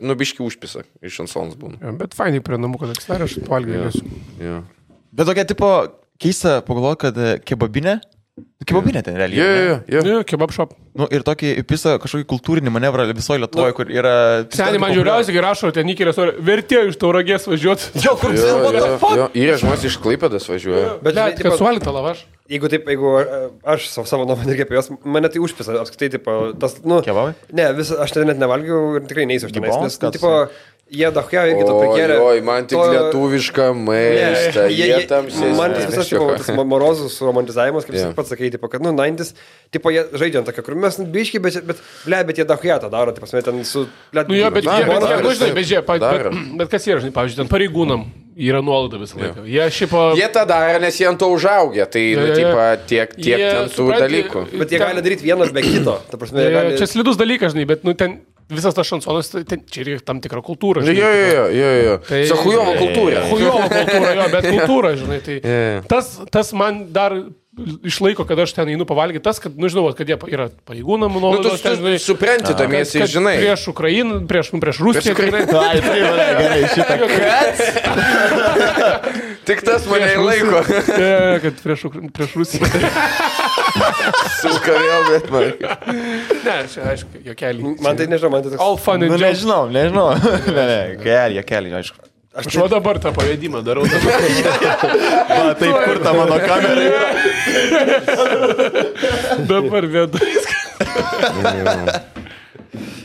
Speaker 3: nu, biški užpisa, iš šansons būna.
Speaker 4: Bet fainai prie namų, kad atsidarė, aš valgiau.
Speaker 1: Bet tokia tipo keista pagalvoti, kad kebabinė ten realiai.
Speaker 3: Jo.
Speaker 4: Kebab shop.
Speaker 1: Nu, ir tokį įpisa kažkokį kultūrinį manevrą visoje Lietuvoje, kur yra...
Speaker 4: Seniai man žiūriausiai, kai rašo, ten įkėlės, vertėjo iš Tauragės važiuoti.
Speaker 1: Jo, kur
Speaker 3: Yra žmonės iš Klaipėdos važiuoja.
Speaker 2: Bet,
Speaker 4: Bet kad suolita lavaš.
Speaker 2: Jeigu aš savo nuomonę irgi apie juos, mane tai užpisa, apskritai, tipo, tas, nu...
Speaker 1: Kebabai?
Speaker 2: Ne, aš ten net nevalgiau ir tikrai neįsiu aš tenais,
Speaker 1: Gibons,
Speaker 2: nes, nu, tipo, jie dachia irgi to prikėlė.
Speaker 3: Oi, man tik lietuvišką maistą, jie tam sėsi.
Speaker 2: Man tas visas, tipo, tas morozus romantizavimas, kaip pats sakai, tipo, kad, nu, 90s, tipo, jie žaidžia ant tokio, kur mes biški, bet jie dachia tą daro, tai pasme, ten su...
Speaker 4: Nu, jo, bet kas yra, žinai, pavyzdžiui, ten pareigūnam yra nuolaida visą laiką.
Speaker 3: Jie tą daro, nes jie ant to užaugę, tai, tiek ten tų dalykų.
Speaker 2: Bet jie gali daryti vieną be kito.
Speaker 4: Čia slidus dalykas, žinai, bet, nu, ten visas tas šansonas, čia yra tam tikra kultūra.
Speaker 3: Jo. Tai hujovo kultūra.
Speaker 4: Hujovo kultūra, jo, bet kultūra, žinai, tai tas man dar išlaiko, kad aš ten einu pavalgyti, tas, kad, nu, žinau, kad jie yra pareigūnam, nuolaidos, ten, žinai,
Speaker 3: supranti, tamiesi, žinai.
Speaker 4: Prieš Ukrainą, prieš Rusiją.
Speaker 1: Ai, tai gerai, šitą.
Speaker 3: Tik tas mane laiko.
Speaker 4: Kad prieš Rusiją.
Speaker 3: Suka vėl, bet man.
Speaker 4: Ne, čia, aišku, jokelį.
Speaker 2: Man tai nežinau, man tai toks...
Speaker 4: All fun and jokes.
Speaker 1: Nežinau. Ne, jokelį, aišku.
Speaker 4: Aš va dabar tą pavedimą darau.
Speaker 1: Va, taip, kur ta mano kamera yra.
Speaker 4: Dabar vėdu.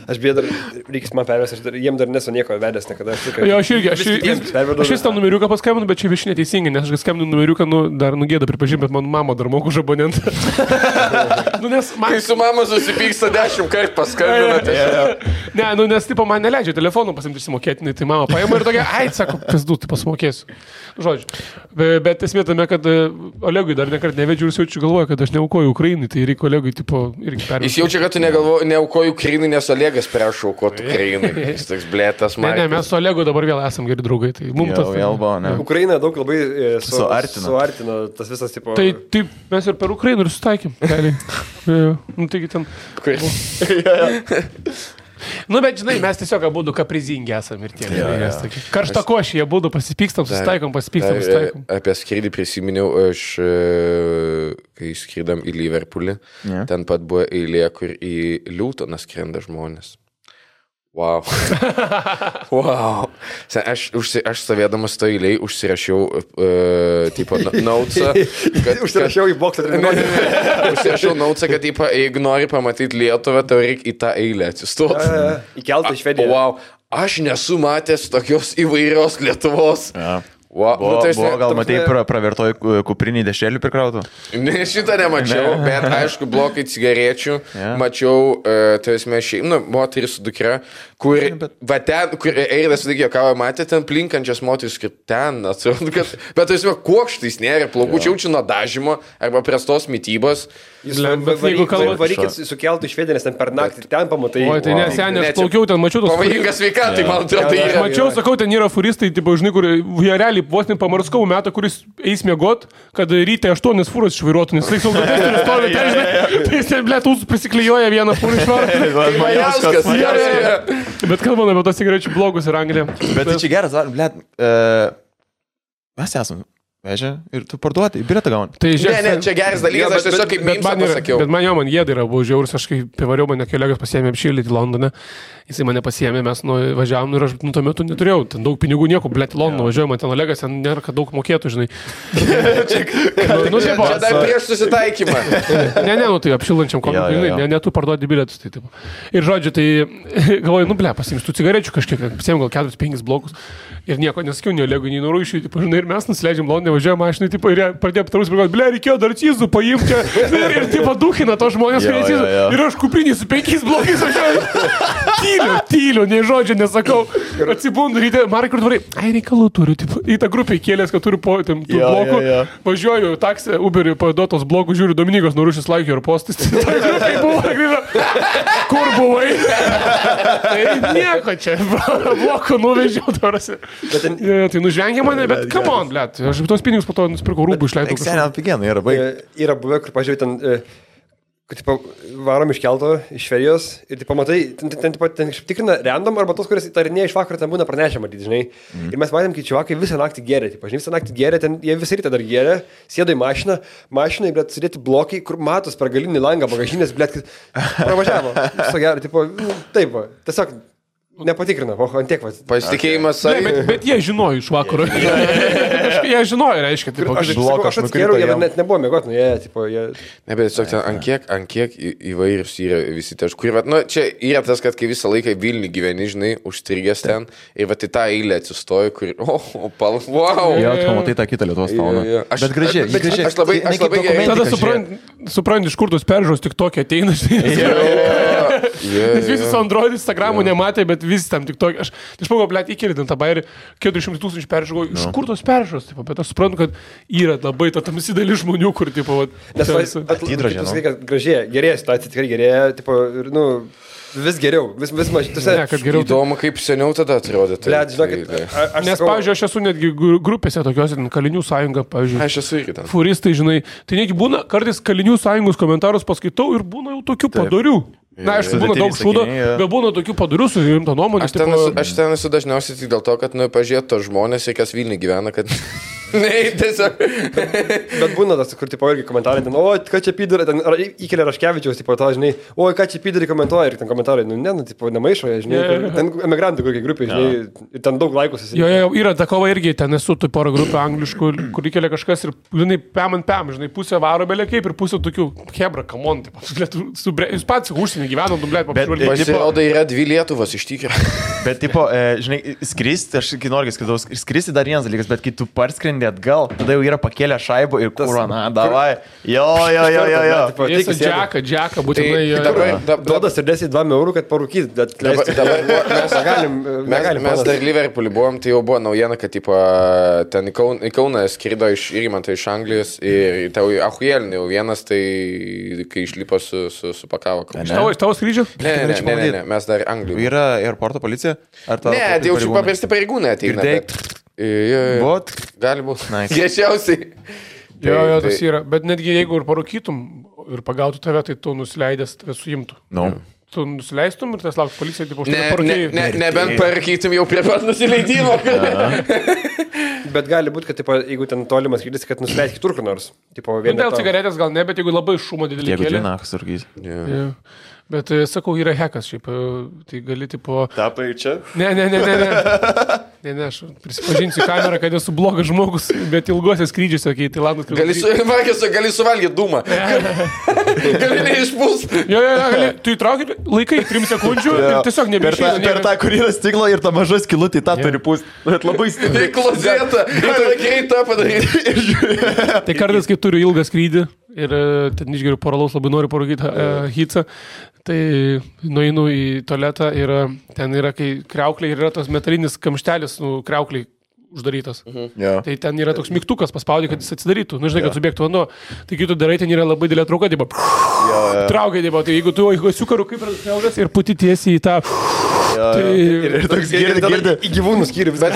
Speaker 2: Aš bėdu, reikės man pervesti, jiem dar nesu nieko vedęs niekada.
Speaker 4: Jo, aš vis tą numeriuką paskambinu, bet čia vieš neteisingai, nes aš skambinu numeriuką, dar nugėda pripažinti, bet man mama dar moku už abonentą.
Speaker 3: Kai su mama susipyksta 10 kartų paskambinate.
Speaker 4: Ne, nes tipo man neleidžia telefonų pasimti išsimokėtinai, tai mama paima ir tokia, ai, sako, pizdu, tai pasimokėsiu. Žodžiu. Bet esmė tame, kad Olegui dar nekart nevedžiu ir jis jaučiu galvoja, kad aš neaukoju Ukrainai, tai reikia Olegui tipo irgi pervesti.
Speaker 3: Jis jaučia, kad tu neaukoju Ukrainai, nes Olegas prašau aukoti Ukrainai. Jis toks blėtas man.
Speaker 4: Ne, mes su Olegu dabar vėl esam geri draugai. Tai mums tas...
Speaker 2: Ukraina daug labai suartino tas visas tipo...
Speaker 4: Tai taip, mes ir per Ukrainą ir sutaikėm. Nu, taigi ten... Nu, bet žinai, mes tiesiog abudu kaprizingi esam ir tiek. Karšta košė, jie abudu pasipykstam, susitaikom.
Speaker 3: Apie skrydį prisiminiau, aš kai skridam į Liverpoolį, ten pat buvo eilė, kur į Liūtoną skrenda žmonės. Wow. Wow. Aš stovėdamas to eiliai užsirašiau tipo notesą.
Speaker 2: Užsirašiau į boksą.
Speaker 3: Užsirašiau notesą, kad tipo, jeigu nori pamatyti Lietuvą, tau reikia į tą eilę atsistoti.
Speaker 2: Įkeltą į Švediją.
Speaker 3: Wow. Aš nesu matęs tokios įvairios Lietuvos. Wow.
Speaker 1: Buvo gal matei pravertoj kupriniai dešrelių prikrautų?
Speaker 3: Ne, šitą nemačiau, bet aišku, blokai cigarečių. Mačiau, tai esmė moteris su dukra, kur Eidas sudėkėjo kavą, matė ten plinkančias moteris, kaip ten, atrodo, kad... Bet tai esmė, kuokštais nėra, plaukų čiaučių nuo dažymo arba prestos mytybos.
Speaker 2: Varykit sukeltų į Švediją, nes ten per naktį ten pamatai.
Speaker 4: O, tai nesenė, aš plaukiau ten, mačiau tos...
Speaker 3: Pavojingas sveikatai, man atrodo.
Speaker 4: Aš mačiau, sakau, ten yra furistai, tipo, žinai, kur jie realiai vos nepamarskau metą, kuris eis miegot, kad ryte 8 fūros išvairuotų, nes tai saugotis turi stovėti, ten, žinai, tai jis ten, blėt, prisiklijuoja vieną fūrą išvarą. Bet kalbame apie tos cigarečių blogus ir Angliją.
Speaker 1: Bet tai čia geras, blėt, mes esame. Vežia ir tu parduoti, bilietą gauni.
Speaker 3: Tai ne, čia geras dalykas, aš tiesiog kaip mimsą pasakiau.
Speaker 4: Bet man jėda yra, buvo žiaurus, aš kai pivariau, mane kolegas pasiėmė apšildyti Londone, jisai mane pasiėmė, mes važiavom ir aš tuo metu neturėjau, ten daug pinigų nieko, blėt, į Londoną važiuoju, man ten Olegas, ten nėra, kad daug mokėtų, žinai.
Speaker 3: Čia dar prieš susitaikymą.
Speaker 4: Ne, tai apšildančiam komikui, ne, tu parduoti bilietus. Tai, ir žodžiu, tai galvoju, blė, pasiimsiu cigarečių kažkiek, pasiėmė gal 4-5 blokus ir nieko nesakiau, nei Olegui, nei Norūšiui, žinai, ir mes nusileidžiam Londone, važiuojam mašinai, tipo, ir pradėjo aptarus, blė, reikėjo dar cizų paimti ir tipo duhina to žmonės, kurie cizų. Ir aš kuprinį su 5 blokais važiuoju. Tyliu, nei žodžio nesakau. Atsibundu ryte, Markai, kur tvarai, reikalų turiu, tipo, į tą grupę įkėlės, kad turiu po tų blokų. Važiuoju taksį, Uberiui paduotos blokų, žiūriu, Dominikos Norūšis laikė ir postis. Kur buvai? Tai nieko čia, blokų nuvežiau, tarasi. Tai nužvengė mane, bet come on, blėt, aš tos pinigus po to nusipirkau rūbų išleidau.
Speaker 1: Ekseniam pigenai yra baig.
Speaker 2: Yra buvę, kur pažiūrėjau ten, kad tipo, varom iš kelto, iš Švedijos ir tipo, matai, ten tikrina random arba tos, kuris įtarinėja iš vakaro, ten būna pranešę, matyti, žinai. Ir mes matėm, kai čiavakai visą naktį gėrė, tipo, žinai, visą naktį gėrė, ten jie visą rytą dar gėrė, sėdo į mašiną, bet sėdėti blokai, kur matos per galinį langą, bagažinės, blėt, pravažiavo. Viso gero, tipo, taip, tiesiog nepatikrina, ant tiek,
Speaker 3: pasitikėjimas.
Speaker 4: Bet jie žinojo iš vakaro. Jie žinojo, reiškia, tipo,
Speaker 2: aš atskėriau, jie net nebuvo mėgot, jie...
Speaker 3: Ne, bet tiesiog ten, ant kiek įvairius yra visi taškai. Čia yra tas, kad kai visą laiką Vilnių gyveni, žinai, užstrigęs ten, ir va, į tą eilę atsistoju, kur, wow.
Speaker 1: Jo, tu matai tą kitą Lietuvos fauną. Bet gražiai.
Speaker 3: Aš labai gerai.
Speaker 4: Tada supranti, iš kur tos peržiūros tik tokie ateina, nes visi su Android, Instagramu nematė, bet visi tam tik tokie. Aš pagalvoju, blėt, įkėlė tą bairį, 400 000 peržiūrų, iš kur tos peržiūros, bet aš suprantu, kad yra labai ta tamsi dalis žmonių, kur, tipo,
Speaker 2: gražėja, gerėja situacija, tikrai gerėja, tipo, ir, vis geriau, vis mažiau.
Speaker 3: Įdomu, kaip seniau tada atrodė.
Speaker 4: Nes, pavyzdžiui, aš esu netgi grupėse tokiuose, Kalinių sąjunga, pavyzdžiui.
Speaker 3: Aš esu irgi ten.
Speaker 4: Furistai, žinai, tai negi būna, kartais Kalinių sąjungos komentarus paskaitau ir būna jau tokių padorių. Na, aišku, būna daug šūdo, bet būna tokių padarių su rimta nuomonė.
Speaker 3: Aš ten esu dažniausiai tik dėl to, kad, pažiūrėt, to žmonės, kas Vilniuje gyvena, kad... Ne, tiesiog.
Speaker 2: Bet būna tas, kur tipo irgi komentarai, ten, o, ką čia pydari, ten įkelia Raškevičiaus, tipo, to, žinai, o, ką čia pydari komentuoja ir ten komentarai, tipo, nemaišo, žinai, ten emigrantų kokie grupė, žinai, ir ten daug laikų susidėjo.
Speaker 4: Jo, yra ta kova irgi, ten esu tu porą grupių angliškų, kur įkelia kažkas ir, žinai, pem, žinai, pusę varo belė kaip ir pusę tokių, hebra, kamon, jūs pats užsienį gyvenam, dublėt,
Speaker 1: pažiūrėti.
Speaker 3: Pasirodo, yra 2 Lietuvos iš tikrųjų.
Speaker 1: Bet, tipo, žinai, skristi, aš kai noriu skristi dar vienas dalykas, bet kai tu parskrendi atgal, tada jau yra pakėlę šaibų ir kurva, davai. Jo.
Speaker 4: Jis džeką, būtinai.
Speaker 2: Duodas ir 10 eurų, kad parūkyti, bet
Speaker 3: mes dar Liverpoolį buvom, tai jau buvo naujiena, kad, tipo, ten į Kauną skrido iš Irmanto iš Anglijos ir tau ahuėlinį jau vienas, tai kai išlipo supakavo.
Speaker 4: Iš tavo skrydžio?
Speaker 3: Ne, mes dar Anglijų.
Speaker 1: Yra aeroporto policija?
Speaker 3: Ne, tai jau paprasti pareigūnai ateina.
Speaker 1: Bot?
Speaker 3: Gali būti. Greičiausiai.
Speaker 4: Jo, tas yra. Bet netgi jeigu ir parūkytum ir pagautų tave, tai tu nusileidęs tave suimtų. Tu nusileistum ir tas lauks policija, tipo,
Speaker 3: nebent parūkytum jau prie pat nusileidimo.
Speaker 2: Bet gali būti, kad, tipo, jeigu ten tolimas skrydis, kad nusileis kitur kur nors.
Speaker 4: Dėl cigaretės gal ne, bet jeigu labai šumo didelį kėlė.
Speaker 1: Jeigu džinachas sargys.
Speaker 4: Bet, sakau, yra hekas šiaip, tai gali, tipo...
Speaker 1: Tapai čia?
Speaker 4: Ne, aš prisipažinsiu kamerą, kad esu blogas žmogus, bet ilgosios skrydžiuose, kai Tailandas...
Speaker 3: Gali suvalgyti dūmą. Gali neišpūs.
Speaker 4: Jo, tu įtrauki, laikai 3 sekundžių ir tiesiog nebeišeina.
Speaker 1: Per tą, kur yra stiklo ir ta maža skilutė, tą turi pūsti. Bet labai stipriai.
Speaker 3: Klozėta, greitą padaryti.
Speaker 4: Tai kartais, kai turiu ilgą skrydį ir ten išgeriu poralaus, labai noriu parūkyti hitsą, tai nueinu į tualetą ir ten yra, kai kriauklė ir yra tas metalinis kamštelis, kriaukliai uždarytas. Tai ten yra toks mygtukas, paspaudė, kad jis atsidarytų. Nu, žinai, kad subėgtų vanduo. Tai kai tu darai, ten yra labai didelė trauka, traukia, tai jeigu tu įsiukaru kaip radasiaugas ir puti tiesiai į tą...
Speaker 1: Ir toks girdi.
Speaker 2: Į gyvūnų skyrių vis dar.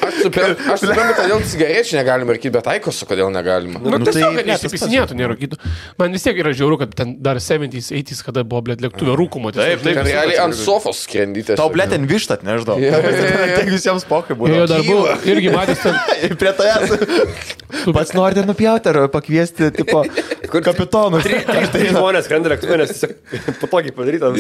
Speaker 3: Aš suprantu, kodėl cigarečių negalima rūkyti, bet aikosų kodėl negalima.
Speaker 4: Nu, tiesiog, kad nesipisinėtų nerūkytų. Man vis tiek yra žiauru, kad ten dar 70s, 80s, kada buvo, blėt, lėktuvė rūkumo.
Speaker 3: Taip, realiai ant sofos skrendytės.
Speaker 1: Tau, blėt, ten vištat, nežinau. Tiek visiems pokai buvo.
Speaker 4: Jo, dar buvo, irgi matęs ten.
Speaker 1: Prie tavęs. Pats norite nupjauti ar pakviesti, tipo, kapitonus.
Speaker 2: Tai žmonės skrenda lėktuvė, nes tiesiog patogiai padaryta.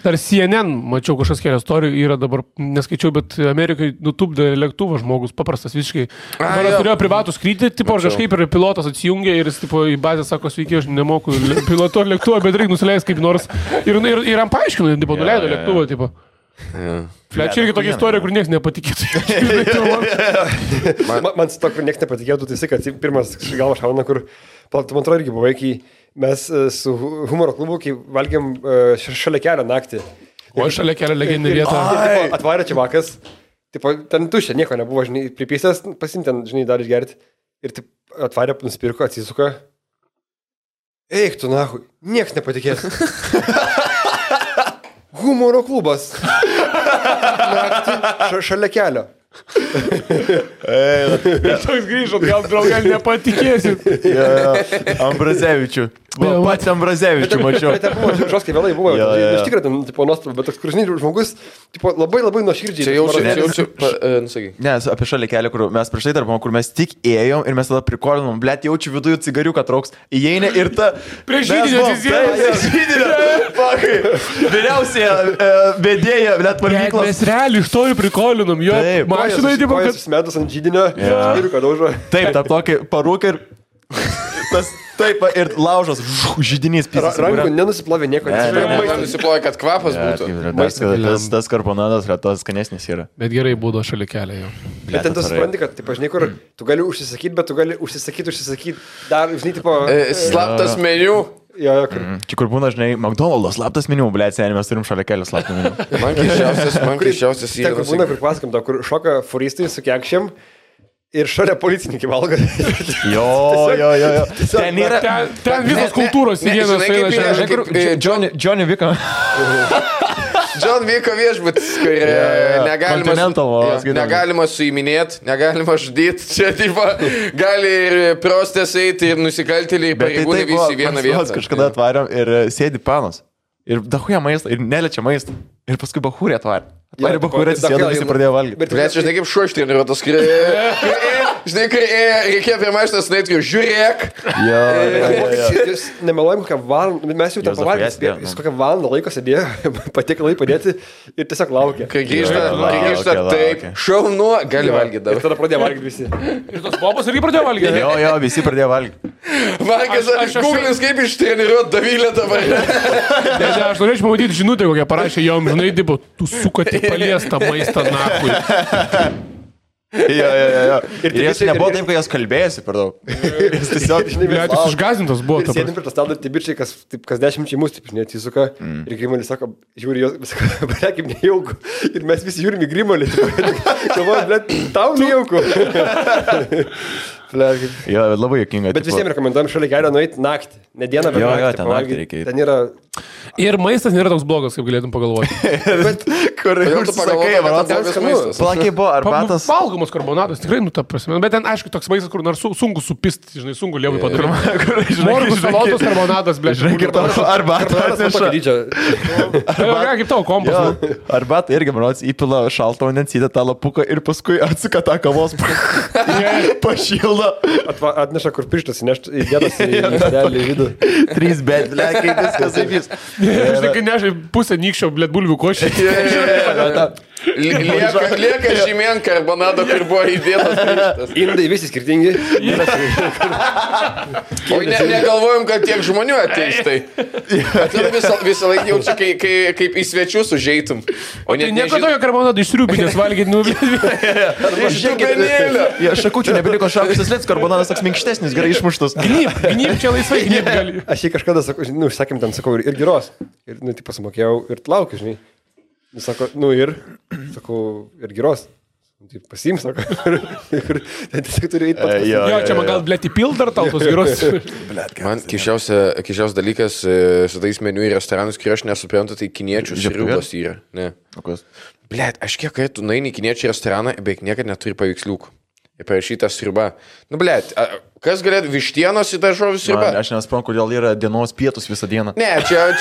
Speaker 4: Dar CNN, mačiau kažkas kelias istorijų, yra dabar, neskaičiau, bet Amerikai nutupdė lėktuvą žmogus, paprastas visiškai. Dabar turėjo privatų skrydį, tipo, ar kažkaip ir pilotas atsijungė ir jis, tipo, į bazę sako, sveiki, aš nemoku pilotuoti lėktuvą, bet reikia nusileisti kaip nors. Ir jam paaiškino, tipo, nuleido lėktuvą, tipo. Čia irgi tokia istorija, kur niekas nepatikėtų.
Speaker 2: Man su to, kur niekas nepatikėtų, tai kad pirmas galva šauna, kur, man atrodo, irgi buvo, kai mes su humoro klubu, kai valgėm šalia kelio naktį.
Speaker 4: O šalia kelio legendinė vieta.
Speaker 2: Atvarė čia vakas, ten tuščia, nieko nebuvo, žinai, pripysęs, pasimti ten, žinai, dar išgerti. Ir atvarė, nusipirko, atsisuka. Eik tu, nahui, niekas nepatikės. Humoro klubas. Naktį šalia kelio.
Speaker 4: Toks grįžot, gal draugai nepatikėsit.
Speaker 1: Ambrazevičių. Pats Ambrazevičių mačiau.
Speaker 2: Bet buvo žoskai vėlai buvo. Iš tikrųjų, ten, tipo, nuostabu, bet toks kursiniai žmogus, tipo, labai nuoširdžiai.
Speaker 3: Čia jaučiu, nusakyk.
Speaker 1: Ne, apie šalia kelią, kur mes prieš tai darbom, kur mes tik ėjom ir mes tada prikolinom, blėt, jaučiu viduje cigariuką trauks, įeina ir ta...
Speaker 4: Prieš žydinio atsisėdė.
Speaker 1: Vyriausiai vedėja, blėt, valgyklos.
Speaker 4: Mes realiai iš to ir prikolinom, jo. Mašinai, tipo, kad...
Speaker 2: Smedus ant žydinio, skiriuką daužo.
Speaker 1: Taip, tą tokį parūką ir... Taip, ir laužas, žydinys pisas.
Speaker 2: Rankų nenusiplovė nieko.
Speaker 3: Nenusiplovė, kad kvapas būtų.
Speaker 1: Tas karbonadas tas skanesnis yra.
Speaker 4: Bet gerai būdo šalia kelio jau.
Speaker 2: Bet ten tu supranti, kad, taip, žinai, kur tu gali užsisakyti, bet tu gali užsisakyti. Dar, žinai, tipo...
Speaker 3: Slaptas meniu.
Speaker 1: Čia kur būna, žinai, McDonald's slaptas meniu, blėt, seniai, mes turim šalia kelio slaptą meniu.
Speaker 3: Man keisčiausias
Speaker 2: yra. Ten, kur būna, kur pasakam, kur šoka furistai su kekšėm. Ir šalia policininkai valgo.
Speaker 1: Jo. Ten yra...
Speaker 4: Ten visos kultūros į vieną
Speaker 1: sainą. Johnny Vicko.
Speaker 3: John Vicko viešbutis, kur negalima suiminėti, negalima žudyti. Čia, tipo, gali ir prostės eiti, ir nusikaltėliai, pareigūnai visi į vieną vietą.
Speaker 1: Kažkada atvarėm ir sėdi panas. Ir dahuja maistą, ir neliečia maistą. Ir paskui bahūrė atvarė. Atvarė bahūrė, atsisėdo, visi pradėjo valgyti.
Speaker 3: Bet, žinai, kaip šuo ištreniruotas, kai Žinai, kai reikėjo prie mašinos nueiti, žiūrėk.
Speaker 2: Jūs nemeluojam, kokią valandą, mes jau ten pavalgėm, jis kokią valandą laiko sėdėjo, patiekalai padėti ir tiesiog laukė.
Speaker 3: Kai grįžta, taip, šaunu, gali valgyti dabar.
Speaker 2: Ir tada pradėjo valgyti visi.
Speaker 4: Ir tos bobos irgi pradėjo valgyti.
Speaker 1: Jo, visi pradėjo valgyti.
Speaker 3: Valgęs, Google'is kaip ištreniruot Davilę dabar.
Speaker 4: Aš norėčiau pamatyti žinutę, kokią parašė jom, žinai, dibo, tu sukati paliestą maistą nakui.
Speaker 1: Jo. Ir jis nebuvo taip, kai jas kalbėjosi per daug. Jis tiesiog,
Speaker 4: Jis išgazintas buvo.
Speaker 2: Sėdim prie to stalo ir tie bičiai, kas 10 mus, taip, neatsisuka. Ir Grimalis sako, žiūri, jos, kaip nejauku. Ir mes visi žiūrim į Grimalį. Galvoju, blėt, tau nejauku.
Speaker 1: jo, labai jokinga.
Speaker 2: Bet visiems rekomenduojam šalia kelio nueiti naktį. Ne dieną, bet naktį.
Speaker 1: Ten naktį reikia.
Speaker 2: Ten yra...
Speaker 4: Ir maistas nėra toks blogas, kaip galėtum pagalvoti.
Speaker 2: Bet
Speaker 1: Kur
Speaker 3: tu pagalvoji, kad ten maistas.
Speaker 1: Plakiai buvo arbatas.
Speaker 4: Valgomas karbonatas, tikrai, ta prasme. Bet ten, aišku, toks maistas, kur nors sunku supisti, žinai, sunku lievai padaryti. Morgus, salotos, karbonatas, blė.
Speaker 1: Arbatas.
Speaker 4: Kaip tavo kompas.
Speaker 1: Arbatą irgi, manos, įpila šaltą vandens, įdeda tą lapuką ir paskui atsuka tą kavos pašildą.
Speaker 2: Atneša, kur pirštas įdėtas į vidų.
Speaker 1: 3 bet, blė, kaip viskas įvys.
Speaker 4: Žinai, kai nežai pusę nykščio, blėt, bulvių košį.
Speaker 3: Lieka žymien karbonado, kur buvo įdėtas pirštas.
Speaker 2: Indai visi skirtingi.
Speaker 3: O negalvojom, kad tiek žmonių ateis tai. Visą laiką jaučiu, kaip į svečius užeitum. O
Speaker 4: Tai nieko tokio karbonato išsriubinės valgyti, nu,
Speaker 1: Šakučių nebeliko šakusis lėts, karbonadas toks minkštesnis, gerai išmuštas.
Speaker 4: Gnyb čia laisvai, gnyb gali.
Speaker 2: Aš jį kažkada, sakėm, ten sakau, ir giros. Ir, tai pasimokėjau ir laukiu, žinai. Jis sako, sakau, ir giros. Tai pasiims, sako. Ir tiesiog turi eiti pat.
Speaker 4: Jo, čia man gal, blėt, įpild dar tau tos giros.
Speaker 3: Man kišiausias dalykas su tais meniu į restoranus, kai aš nesuprantu, tai kiniečių sriubos yra. Ne. Blet, aš kiek kartų nueini į kiniečių restoraną, beveik niekad neturi paveiksliukų. Ir parašyta sriuba. Nu, blet, kas galėtų vištienos į daržovių sriubą?
Speaker 1: Aš nesuprantu, kodėl yra dienos pietus visą dieną.
Speaker 3: Ne, čia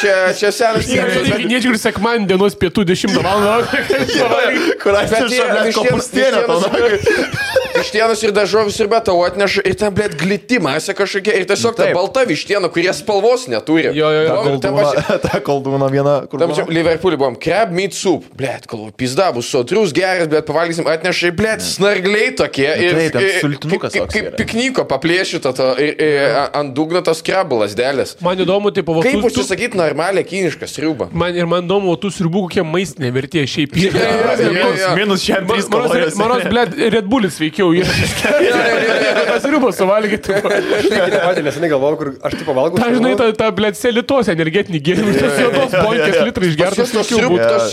Speaker 3: senas
Speaker 4: tyrimas. Kiniečių ir sekmadienį dienos pietų 10 valandą.
Speaker 1: Kur atneša kopūstienę tau.
Speaker 3: Vištienos ir daržovių sriuba tau atneša ir ten, blet, glitimasė kažkokia. Ir tiesiog ta balta vištiena, kurie spalvos neturi.
Speaker 4: Jo.
Speaker 1: Ta koldūna viena.
Speaker 3: Tam čia Liverpoolį buvom. Crab meat soup. Blet, galvoju, pizda, bus sotrus, geras, bet pavalgysim, atneša, blet, snargliai tokie. Kaip piknyko paplėšyto ant dugno tos krabų lasdelės.
Speaker 4: Man įdomu, tai pavasarį.
Speaker 3: Kaip užsisakyti normalią kinišką sriubą?
Speaker 4: Man įdomu, tų sriubų kokie maistinė vertė šiaip.
Speaker 1: Minus šiam 3 kalorijos.
Speaker 4: Manos, blėt, Red Bullis veikiau. Tas sriubas suvalgyti.
Speaker 2: Nesenai galvojau, kur aš taip pavalgau.
Speaker 4: Ta, žinai, ta blėt, selitos energetinį gėrimą. Tas juodos bonkės litrai išgertas.
Speaker 3: Tos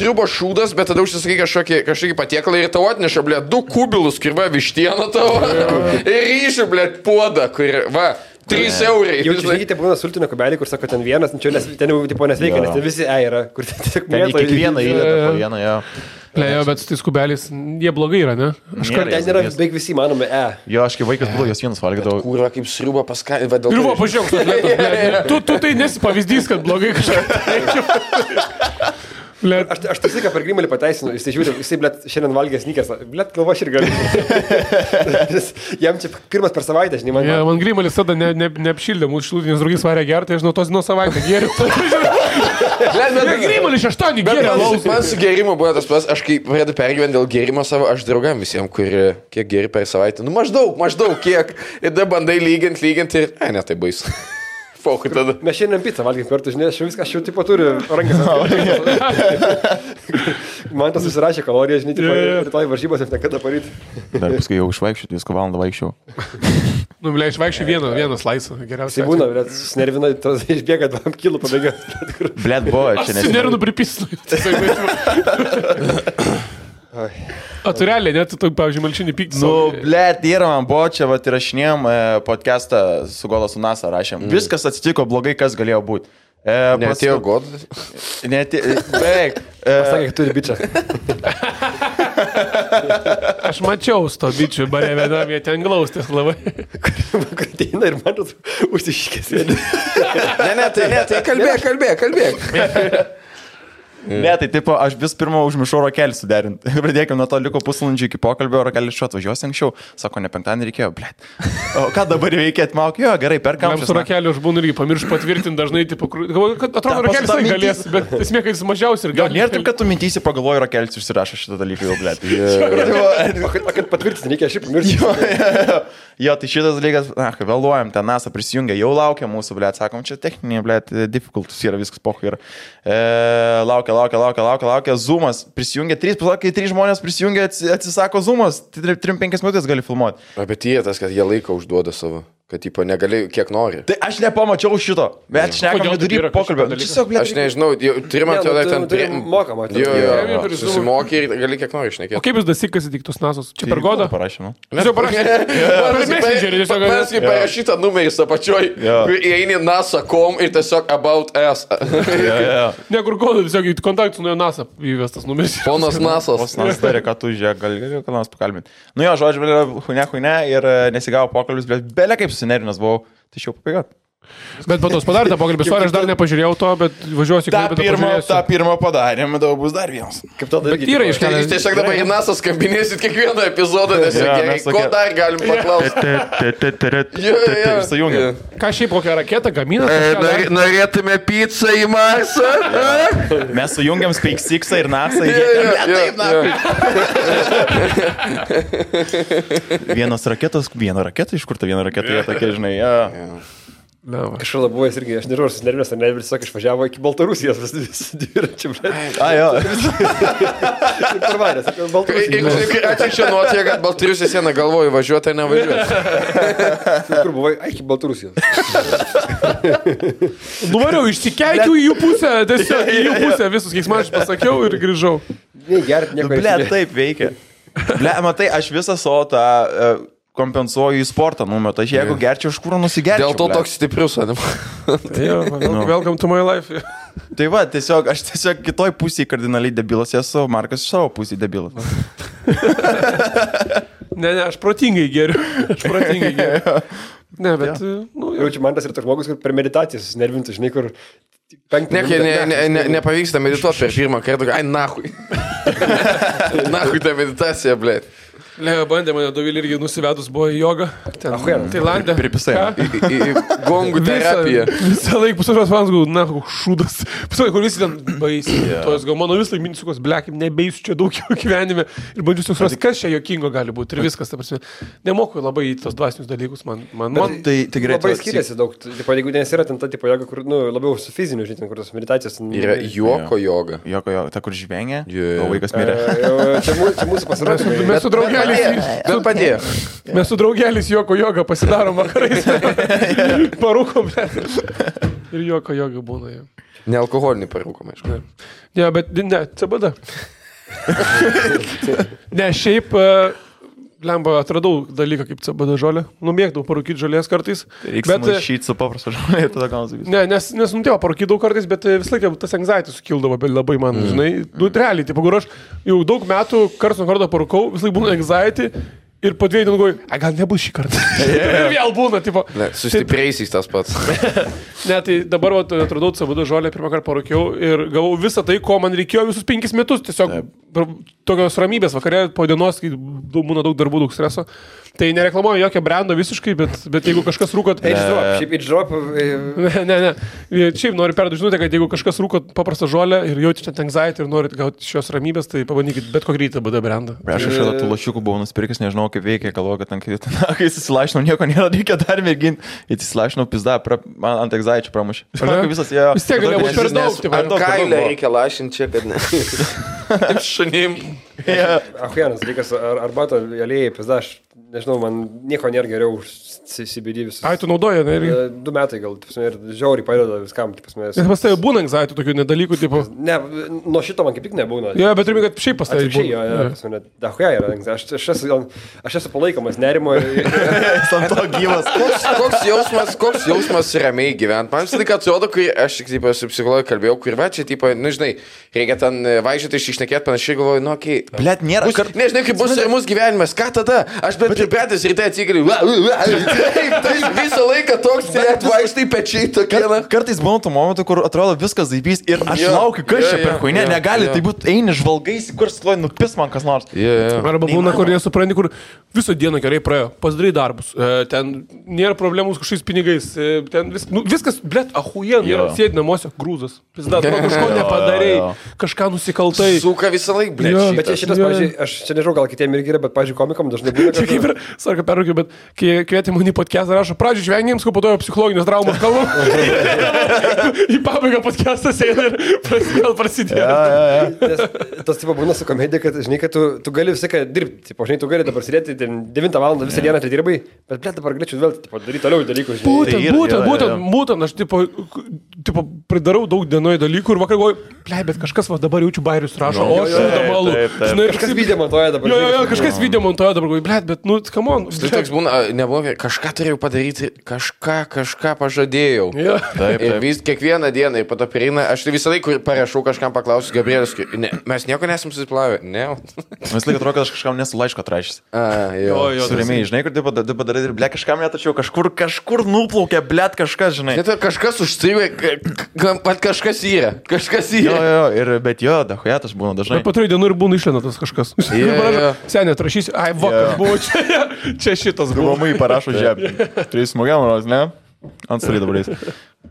Speaker 3: sriubos šūdas, bet tada užsisakai kažkokį patiekalą ir tau atneša, blėt, 2 kubilus kirba vištiena tavo. Ir ryšių, blėt, puodą, kur, va, 3 eurai.
Speaker 2: Jau čia žinai, būna sultinio kubelį, kur sako, ten vienas, ten jau tipo nesveikia, nes ten visi yra, kur ten tiesiog mėto.
Speaker 1: Kiekvieną įdeda po vieną, jo.
Speaker 4: Jo, bet su tais kubeliais, jie blogai yra, ne?
Speaker 2: Ten yra beveik visi manomi
Speaker 1: Jo, aš kaip vaikas būdavau, jos vienas valgydavau.
Speaker 3: Kūra, kaip sriuba paskatė.
Speaker 4: Ir va, pažiūrėk, tu tai nesi pavyzdys, kad blogai kažką.
Speaker 2: Aš tai visą per Grimalį pateisinu, jis žiūri, jisai, blėt, šiandien valgė sneakers, blėt, galvo aš ir galiu. Jam čia pirmas per savaitę, žinai, man.
Speaker 4: Man Grimalis tada neapšildė, mūsų šilutinis draugys varė gerti, aš žinau, tos nuo savaitę geriu. Grimalis 8 geria.
Speaker 3: Man su gerimu buvo tas pas, aš kai pradėjau pergyventi dėl gerimo savo, aš draugam visiems, kurie kiek geri per savaitę, nu maždaug kiek, ir tada bandai lyginti ir, ne, tai baisu.
Speaker 2: Mes šiandien pizzą valgym kartu, žinai, aš jau tipo turiu rankas. Man tas susirašė kaloriją, žinai, rytoj varžybos ir nekada paryti.
Speaker 1: Dar paskui jau išvaikščiau, 2 valandą vaikščiau.
Speaker 4: Nu, blė, išvaikščiau vieną slaisą, geriausiai.
Speaker 2: Tai būna, blėt, susinervina, išbėga 2 kilų pabėga.
Speaker 1: Blėt, buvo, čia nes.
Speaker 4: Susinervinu pripisnu. O tu realiai, net tu, pavyzdžiui, malšinį pykti.
Speaker 1: Nu, blėt, yra man buvo, čia vat įrašinėjom podcastą su Gola su NASA rašėm. Viskas atsitiko blogai, kas galėjo būti.
Speaker 3: Neatėjo Godas?
Speaker 1: Beveik.
Speaker 2: Pasakė, kad turi bičią.
Speaker 4: Aš mačiau su to bičiu, bare vienam, jie ten glaustės labai.
Speaker 2: Kur ateina ir man užsišykės.
Speaker 3: Ne, tai kalbėk.
Speaker 1: Ne, tai tipo, aš vis pirma užmiršau rokelį suderinti. Pradėkime nuo to, liko pusvalandžio iki pokalbio, rokelis šiuo atvažiuosi anksčiau. Sako, ne penktadienį reikėjo, blėt. O ką dabar reikia atmauk? Jo, gerai, perkam.
Speaker 4: Su rokeliu aš būnu irgi pamiršau patvirtinti dažnai, tipo, kad atrodo, rokelis tai galės, bet esmė, kad jis mažiausiai ir gali.
Speaker 1: Nėra taip, kad tu mintysi pagalvoji, rokelis užsirašo šitą dalyką jau, blėt.
Speaker 2: Kad patvirtinti reikia, aš pamiršau.
Speaker 1: Jo, tai šitas dalykas, vėluojam, ten NASA prisijungia, jau laukia mūsų, blėt, sakom, čia techniniai, blėt, difficultus yra, viskas pochai yra. Laukia, Zoomas prisijungia, 3 žmonės prisijungia, atsisako Zoomas, 3-5 minutės gali filmuoti.
Speaker 3: Bet jie tas, kad jie laiką užduoda savo. Kad, tipo, negali, kiek nori.
Speaker 1: Tai aš nepamačiau šito, bet šnekam vidury pokalbio.
Speaker 3: Aš nežinau, turime ten
Speaker 2: Mokamą.
Speaker 3: Susimokė ir gali kiek nori šnekėti.
Speaker 4: O kaip jūs dasikas įtiktus nasos? Čia per godą?
Speaker 1: Parašėme.
Speaker 4: Jūs jau parašėte?
Speaker 3: Mes kaip parašytą numerį apačioj, kur įeini NASA.com ir tiesiog about us.
Speaker 4: Ne, kur godą, tiesiog į kontaktus nuo NASA įvestas numeris.
Speaker 3: Ponas Nasas.
Speaker 1: Ponas Nasas darė, kad tu žiūrėk, gali ką nors pakalbinti. Nu jo, žodžiu, huine ir nesigavo pokalbis, bet belė kaip susinerinęs buvau, tai šiau papaigat.
Speaker 4: Bet po tos padarė tą pokalbį, aš dar nepažiūrėjau to, bet važiuosiu į Klaipėdą.
Speaker 1: tą pirmą padarėm, dabar bus dar vienas.
Speaker 2: Kaip tada
Speaker 4: Bet yra iškelias.
Speaker 3: Jūs tiesiog dabar į NASA skambinėsit kiekvieną epizodą, nes gerai, ko dar galim paklausti.
Speaker 1: Sujungia.
Speaker 4: Ką šiaip kokią raketą gamina?
Speaker 3: Norėtume pizzą į Marsą?
Speaker 1: Mes sujungiam SpaceX'ą ir NASA. Vienos raketos, viena raketa, iš kur ta viena raketa, jie tokie, žinai,
Speaker 2: Kažkur labai irgi, aš nežinau, ar susinervės, ar ne, vis tiesiog išvažiavo iki Baltarusijos, visi dviračiai, blėt.
Speaker 1: Jo.
Speaker 2: Parvarės, apie Baltarusiją.
Speaker 3: Atsiekščia nuotėje, kad Baltarusijos sieną galvoju važiuoti ar nevažiuoti.
Speaker 2: Kur buvai? Ai, iki Baltarusijos.
Speaker 4: Nuvariau, išsikeikiau į jų pusę, tiesiog į jų pusę, visus keiksmačius pasakiau ir grįžau.
Speaker 2: Negert, nieko.
Speaker 1: Blėt, taip veikia. Blėt, matai, aš visą savo tą kompensuoju į sportą numetą. Aš jeigu gerčiau, iš kur nusigerčiau.
Speaker 3: Dėl to toks stiprius, ne?
Speaker 4: Welcome to my life.
Speaker 1: Tai va, aš tiesiog kitoj pusėje kardinaliai debilas esu, Markas iš savo pusėje debilas.
Speaker 4: Ne, aš protingai geriu. Ne, bet...
Speaker 2: Jaučiu, man tas yra toks žmogus, kur per meditaciją susinervintų, žinai, kur...
Speaker 3: Nepavyksta medituoti per pirmą kartą. Ai, nahui. Nahui ta meditacija, blėt.
Speaker 4: Leo bandė mane Dovilį irgi nusivedus, buvo į jogą. Tailande.
Speaker 1: Pripisai.
Speaker 3: Į gongų terapiją.
Speaker 4: Visą laiką pusantros valandos, na, šūdas. Pusantros, kur visi ten baisiai. Tos gal mano vis laik mintis, blekim, nebeisiu čia daug jau gyvenime. Ir bandžiu suprasti, kas čia jokingo gali būti. Ir viskas, ta prasme. Nemoku labai į tos dvasinius dalykus. Man
Speaker 1: tai gerai.
Speaker 2: Labai skiriasi daug. Jeigu nes yra ten ta tipo joga, kur, labiau su fiziniu, žinai, kur tos meditacijos.
Speaker 3: Yra juoko joga.
Speaker 1: Juoko joga. Ta, kur žvengia. O vaikas mirė.
Speaker 2: Čia mūsų pasirodė.
Speaker 4: Mes su draugelį.
Speaker 3: Bet padėjo.
Speaker 4: Mes su draugelis juoko jogą pasidarom vakarais. Parūkom, ir juoko joga būna.
Speaker 3: Ne alkoholinį parūkom, aišku.
Speaker 4: Ne, bet ne, CBD. Ne, šiaip, lemba, atradau dalyką kaip CBD žolė. Numėgdavau parūkyti žolės kartais.
Speaker 1: Reikia maišyti su paprastu žolė, tada gaunasi visą.
Speaker 4: Ne, nes nutėjo parūkydavau kartais, bet vis laiką tas anxiety sukildavo, bet labai man, žinai, realiai, tipo, kur aš jau daug metų karts nuo karto parūkau, vis laik būna anxiety. Ir po 2 dienų galvoju, gal nebus šį kartą. Ir vėl būna, tipo.
Speaker 3: Ne, sustiprėjusiais tas pats.
Speaker 4: Ne, tai dabar atradau CBD žolę, pirmą kartą parūkiau ir gavau visą tai, ko man reikėjo visus 5 metus. Tiesiog tokios ramybės vakarė po dienos, kai būna daug darbų, daug streso. Tai nereklamuoju jokio brando visiškai, bet jeigu kažkas rūkot...
Speaker 2: Šiaip H-Drop...
Speaker 4: Ne. Šiaip noriu perduoti žinutę, kad jeigu kažkas rūkot paprastą žolę ir jaučiate anxiety ir norit gauti šios ramybės, tai pabandykit bet kokį CBD brandą.
Speaker 1: Aš šalia tų lašiukų buvau nusipirkęs, nežinau kaip veikia, galvoju, kad kai įsilašinau, nieko nėra, reikia dar mėginti. Įsilašinau, pizda, man ant anxiety pramušė.
Speaker 4: Vis tiek galėjo būti per daug.
Speaker 3: Ant kailę reikia lašinti čia, kad ne. Šunim.
Speaker 2: Ahujanas, reikas arbato aliejai, pizda, aš nežinau, man nieko nėra geriau už CBD visus.
Speaker 4: Ai, tu naudoji, ne?
Speaker 2: 2 metai gal, ir žiauriai padeda viskam.
Speaker 4: Nes pas tai būna anxiety tokių nedalykų, tipo...
Speaker 2: Ne, nuo šito man kaip tik nebūna.
Speaker 4: Jo, bet turime, kad šiaip pas tai
Speaker 2: būna. Dahuja yra, aš esu palaikomas nerimo.
Speaker 1: Ant to gyvas.
Speaker 3: Koks jausmas ramiai gyventi? Man visą laiką atrodo, kai aš su psichologu kalbėjau, kur va čia, tipo, nu žinai, reikia ten važiuoti išnekėti panašiai, galvoju, nu, okei,
Speaker 1: Blet, nėra.
Speaker 3: Nežinai, kaip bus ramus gyvenimas, ką tada? Aš bet pripratęs ryte atsikeliu. Taip, visą laiką toks, blet, vaikštai pečiai tokie.
Speaker 1: Kartais būna tų momentų, kur atrodo viskas zaibys ir aš laukiu, kas čia per huinė, negali tai būti, eini žvalgaisi, kur stoj nupis man kas nors.
Speaker 4: Arba būna, kur nesupranti, kur visą dieną gerai praėjo, pasidarai darbus, ten nėra problemų su kažkokiais pinigais, ten viskas, blet, ahujen, sėdi namuose, grūzas, kažko nepadarei, kažką nusikaltai.
Speaker 3: Suka visą laiką, blet.
Speaker 2: Bet čia šitas, pavyzdžiui, aš čia nežinau, gal kitiem irgi yra, bet, pavyzdžiui, komikam dažnai būna.
Speaker 4: Čia kaip ir, sarka perraukiu, bet kai kvietė mane į podcastą, rašo, pradžiui žvengiams, ko po to psichologinės traumas kalbam. Į pabaigą podcastas eina ir prasidėjo.
Speaker 2: Tas tipo būna su komedija, kad, žinai, kad tu gali visą ką dirbti. Tipo, žinai, tu gali dabar sėdėti 9 valandą visą dieną atidirbai, bet, blet, dabar galėčiau vėl daryti toliau dalykus.
Speaker 4: Būtent, aš tipo pridarau daug dienoje dalykų ir vakar galvoju, blet, bet kažkas va dabar jaučiu bairius rašo, o aš šūdamalų.
Speaker 2: Kažkas video montuoja dabar.
Speaker 4: Jo, kažkas video montuoja dabar, blet, bet, nu, come on.
Speaker 3: Tai toks būna, nebuvo, kažką turėjau padaryti, kažką pažadėjau. Ir vis kiekvieną dieną, ir po to prieina, aš tai visą laiką parašau kažkam paklausiu, Gabrielis, mes nieko nesam susiplavę, ne.
Speaker 1: Mes laiką atrodo, kad aš kažkam nesu laiško atrašęs. Surimiai, žinai, kur taip padarai ir, ble, kažkam netačiau, kažkur nuplaukė, ble, kažkas, žinai.
Speaker 3: Net kažkas užstrigė, kažkas yra.
Speaker 1: Bet jo, dahujatas būna dažnai.
Speaker 4: Bet po 3 dienų ir būna išlenatas kažkas. Senė, atrašysi, ai, vakar buvo čia šitas buvo.
Speaker 1: Mamai parašo žemė. 3 smogiam, ne? Ant stali dabar eis.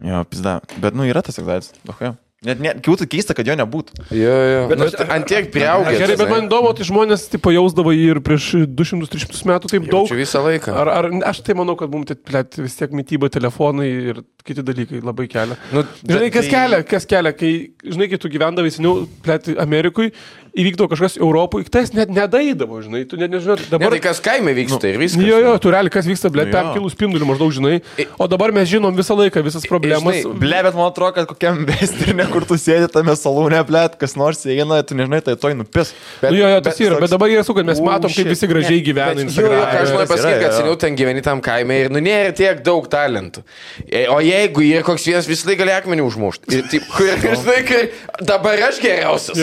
Speaker 1: Jo, pizda. Bet, nu, yra tas egzaitis. Dahuja. Net kiūtų keista, kad jo nebūtų.
Speaker 3: Jo. Bet ant tiek priaugęs.
Speaker 4: Gerai, bet man įdomu, tai žmonės tipo jausdavo jį ir prieš 200-300 metų taip daug.
Speaker 3: Jaučiu visą laiką.
Speaker 4: Ar aš tai manau, kad mums vis tiek mityba, telefonai ir kiti dalykai labai kelia. Nu, žinai, kas kelia, kai, žinai, kai tu gyvendavai seniau, Amerikui, įvykdavo kažkas Europoje, tas net nedaidavo, žinai, tu net nežinai. Dabar
Speaker 3: tai kas kaime vyksta ir viskas.
Speaker 4: Jo, tu realiai, kas vyksta, ble, 5 kilų spindulių maždaug, žinai. O dabar mes žinom visą laiką, visas problemas.
Speaker 1: Ble, bet man atrodo, kad kokiam bestirne, kur tu sėdi tame salūne, ble, kas nors eina, tu nežinai, tai toj nupis.
Speaker 4: Jo, tas yra, bet dabar jie su, kad mes matom, kaip visi gražiai gyvena.
Speaker 3: Aš noriu pasakyti, kad seniau ten gyveni tam kaime ir nėra tiek daug talentų. O jeigu yra koks vienas, visą laiką gali akmenį užmušti. Dabar aš geriausias.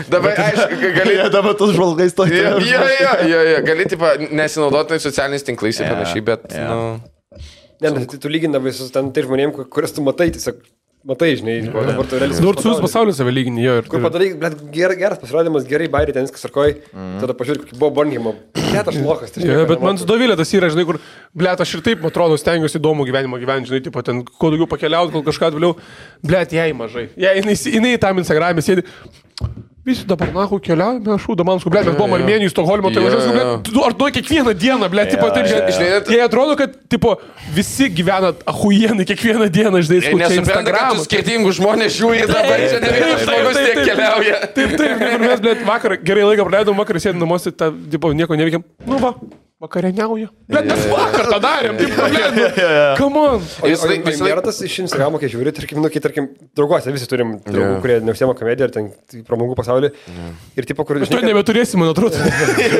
Speaker 3: Dabar, aišku, gali...
Speaker 1: Dabar tas žvalgais to tėvė.
Speaker 3: Jo, gali, tipo, nesinaudoti socialiniais tinklais ir panašiai, bet,
Speaker 2: Ne, tu lyginavai su ten tai žmonėm, kurias tu matai, tiesiog matai, žinai, dabar tu realiai...
Speaker 4: Nors jūs pasaulis save lygini, jo.
Speaker 2: Kur padarai, blet, geras pasirodymas, gerai bairį, ten viskas sarkoj, tada pažiūrėk, kokį buvo Bornhimo. Blet, aš lokas.
Speaker 4: Bet man su Dovilė tas yra, žinai, kur, blet, aš ir taip, atrodo, stengiuosi įdomų gyvenimą gyventi, žinai, tipo, ten, kuo daugiau pakeliauti, kol kažką vėliau, blet, jai mažai. Jinai tam Instagram'e sėdi. Visi dabar, nahu, keliaujame, aš Damanskų, ble, mes buvom Armėnijų, Stokholmo, tai važiuosiu, ble, ar tu kiekvieną dieną, ble, tipo, taip, jie atrodo, kad, tipo, visi gyvena ahujienai kiekvieną dieną, žinai, skučia Instagram'ą.
Speaker 3: Skirtingų žmonės žiūri dabar, čia ne vienas žmogus tiek keliauja.
Speaker 4: Taip, mes, ble, vakar gerai laiką praleidom, vakar sėdėm namuose, tipo, nieko neveikiam. Nu va. Vakarieniauja. Bet mes vakar tą darėm, taip problemų. Come on.
Speaker 2: Nėra tas iš Instagramo, kai žiūri, tarkim, drauguose visi turim draugų, kurie neužsiema komediją ar ten pramogų pasaulį. Ir tipo, kur...
Speaker 4: Tu nebeturėsi, man atrodo,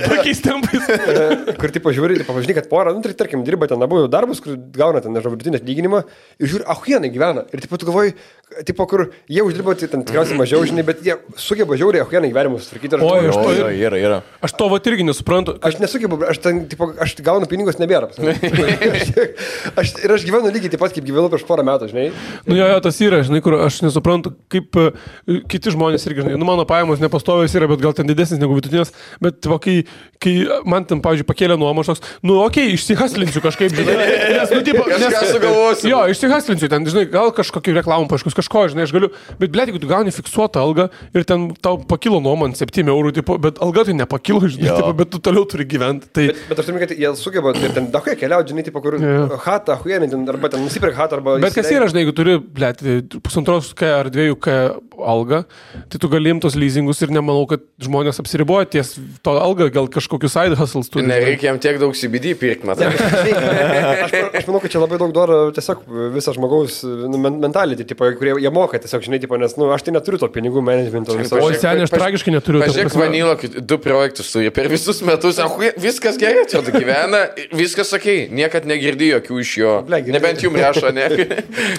Speaker 4: tokiais tempais.
Speaker 2: Kur tipo žiūri, pažinai, kad porą, tarkim, dirba ten abu darbus, kur gauna ten, nežinau, vidutinį atlyginimą ir žiūri, ahuienai gyvena. Ir tipo, tu galvoji, tipo, kur jie uždirba ten tikriausiai mažiau, žinai, bet jie sugeba žiauriai ahuienai gyvenimus tvarkyti.
Speaker 1: Yra.
Speaker 4: Aš to vat irgi nesuprantu.
Speaker 2: Aš nesugebu, aš gaunu pinigus nebėra. Aš gyvenu lygiai taip pat, kaip gyvenu prieš porą metų, žinai.
Speaker 4: Nu jo, tas yra, žinai, kur aš nesuprantu, kaip kiti žmonės irgi, žinai, nu mano pajamos nepastovios yra, bet gal ten didesnis negu vidutinės, bet va, kai man ten, pavyzdžiui, pakėlė nuomą, toks, nu okei, išsihaslinsiu kažkaip, žinai, jo, išsihaslinsiu ten, žinai, gal kažkokį reklamą paaiškus, kažko, žinai, aš galiu, bet blėt, jeigu tu gauni fiksuotą algą ir ten tau pakilo nuomą ant 7 eurų, tipo, bet alga tai nepakilo, žinai, tipo, bet tu toliau turi gyventi. Tai...
Speaker 2: Bet aš turiu, kad jie sugeba ir ten dahuja keliauti, žinai, tipo, kur hatą, ahuienį, arba ten nusipirk hatą, arba...
Speaker 4: Bet kas yra, žinai, jeigu turi, blėt, 1,5K ar 2K algą, tai tu gali imtos leasingus ir nemanau, kad žmonės apsiriboja ties to algą, gal kažkokius side hustles turi.
Speaker 3: Nereikia jam tiek daug CBD pirkti, matai.
Speaker 2: Aš manau, kad čia labai daug daro tiesiog visą žmogaus mentality, tipo, kurie jie moka tiesiog, žinai, tipo, nes, nu, aš tai neturiu to pinigų managemento.
Speaker 4: O seniai, aš tragiškai neturiu.
Speaker 3: Pažiūrėk, Vanilo, 2 projektus turi per visus metus, viskas gerai, čia tu gyvena, viskas sakai, niekad negirdi jokių iš jo. Nebent jums rašo, ne?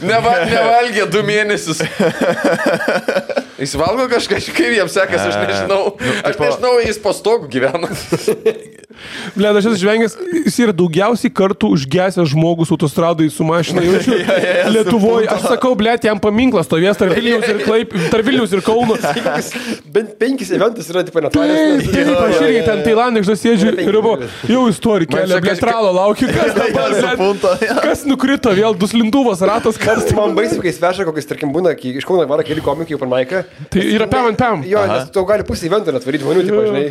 Speaker 3: Nevalgė 2 mėnesius. Jis valgo kažką, kaip jiems sekasi, aš nežinau. Aš nežinau, jis po stogu gyvena.
Speaker 4: Ble, aš esu žvengęs, jis yra daugiausiai kartų užgesęs žmogus autostradai su mašina. Jaučiu, Lietuvoje, aš sakau, ble, jam paminklas stovės tarp Vilniaus ir Kauno.
Speaker 2: Bent 5 eventus yra, tipo, netvarės.
Speaker 4: Aš irgi ten Tailandė, aš sėdžiu ir jau istorija kelia, ble, tralo laukiu, kas dabar, kas nukrito, vėl duslintuvas, ratas, kas.
Speaker 2: Man baisiu, kai sveša, kokiais, tarkim, būna, iš Kauno varo keli komikai, pan Maiką.
Speaker 4: Tai yra pam.
Speaker 2: Jo, nes tau gali pusę eventą netvaryti žmonių, tipo, žinai.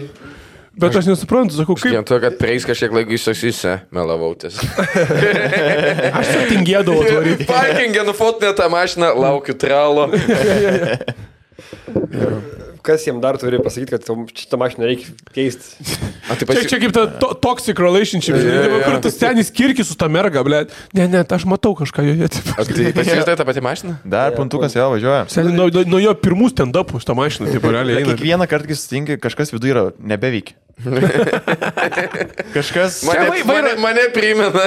Speaker 4: Bet aš nesuprantu, sakau, kaip...
Speaker 3: Vien to, kad prieis kažkiek laiko išsaksysi, melavau ties.
Speaker 4: Aš čia tingėdavau atvaryti.
Speaker 3: Parkingė nufotinė tą mašiną, laukiu tralo.
Speaker 2: Kas jiem dar turi pasakyti, kad šitą mašiną reikia keisti?
Speaker 4: Čia kaip ta toxic relationship, kur tas senis kirkis su ta merga, ble. Ne, aš matau kažką joje.
Speaker 3: Tai pasijustai tą patį mašiną?
Speaker 1: Dar puntukas jau važiuoja.
Speaker 4: Nuo jo pirmų stand-upų šitą mašiną, taip realiai eina.
Speaker 1: Kiekvieną kartą, kai sutinki, kažkas viduje yra nebeveikia. Kažkas...
Speaker 3: Mane primena.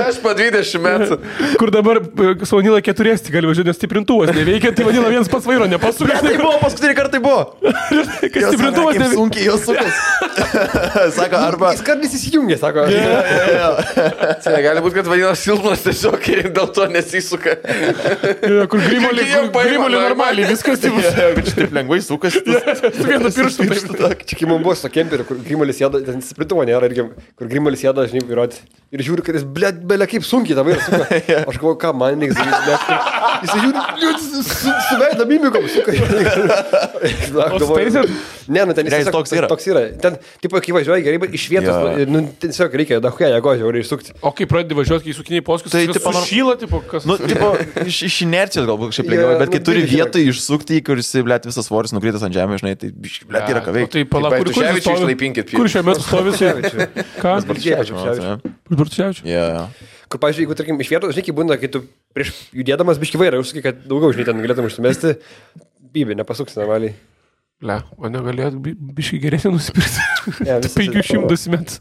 Speaker 3: Aš po 20 metų.
Speaker 4: Kur dabar Savanila 4 gali važiuoti, nes stiprintuvas neveikia, tai vadina vienas pats vairo nepasukas.
Speaker 1: Tai buvo, paskutinį kartą tai buvo.
Speaker 4: Kai stiprintuvas neveikia.
Speaker 1: Sunkiai jos sukas. Sako, arba...
Speaker 2: Jis kartais įsijungia, sako.
Speaker 3: Tai gali būti, kad vadina silpnas tiesiog ir dėl to nesisuka.
Speaker 4: Kur grimolį normaliai, viskas taip.
Speaker 1: Kad šitaip lengvai sukas.
Speaker 4: Su vienu pirštu.
Speaker 2: Čia kai man buvo su kemperiu, kur Grimolis jėda, ten sprintuvo nėra, irgi, kur Grimolis jėda, žinai, įrodė. Ir žiūri, kad jis, belia kaip sunkiai tą vairą suka. Aš galvoju, ką man reikia daryti. Jis žiūri, su veida mimikom suka. Ne, nu ten jis toks yra. Ten, tipo, kai važiuoja gerai, bet iš vietos, nu, tiesiog reikia dahuja jėgo žiauriai išsukti.
Speaker 4: O kai pradedi važiuoti, kai sukiniai poskus, tai sušyla, tipo, kas?
Speaker 1: Nu, tipo, iš inercijos galbūt kažkaip lengviau, bet kai turi vietoj išsukti, kuris, blėt, visas svoris nukritas ant žemės, žinai, tai, blėt, yra ką veikti.
Speaker 4: Tai pala, kur šiuo metu stovi? Ką?
Speaker 1: Bartuševičius.
Speaker 2: Kur, pavyzdžiui, jeigu, tarkim, iš vietos, žinai, kai būna, kai tu prieš judėdamas biški vairą, užsakai, kad daugiau, žinai, ten galėtum užsimesti, bybė, nepasuks normaliai.
Speaker 4: Le, o negalėt biškai geresnį nusipirkti. 500 metų.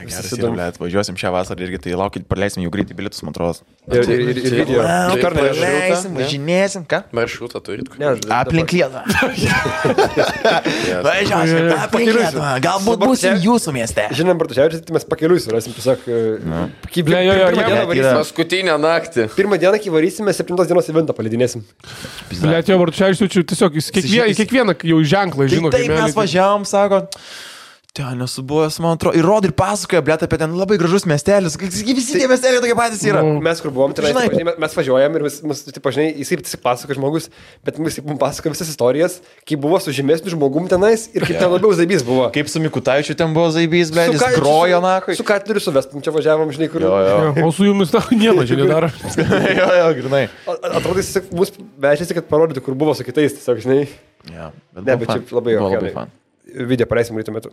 Speaker 1: Geras yra, blėt, važiuosim šią vasarą irgi, tai laukit, praleisim jau greitai bilietus, man atrodo.
Speaker 2: Ir video.
Speaker 1: Praleisim, važinėsim, ką?
Speaker 3: Maršrutą turit?
Speaker 1: Aplink Lietuvą. Važiuosim, aplink Lietuvą. Galbūt būsim jūsų mieste.
Speaker 2: Žinom, Bartuševičius, tai mes pakeliui surasim, tiesiog...
Speaker 3: Paskutinę naktį.
Speaker 2: Pirmą dieną, kai varysime, 7 dienos eventą palidinėsim.
Speaker 4: Blėt, jo, Bartuševičius, tiesiog kiekvieną jau ženklą žino.
Speaker 1: Taip mes važiavom, sako... Ten nesu buvęs, man atrodo, ir rod ir pasakoja, blėt, apie ten labai gražus miestelis. Visi tie miesteliai tokie patys yra.
Speaker 2: Mes kur buvom, tai mes važiuojam ir jisai pasakoja žmogus, bet mums pasakoja visas istorijas, kaip buvo su žemesniu žmogum tenais ir kaip ten labiau zaibys buvo.
Speaker 1: Kaip su Mikutaičiu ten buvo zaibys, blėt, jis grojo nakui.
Speaker 2: Su Katleriu su Vestum čia važiavom, žinai, kur.
Speaker 4: O su jumis nieko čia nedaro.
Speaker 1: Jo, grinai.
Speaker 2: Atrodo, jis mus vežėsi, kad parodytų, kur buvo su kitais, tiesiog, žinai. Bet čia labai jau. Video paleisim ryto metu.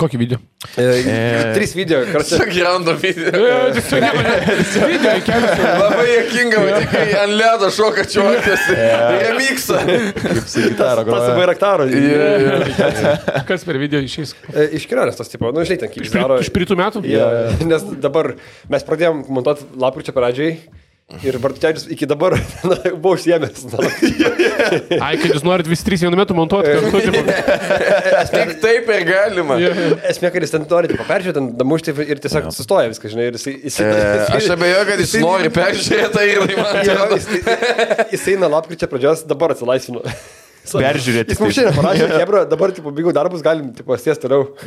Speaker 4: Kokį video?
Speaker 2: 3 video.
Speaker 3: Sakirando video.
Speaker 4: Video kelias.
Speaker 3: Labai jėkinga, kai ant ledo šoka čiuokas. Remixą.
Speaker 1: Kaip su gitara groja.
Speaker 2: Tas su Bairaktaro.
Speaker 4: Kas per video išeis?
Speaker 2: Iš kelionės tas tipo. Nu, žinai, ten kaip daro.
Speaker 4: Iš pritų metų?
Speaker 2: Nes dabar mes pradėjom montuoti lapkričio pradžiai. Ir Bartuševičius iki dabar buvo užsiėmęs.
Speaker 4: Ai, kad jūs norit visi 3 vienu metu montuoti kartu.
Speaker 3: Tik taip ir galima.
Speaker 2: Esmė, kad jis ten nori peržiūrėti, ten damušti ir tiesiog sustoja viską, žinai.
Speaker 3: Aš abejoju, kad jis nori peržiūrėti ir
Speaker 2: jis eina lapkričio pradžios, dabar atsilaisvino.
Speaker 1: Peržiūrėti.
Speaker 2: Jis mums šiandien parašė, Hebra, dabar baigiau darbus, galim sės toliau.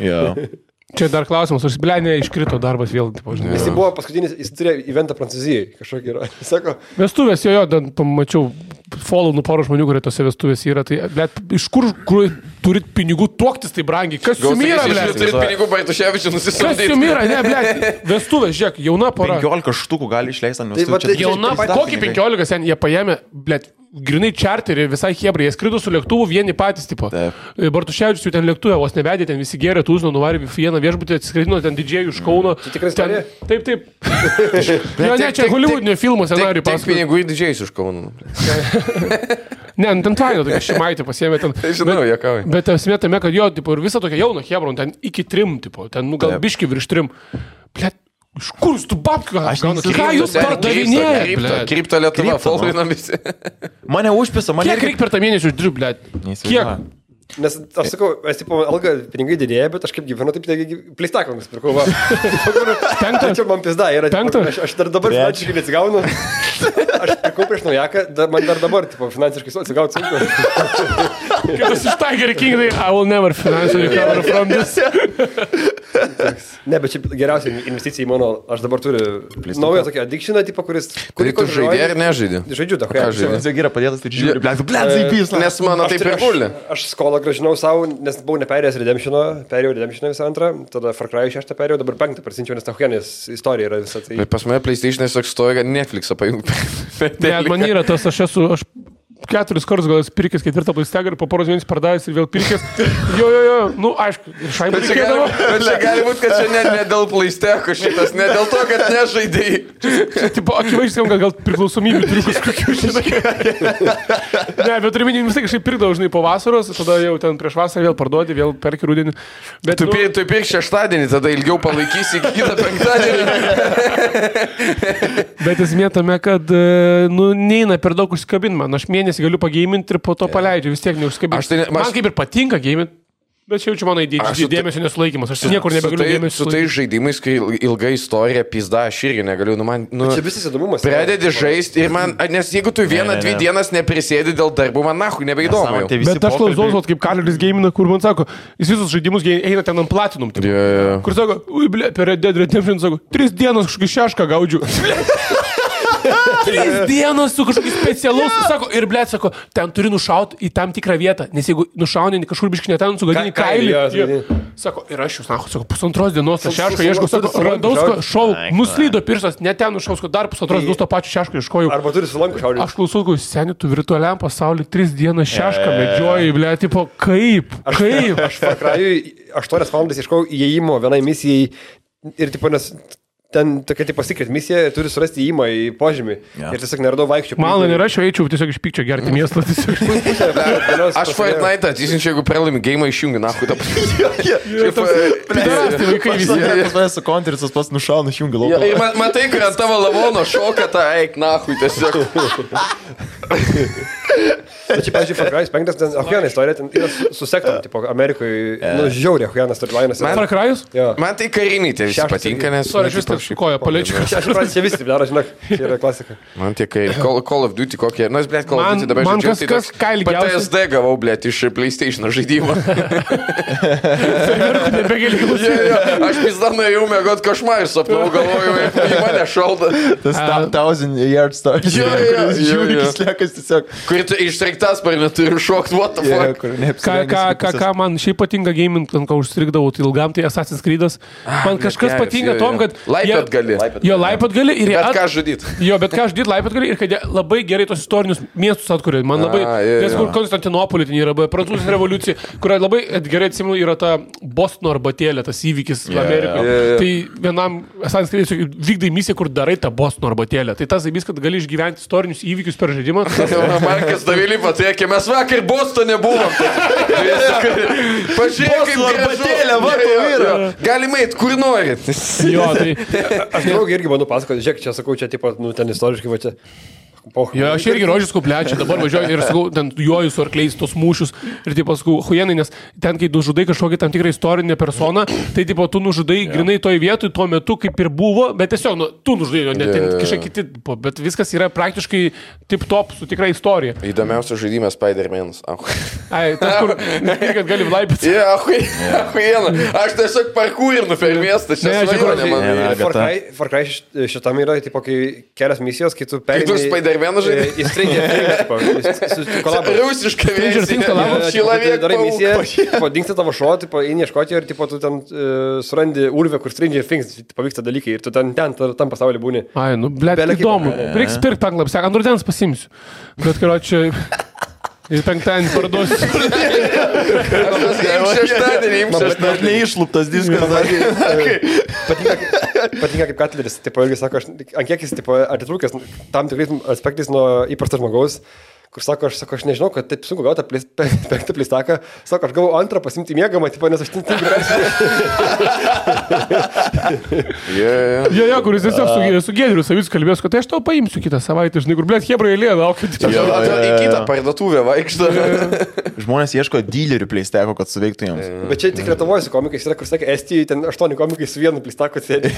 Speaker 4: Čia dar klausimas, aš blėnė iškrito darbas vėl.
Speaker 2: Jis buvo paskutinis, jis turėjo eventą Prancūzijai, kažkokį yra. Sako,
Speaker 4: vestuvės, jo, ten pamačiau follow porą žmonių, kurie tose vestuvės yra. Tai, blėt, iš kur turit pinigų tuoktis tai brangiai? Kas jums yra, blėt?
Speaker 3: Turit pinigų Bartuševičių nusisamdyti.
Speaker 4: Kas jums yra, ne, blėt? Vestuvės, žiūrėk, jauna pora.
Speaker 1: 15 štukų gali išleisti ant vestuvės.
Speaker 4: Jauna, kokį 15 sen, jie paėmė, blėt, grinai čarterį, visai hebrai, jie skrido su lėktuvu vieni patys, tipo. Bartuševičius jau ten lėktuvė, vos nevedė, ten visi gėrė, tūzino, nuvarė vieną viešbutį, atsiskridino ten didžiai iš Kauno.
Speaker 2: Tai tikrai istorija?
Speaker 4: Taip. Jo, ne, čia Hollywoodinio filmo scenarijų pasakoja.
Speaker 3: Tik pinigų į didžiai iš Kauno.
Speaker 4: Ne, ten tvaino, tokia šimaitė pasiėmė ten.
Speaker 3: Žinau, jokauju.
Speaker 4: Bet esmė tame, kad jo, tipo, ir visa tokia jauna hebron, ten iki 3, tipo, ten, nu, gal biški virš 3. Blet, iš Kur jūs tu babkių? Ką jūs pardavinėjate?
Speaker 3: Krypto Lietuva, followinom visi.
Speaker 1: Mane užpisa, mane...
Speaker 4: Kiek reikia per tą mėnesį uždirbti, blėt? Kiek?
Speaker 2: Nes aš sakau, aš tipo, alga pinigai didėja, bet aš kaip gyvenu, taip pleistaką nusipirkau.
Speaker 4: Penktą?
Speaker 2: Čia man pizda yra.
Speaker 4: Penktą?
Speaker 2: Aš dar dabar finansiškai neatsigaunu. Aš pirkau prieš naujaką, man dar dabar tipo, finansiškai atsigauti sunku.
Speaker 4: Kitas iš Tiger King, I will never financially recover from this.
Speaker 2: Ne, bet čia geriausia investicija į mano, aš dabar turiu naują tokį addictioną, tipo, kuris...
Speaker 3: Tai tu žaidė ar nežaidė?
Speaker 2: Žaidžiu, da,
Speaker 1: Nes jau yra padėtas, tai žiūri, blėt, zaipys.
Speaker 3: Nes mano taip ir guli.
Speaker 2: Aš skolą gražinau savo, nes buvau neperėjęs Redemption'o, perėjau Redemption'o visą antrą, tada Far Cry 6 perėjau, dabar 5 prasinčiau, nes Tahuenės istorija yra visą tai.
Speaker 3: Bet pas mane PlayStation'e toks stoja, kad Netflix'ą pajungti.
Speaker 4: Ne, man yra tas, aš 4 kartus gal esu pirkęs 4 PlayStation ir po poros mėnesių pardavęs ir vėl pirkęs. Jo, nu aišku, šaibą reikėdavo.
Speaker 3: Bet čia gali būti, kad čia ne dėl PlayStation šitas, ne dėl to, kad nežaidėjai.
Speaker 4: Čia tipo, akivaizdžiai, gal priklausomybių turiu kažkokių šitą. Ne, bet turiu minį, vis tiek kažkaip pirkdavau, žinai, po vasaros, tada jau ten prieš vasarą vėl parduodi, vėl perki rudenį. Bet
Speaker 3: tu pirk šeštadienį, tada ilgiau palaikysi iki kitą penktadienį.
Speaker 4: Bet esmė tame, kad, neina per daug užsikabinti man. Aš mėnesį galiu pageiminti ir po to paleidžiu, vis tiek neužsikabinti. Man kaip ir patinka geiminti, bet čia jaučiu mano dėmesio nesulaikymas. Aš niekur nebegaliu dėmesio
Speaker 3: sulaikyti. Su tai žaidimais, kai ilga istorija, pizda, aš irgi negaliu.
Speaker 2: Čia visas įdomumas.
Speaker 3: Pradedi žaisti ir man, nes jeigu tu 1-2 dienas neprisėdi dėl darbų, man nahui nebeįdomu.
Speaker 4: Bet aš klausau, kaip Kaleris geimina, kur man sako, jis visus žaidimus eina ten ant platinum. Kur sako, per Red Dead Redemption sako, 3 dienas kažkokį šešką gaudžiu. 3 dienos su kažkokiu specialus, sako, ir blėt, sako, ten turi nušauti į tam tikrą vietą, nes jeigu nušauni kažkur biškinė ten, sugadini kailį. Sako, ir aš jūs, sako, 1,5 dienos tą šešką ieškau, sako, radau šau, nuslydo pirštas, ne ten nušaus, dar 1,5 dienos tą pačią šešką ieškojau.
Speaker 2: Arba turi sulanku šaudyti.
Speaker 4: Aš klausau, seni, tu virtualiam pasauliu 3 dienas šešką medžioji, blėt, tipo, kaip?
Speaker 2: Aš Far Cry'ui 8 valandas ieškau įėjimo vienai misijai ir tipo, nes ten tokia tipo secret misija, turi surasti įėjimą į požemį. Ir tiesiog neradau vaikščių.
Speaker 4: Man nėra, aš eičiau tiesiog iš pykčio gerti miestą.
Speaker 3: Aš Fortnite atsisinčiau, jeigu pralaimi game išjungi, nahui tą
Speaker 4: Pidarasti vaikai visi.
Speaker 1: Pas mane su konterisas pas nušauna išjungi lauką.
Speaker 3: Ir matai, kad ant tavo lavono šoka tą eik, nahui tiesiog.
Speaker 2: Bet čia, pavyzdžiui, Far Cry 5, ten Ahuiana istorija, ten yra su sektom, tipo, Amerikoje, žiauriai Ahuiana storylainas.
Speaker 4: Far Cry'us?
Speaker 3: Man tai kariniai tie visi patinka, nes...
Speaker 4: Sorry, aš vis taip šikoju, paliečiu.
Speaker 2: Aš pradžiu, čia visi taip daro, žinok, čia yra klasika.
Speaker 3: Man tie Call of Duty kokie, nu, blėt, Call of Duty dabar
Speaker 4: žaidžiu. Man kas ką ilgiausiai...
Speaker 3: PTSD gavau, blėt, iš PlayStation žaidimo. Aš pizda nuėjau mėgot košmarį, sapnau, galvojau, į mane šalda.
Speaker 1: Tas 1000 Yard Story. Žiūri, slėkas tiesiog.
Speaker 3: Kur tu ištriktas par neturi šokti, what the fuck.
Speaker 4: Ką man šiaip patinka gaming, ką užstrikdavau, tai ilgam, tai Assassin's Creed'as. Man kažkas patinka tom, kad...
Speaker 3: Laipet gali.
Speaker 4: Jo, laipet gali ir...
Speaker 3: Bet ką žudyt.
Speaker 4: Jo, bet ką žudyt, laipet gali ir kad labai gerai tos istorinius miestus atkuria. Man labai... Nes kur Konstantinopolį ten yra, Prancūzijos revoliucija, kuria labai gerai atsimenu yra ta Bostono arbatėlė, tas įvykis Amerikoje. Tai vienam Assassin's Creed vykdai misiją, kur darai tą Bostono arbatėlę. Tai tas įvykis, kad gali išgyventi istorinius įvykius per žaidimą.
Speaker 3: Markas Davilį patriekė, mes vakar Bostone buvom. Pažiūrėk, kaip arbatėlė, matau yra. Galime eit, kur nori.
Speaker 4: Jo, tai...
Speaker 2: Aš draugį irgi manau pasakoti, žiūrėk, čia sakau, čia tipo, ten istoriškai va čia.
Speaker 4: Jo, aš irgi rožys kuplečia, dabar važiuoju ir sakau, ten juoju su arkliais tos mūšius ir taip sakau, huienai, nes ten, kai nužudai kažkokį tam tikrą istorinę personą, tai tipo, tu nužudai grinai toj vietoj, tuo metu kaip ir buvo, bet tiesiog, tu nužudai, ne ten kažkaip kiti, bet viskas yra praktiškai tip-top su tikra istorija.
Speaker 3: Įdomiausias žaidimas Spider-Man'as.
Speaker 4: Ai, tas kur, kad gali vlaipyti.
Speaker 3: Ahuiena. Aš tiesiog parkūrinu per miestą, čia svajonė man.
Speaker 2: Far Cry šitam yra, tipo, kai kelias misijos, kai tu perini...
Speaker 3: Vieną žaidimą.
Speaker 2: Į Stranger Things kolabą.
Speaker 3: Rusišką versiją.
Speaker 2: Darai misiją, dingsta tavo šuo, eini ieškoti ir tu ten surandi urvę, kur Stranger Things pavyksta dalykai ir tu ten tam pasaulyje būni.
Speaker 4: Ai, nu, blėt, įdomu. Reiks pirkti penklapį, seka, ant rudens pasimsiu. Bet, karočią, ir penktadienį parduosiu.
Speaker 1: Šeštadienį neišluptas diskas.
Speaker 2: Patinka kaip Katleris, tipo, irgi sako, ant kiek jis atitrūkęs tam tikrais aspektais nuo įprasto žmogaus, kur sako, aš nežinau, kad taip sunku gauti penktą pleistaką, sako, aš gavau antrą pasimti mėgamą, tipo, nes aš ten tik
Speaker 4: Jo, kuris tiesiog su Giedriu Savicku kalbės, kad aš tau paimsiu kitą savaitę, žinai, kur, blėt, hebra eilė, laukiu.
Speaker 3: Į kitą parduotuvę vaikšto.
Speaker 1: Žmonės ieško dylerių pleisteko, kad suveiktų jiems.
Speaker 2: Bet čia tik Lietuvoje su komikais yra, kur sakė, Estijoje ten 8 komikai su vienu pleistaku sėdi.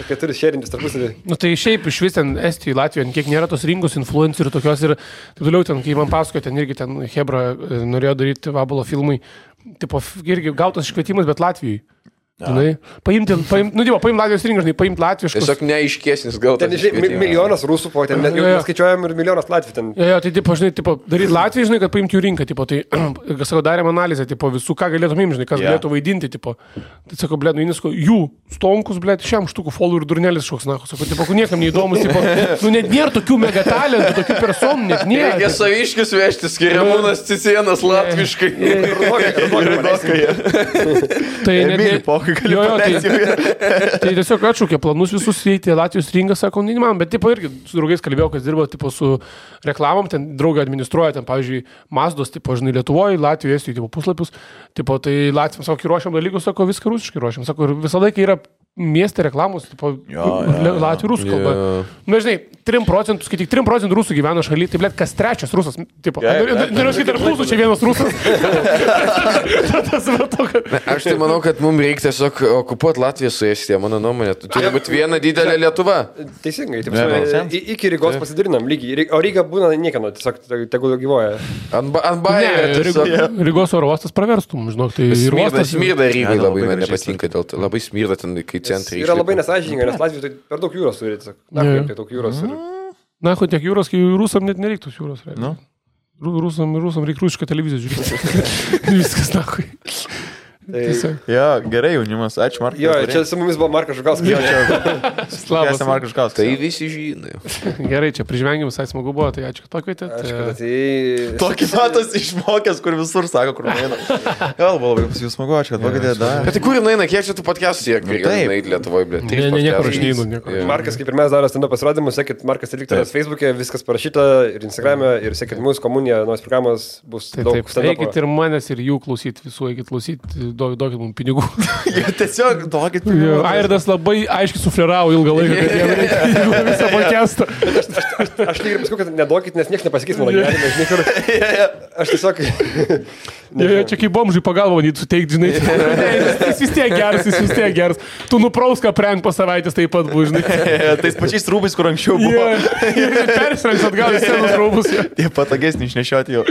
Speaker 2: Sakė, turi šėrintis tarpusavį.
Speaker 4: Nu tai šiaip iš vis ten Estijoje, Latvijoje, kiek nėra tos rinkos influencerių tokios ir taip toliau ten, kai man pasakojo, ten irgi ten hebra norėjo daryti Vabalo filmai, tipo, irgi gautas iškvietimas, bet Latvijoje. Žinai, paimti, Latvijos rinką, žinai, paimti latviškus.
Speaker 3: Tiesiog neaiškesnis gal.
Speaker 2: Ten, žinai, milijonas rusų po ten, skaičiuojam ir milijonas latvių ten.
Speaker 4: Jo, tai, tipo, žinai, tipo, daryti Latvijai, žinai, kad paimti jų rinką, tipo, tai, sako, darėm analizę, tipo, visų, ką galėtum imti, žinai, kas galėtų vaidinti, tipo. Tai, sako, blėt, nu, Inisko, jų stonkus, blėt, šiam štukų folų ir durnelis šoks, na, sako, tipo, niekam neįdomus, tipo, nu, net nėra tokių megatalentų, tokių personų, net nėra.
Speaker 3: Reikia saviškius vežti, skiriamūnas Cicienas latviškai.
Speaker 4: Tai tiesiog atšaukė planus visus įeiti Latvijos rinką, sako, neįmanoma, bet tipo irgi su draugais kalbėjau, kas dirba tipo su reklamom, ten draugai administruoja, ten pavyzdžiui, Mazdos, tipo, žinai, Lietuvoje, Latvijoje, Estijoje, tipo, puslapius, tipo, tai Latvijams, sako, ruošiam dalykus, sako, viską rusiškai ruošiam, sako, ir visą laiką yra mieste reklamos, tipo, Latvijų rusų kalba. Na, žinai, 3%, kai tik 3% rusų gyvena šaly, tai, blėt, kas trečias rusas, tipo, noriu sakyti, tarp mūsų čia vienas rusas.
Speaker 3: Aš tai manau, kad mums reikia tiesiog okupuoti Latviją su Estija, mano nuomonė. Turi būti viena didelė Lietuva.
Speaker 2: Teisingai, iki Rygos pasidarinam lygiai, o Ryga būna niekieno, tiesiog tegul gyvoja.
Speaker 3: Ant bajerio.
Speaker 4: Rygos oro uostas praverstum, žinok, tai ir uostas.
Speaker 3: Smirda Rygai labai man nepatinka, dėl to labai smirda ten, kai centrai.
Speaker 2: Yra labai nesąžininga, nes Latvijai tai per daug jūros turi, tiesiog. Na, daug jūros turi.
Speaker 4: Na, tiek jūros, kai rusam net nereiktų jūros. Rusam reikia rusišką televiziją žiūrėti. Viskas, nakui.
Speaker 1: Jo, gerai, jaunimas, ačiū Markas.
Speaker 2: Jo, čia su mumis buvo Markas Žukauskas.
Speaker 1: Labas, Markas Žukauskas.
Speaker 3: Tai visi žino.
Speaker 4: Gerai, čia prižvengiam, visai smagu buvo, tai ačiū, kad pakvietėt.
Speaker 1: Tokį matas išmokęs, kur visur sako, kur nueina. Gal buvo labai pas jūs smagu, ačiū, kad pakvietėt.
Speaker 3: Bet tai kur nueina, kiek čia tų podcastų siek? Taip, Lietuvoje, blė.
Speaker 4: Niekur aš neinu.
Speaker 2: Markas, kaip ir mes darome stand-up pasirodymus, sekit Markas Eliktoras Facebook'e, viskas parašyta ir Instagram'e, ir sekit mūsų komuniją, naujas programas bus daug stand-up.
Speaker 4: Eikit ir manęs, ir jų klausyti, visų eikit klausyti. Duokit mums pinigų.
Speaker 1: Tiesiog duokit pinigų.
Speaker 4: Airdas labai aiškiai sufleravo ilgą laiką, kad jie reikia visą podcastą.
Speaker 2: Aš lygiai paskui, kad neduokit, nes niekas nepasakys mano gyvenime. Aš tiesiog...
Speaker 4: Čia kaip bomžai pagalba manyti suteikti, žinai. Jis vis tiek geras. Tu nuprauską prenk po savaitės taip pat buvo, žinai.
Speaker 1: Tais pačiais rūbais, kur anksčiau buvo.
Speaker 4: Persirengs atgal į senus rūbus.
Speaker 1: Tie patogesni išnešioti jau.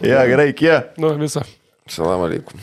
Speaker 1: Ja, gerai, kie.
Speaker 4: Nu, visą.
Speaker 3: Salam aleikum.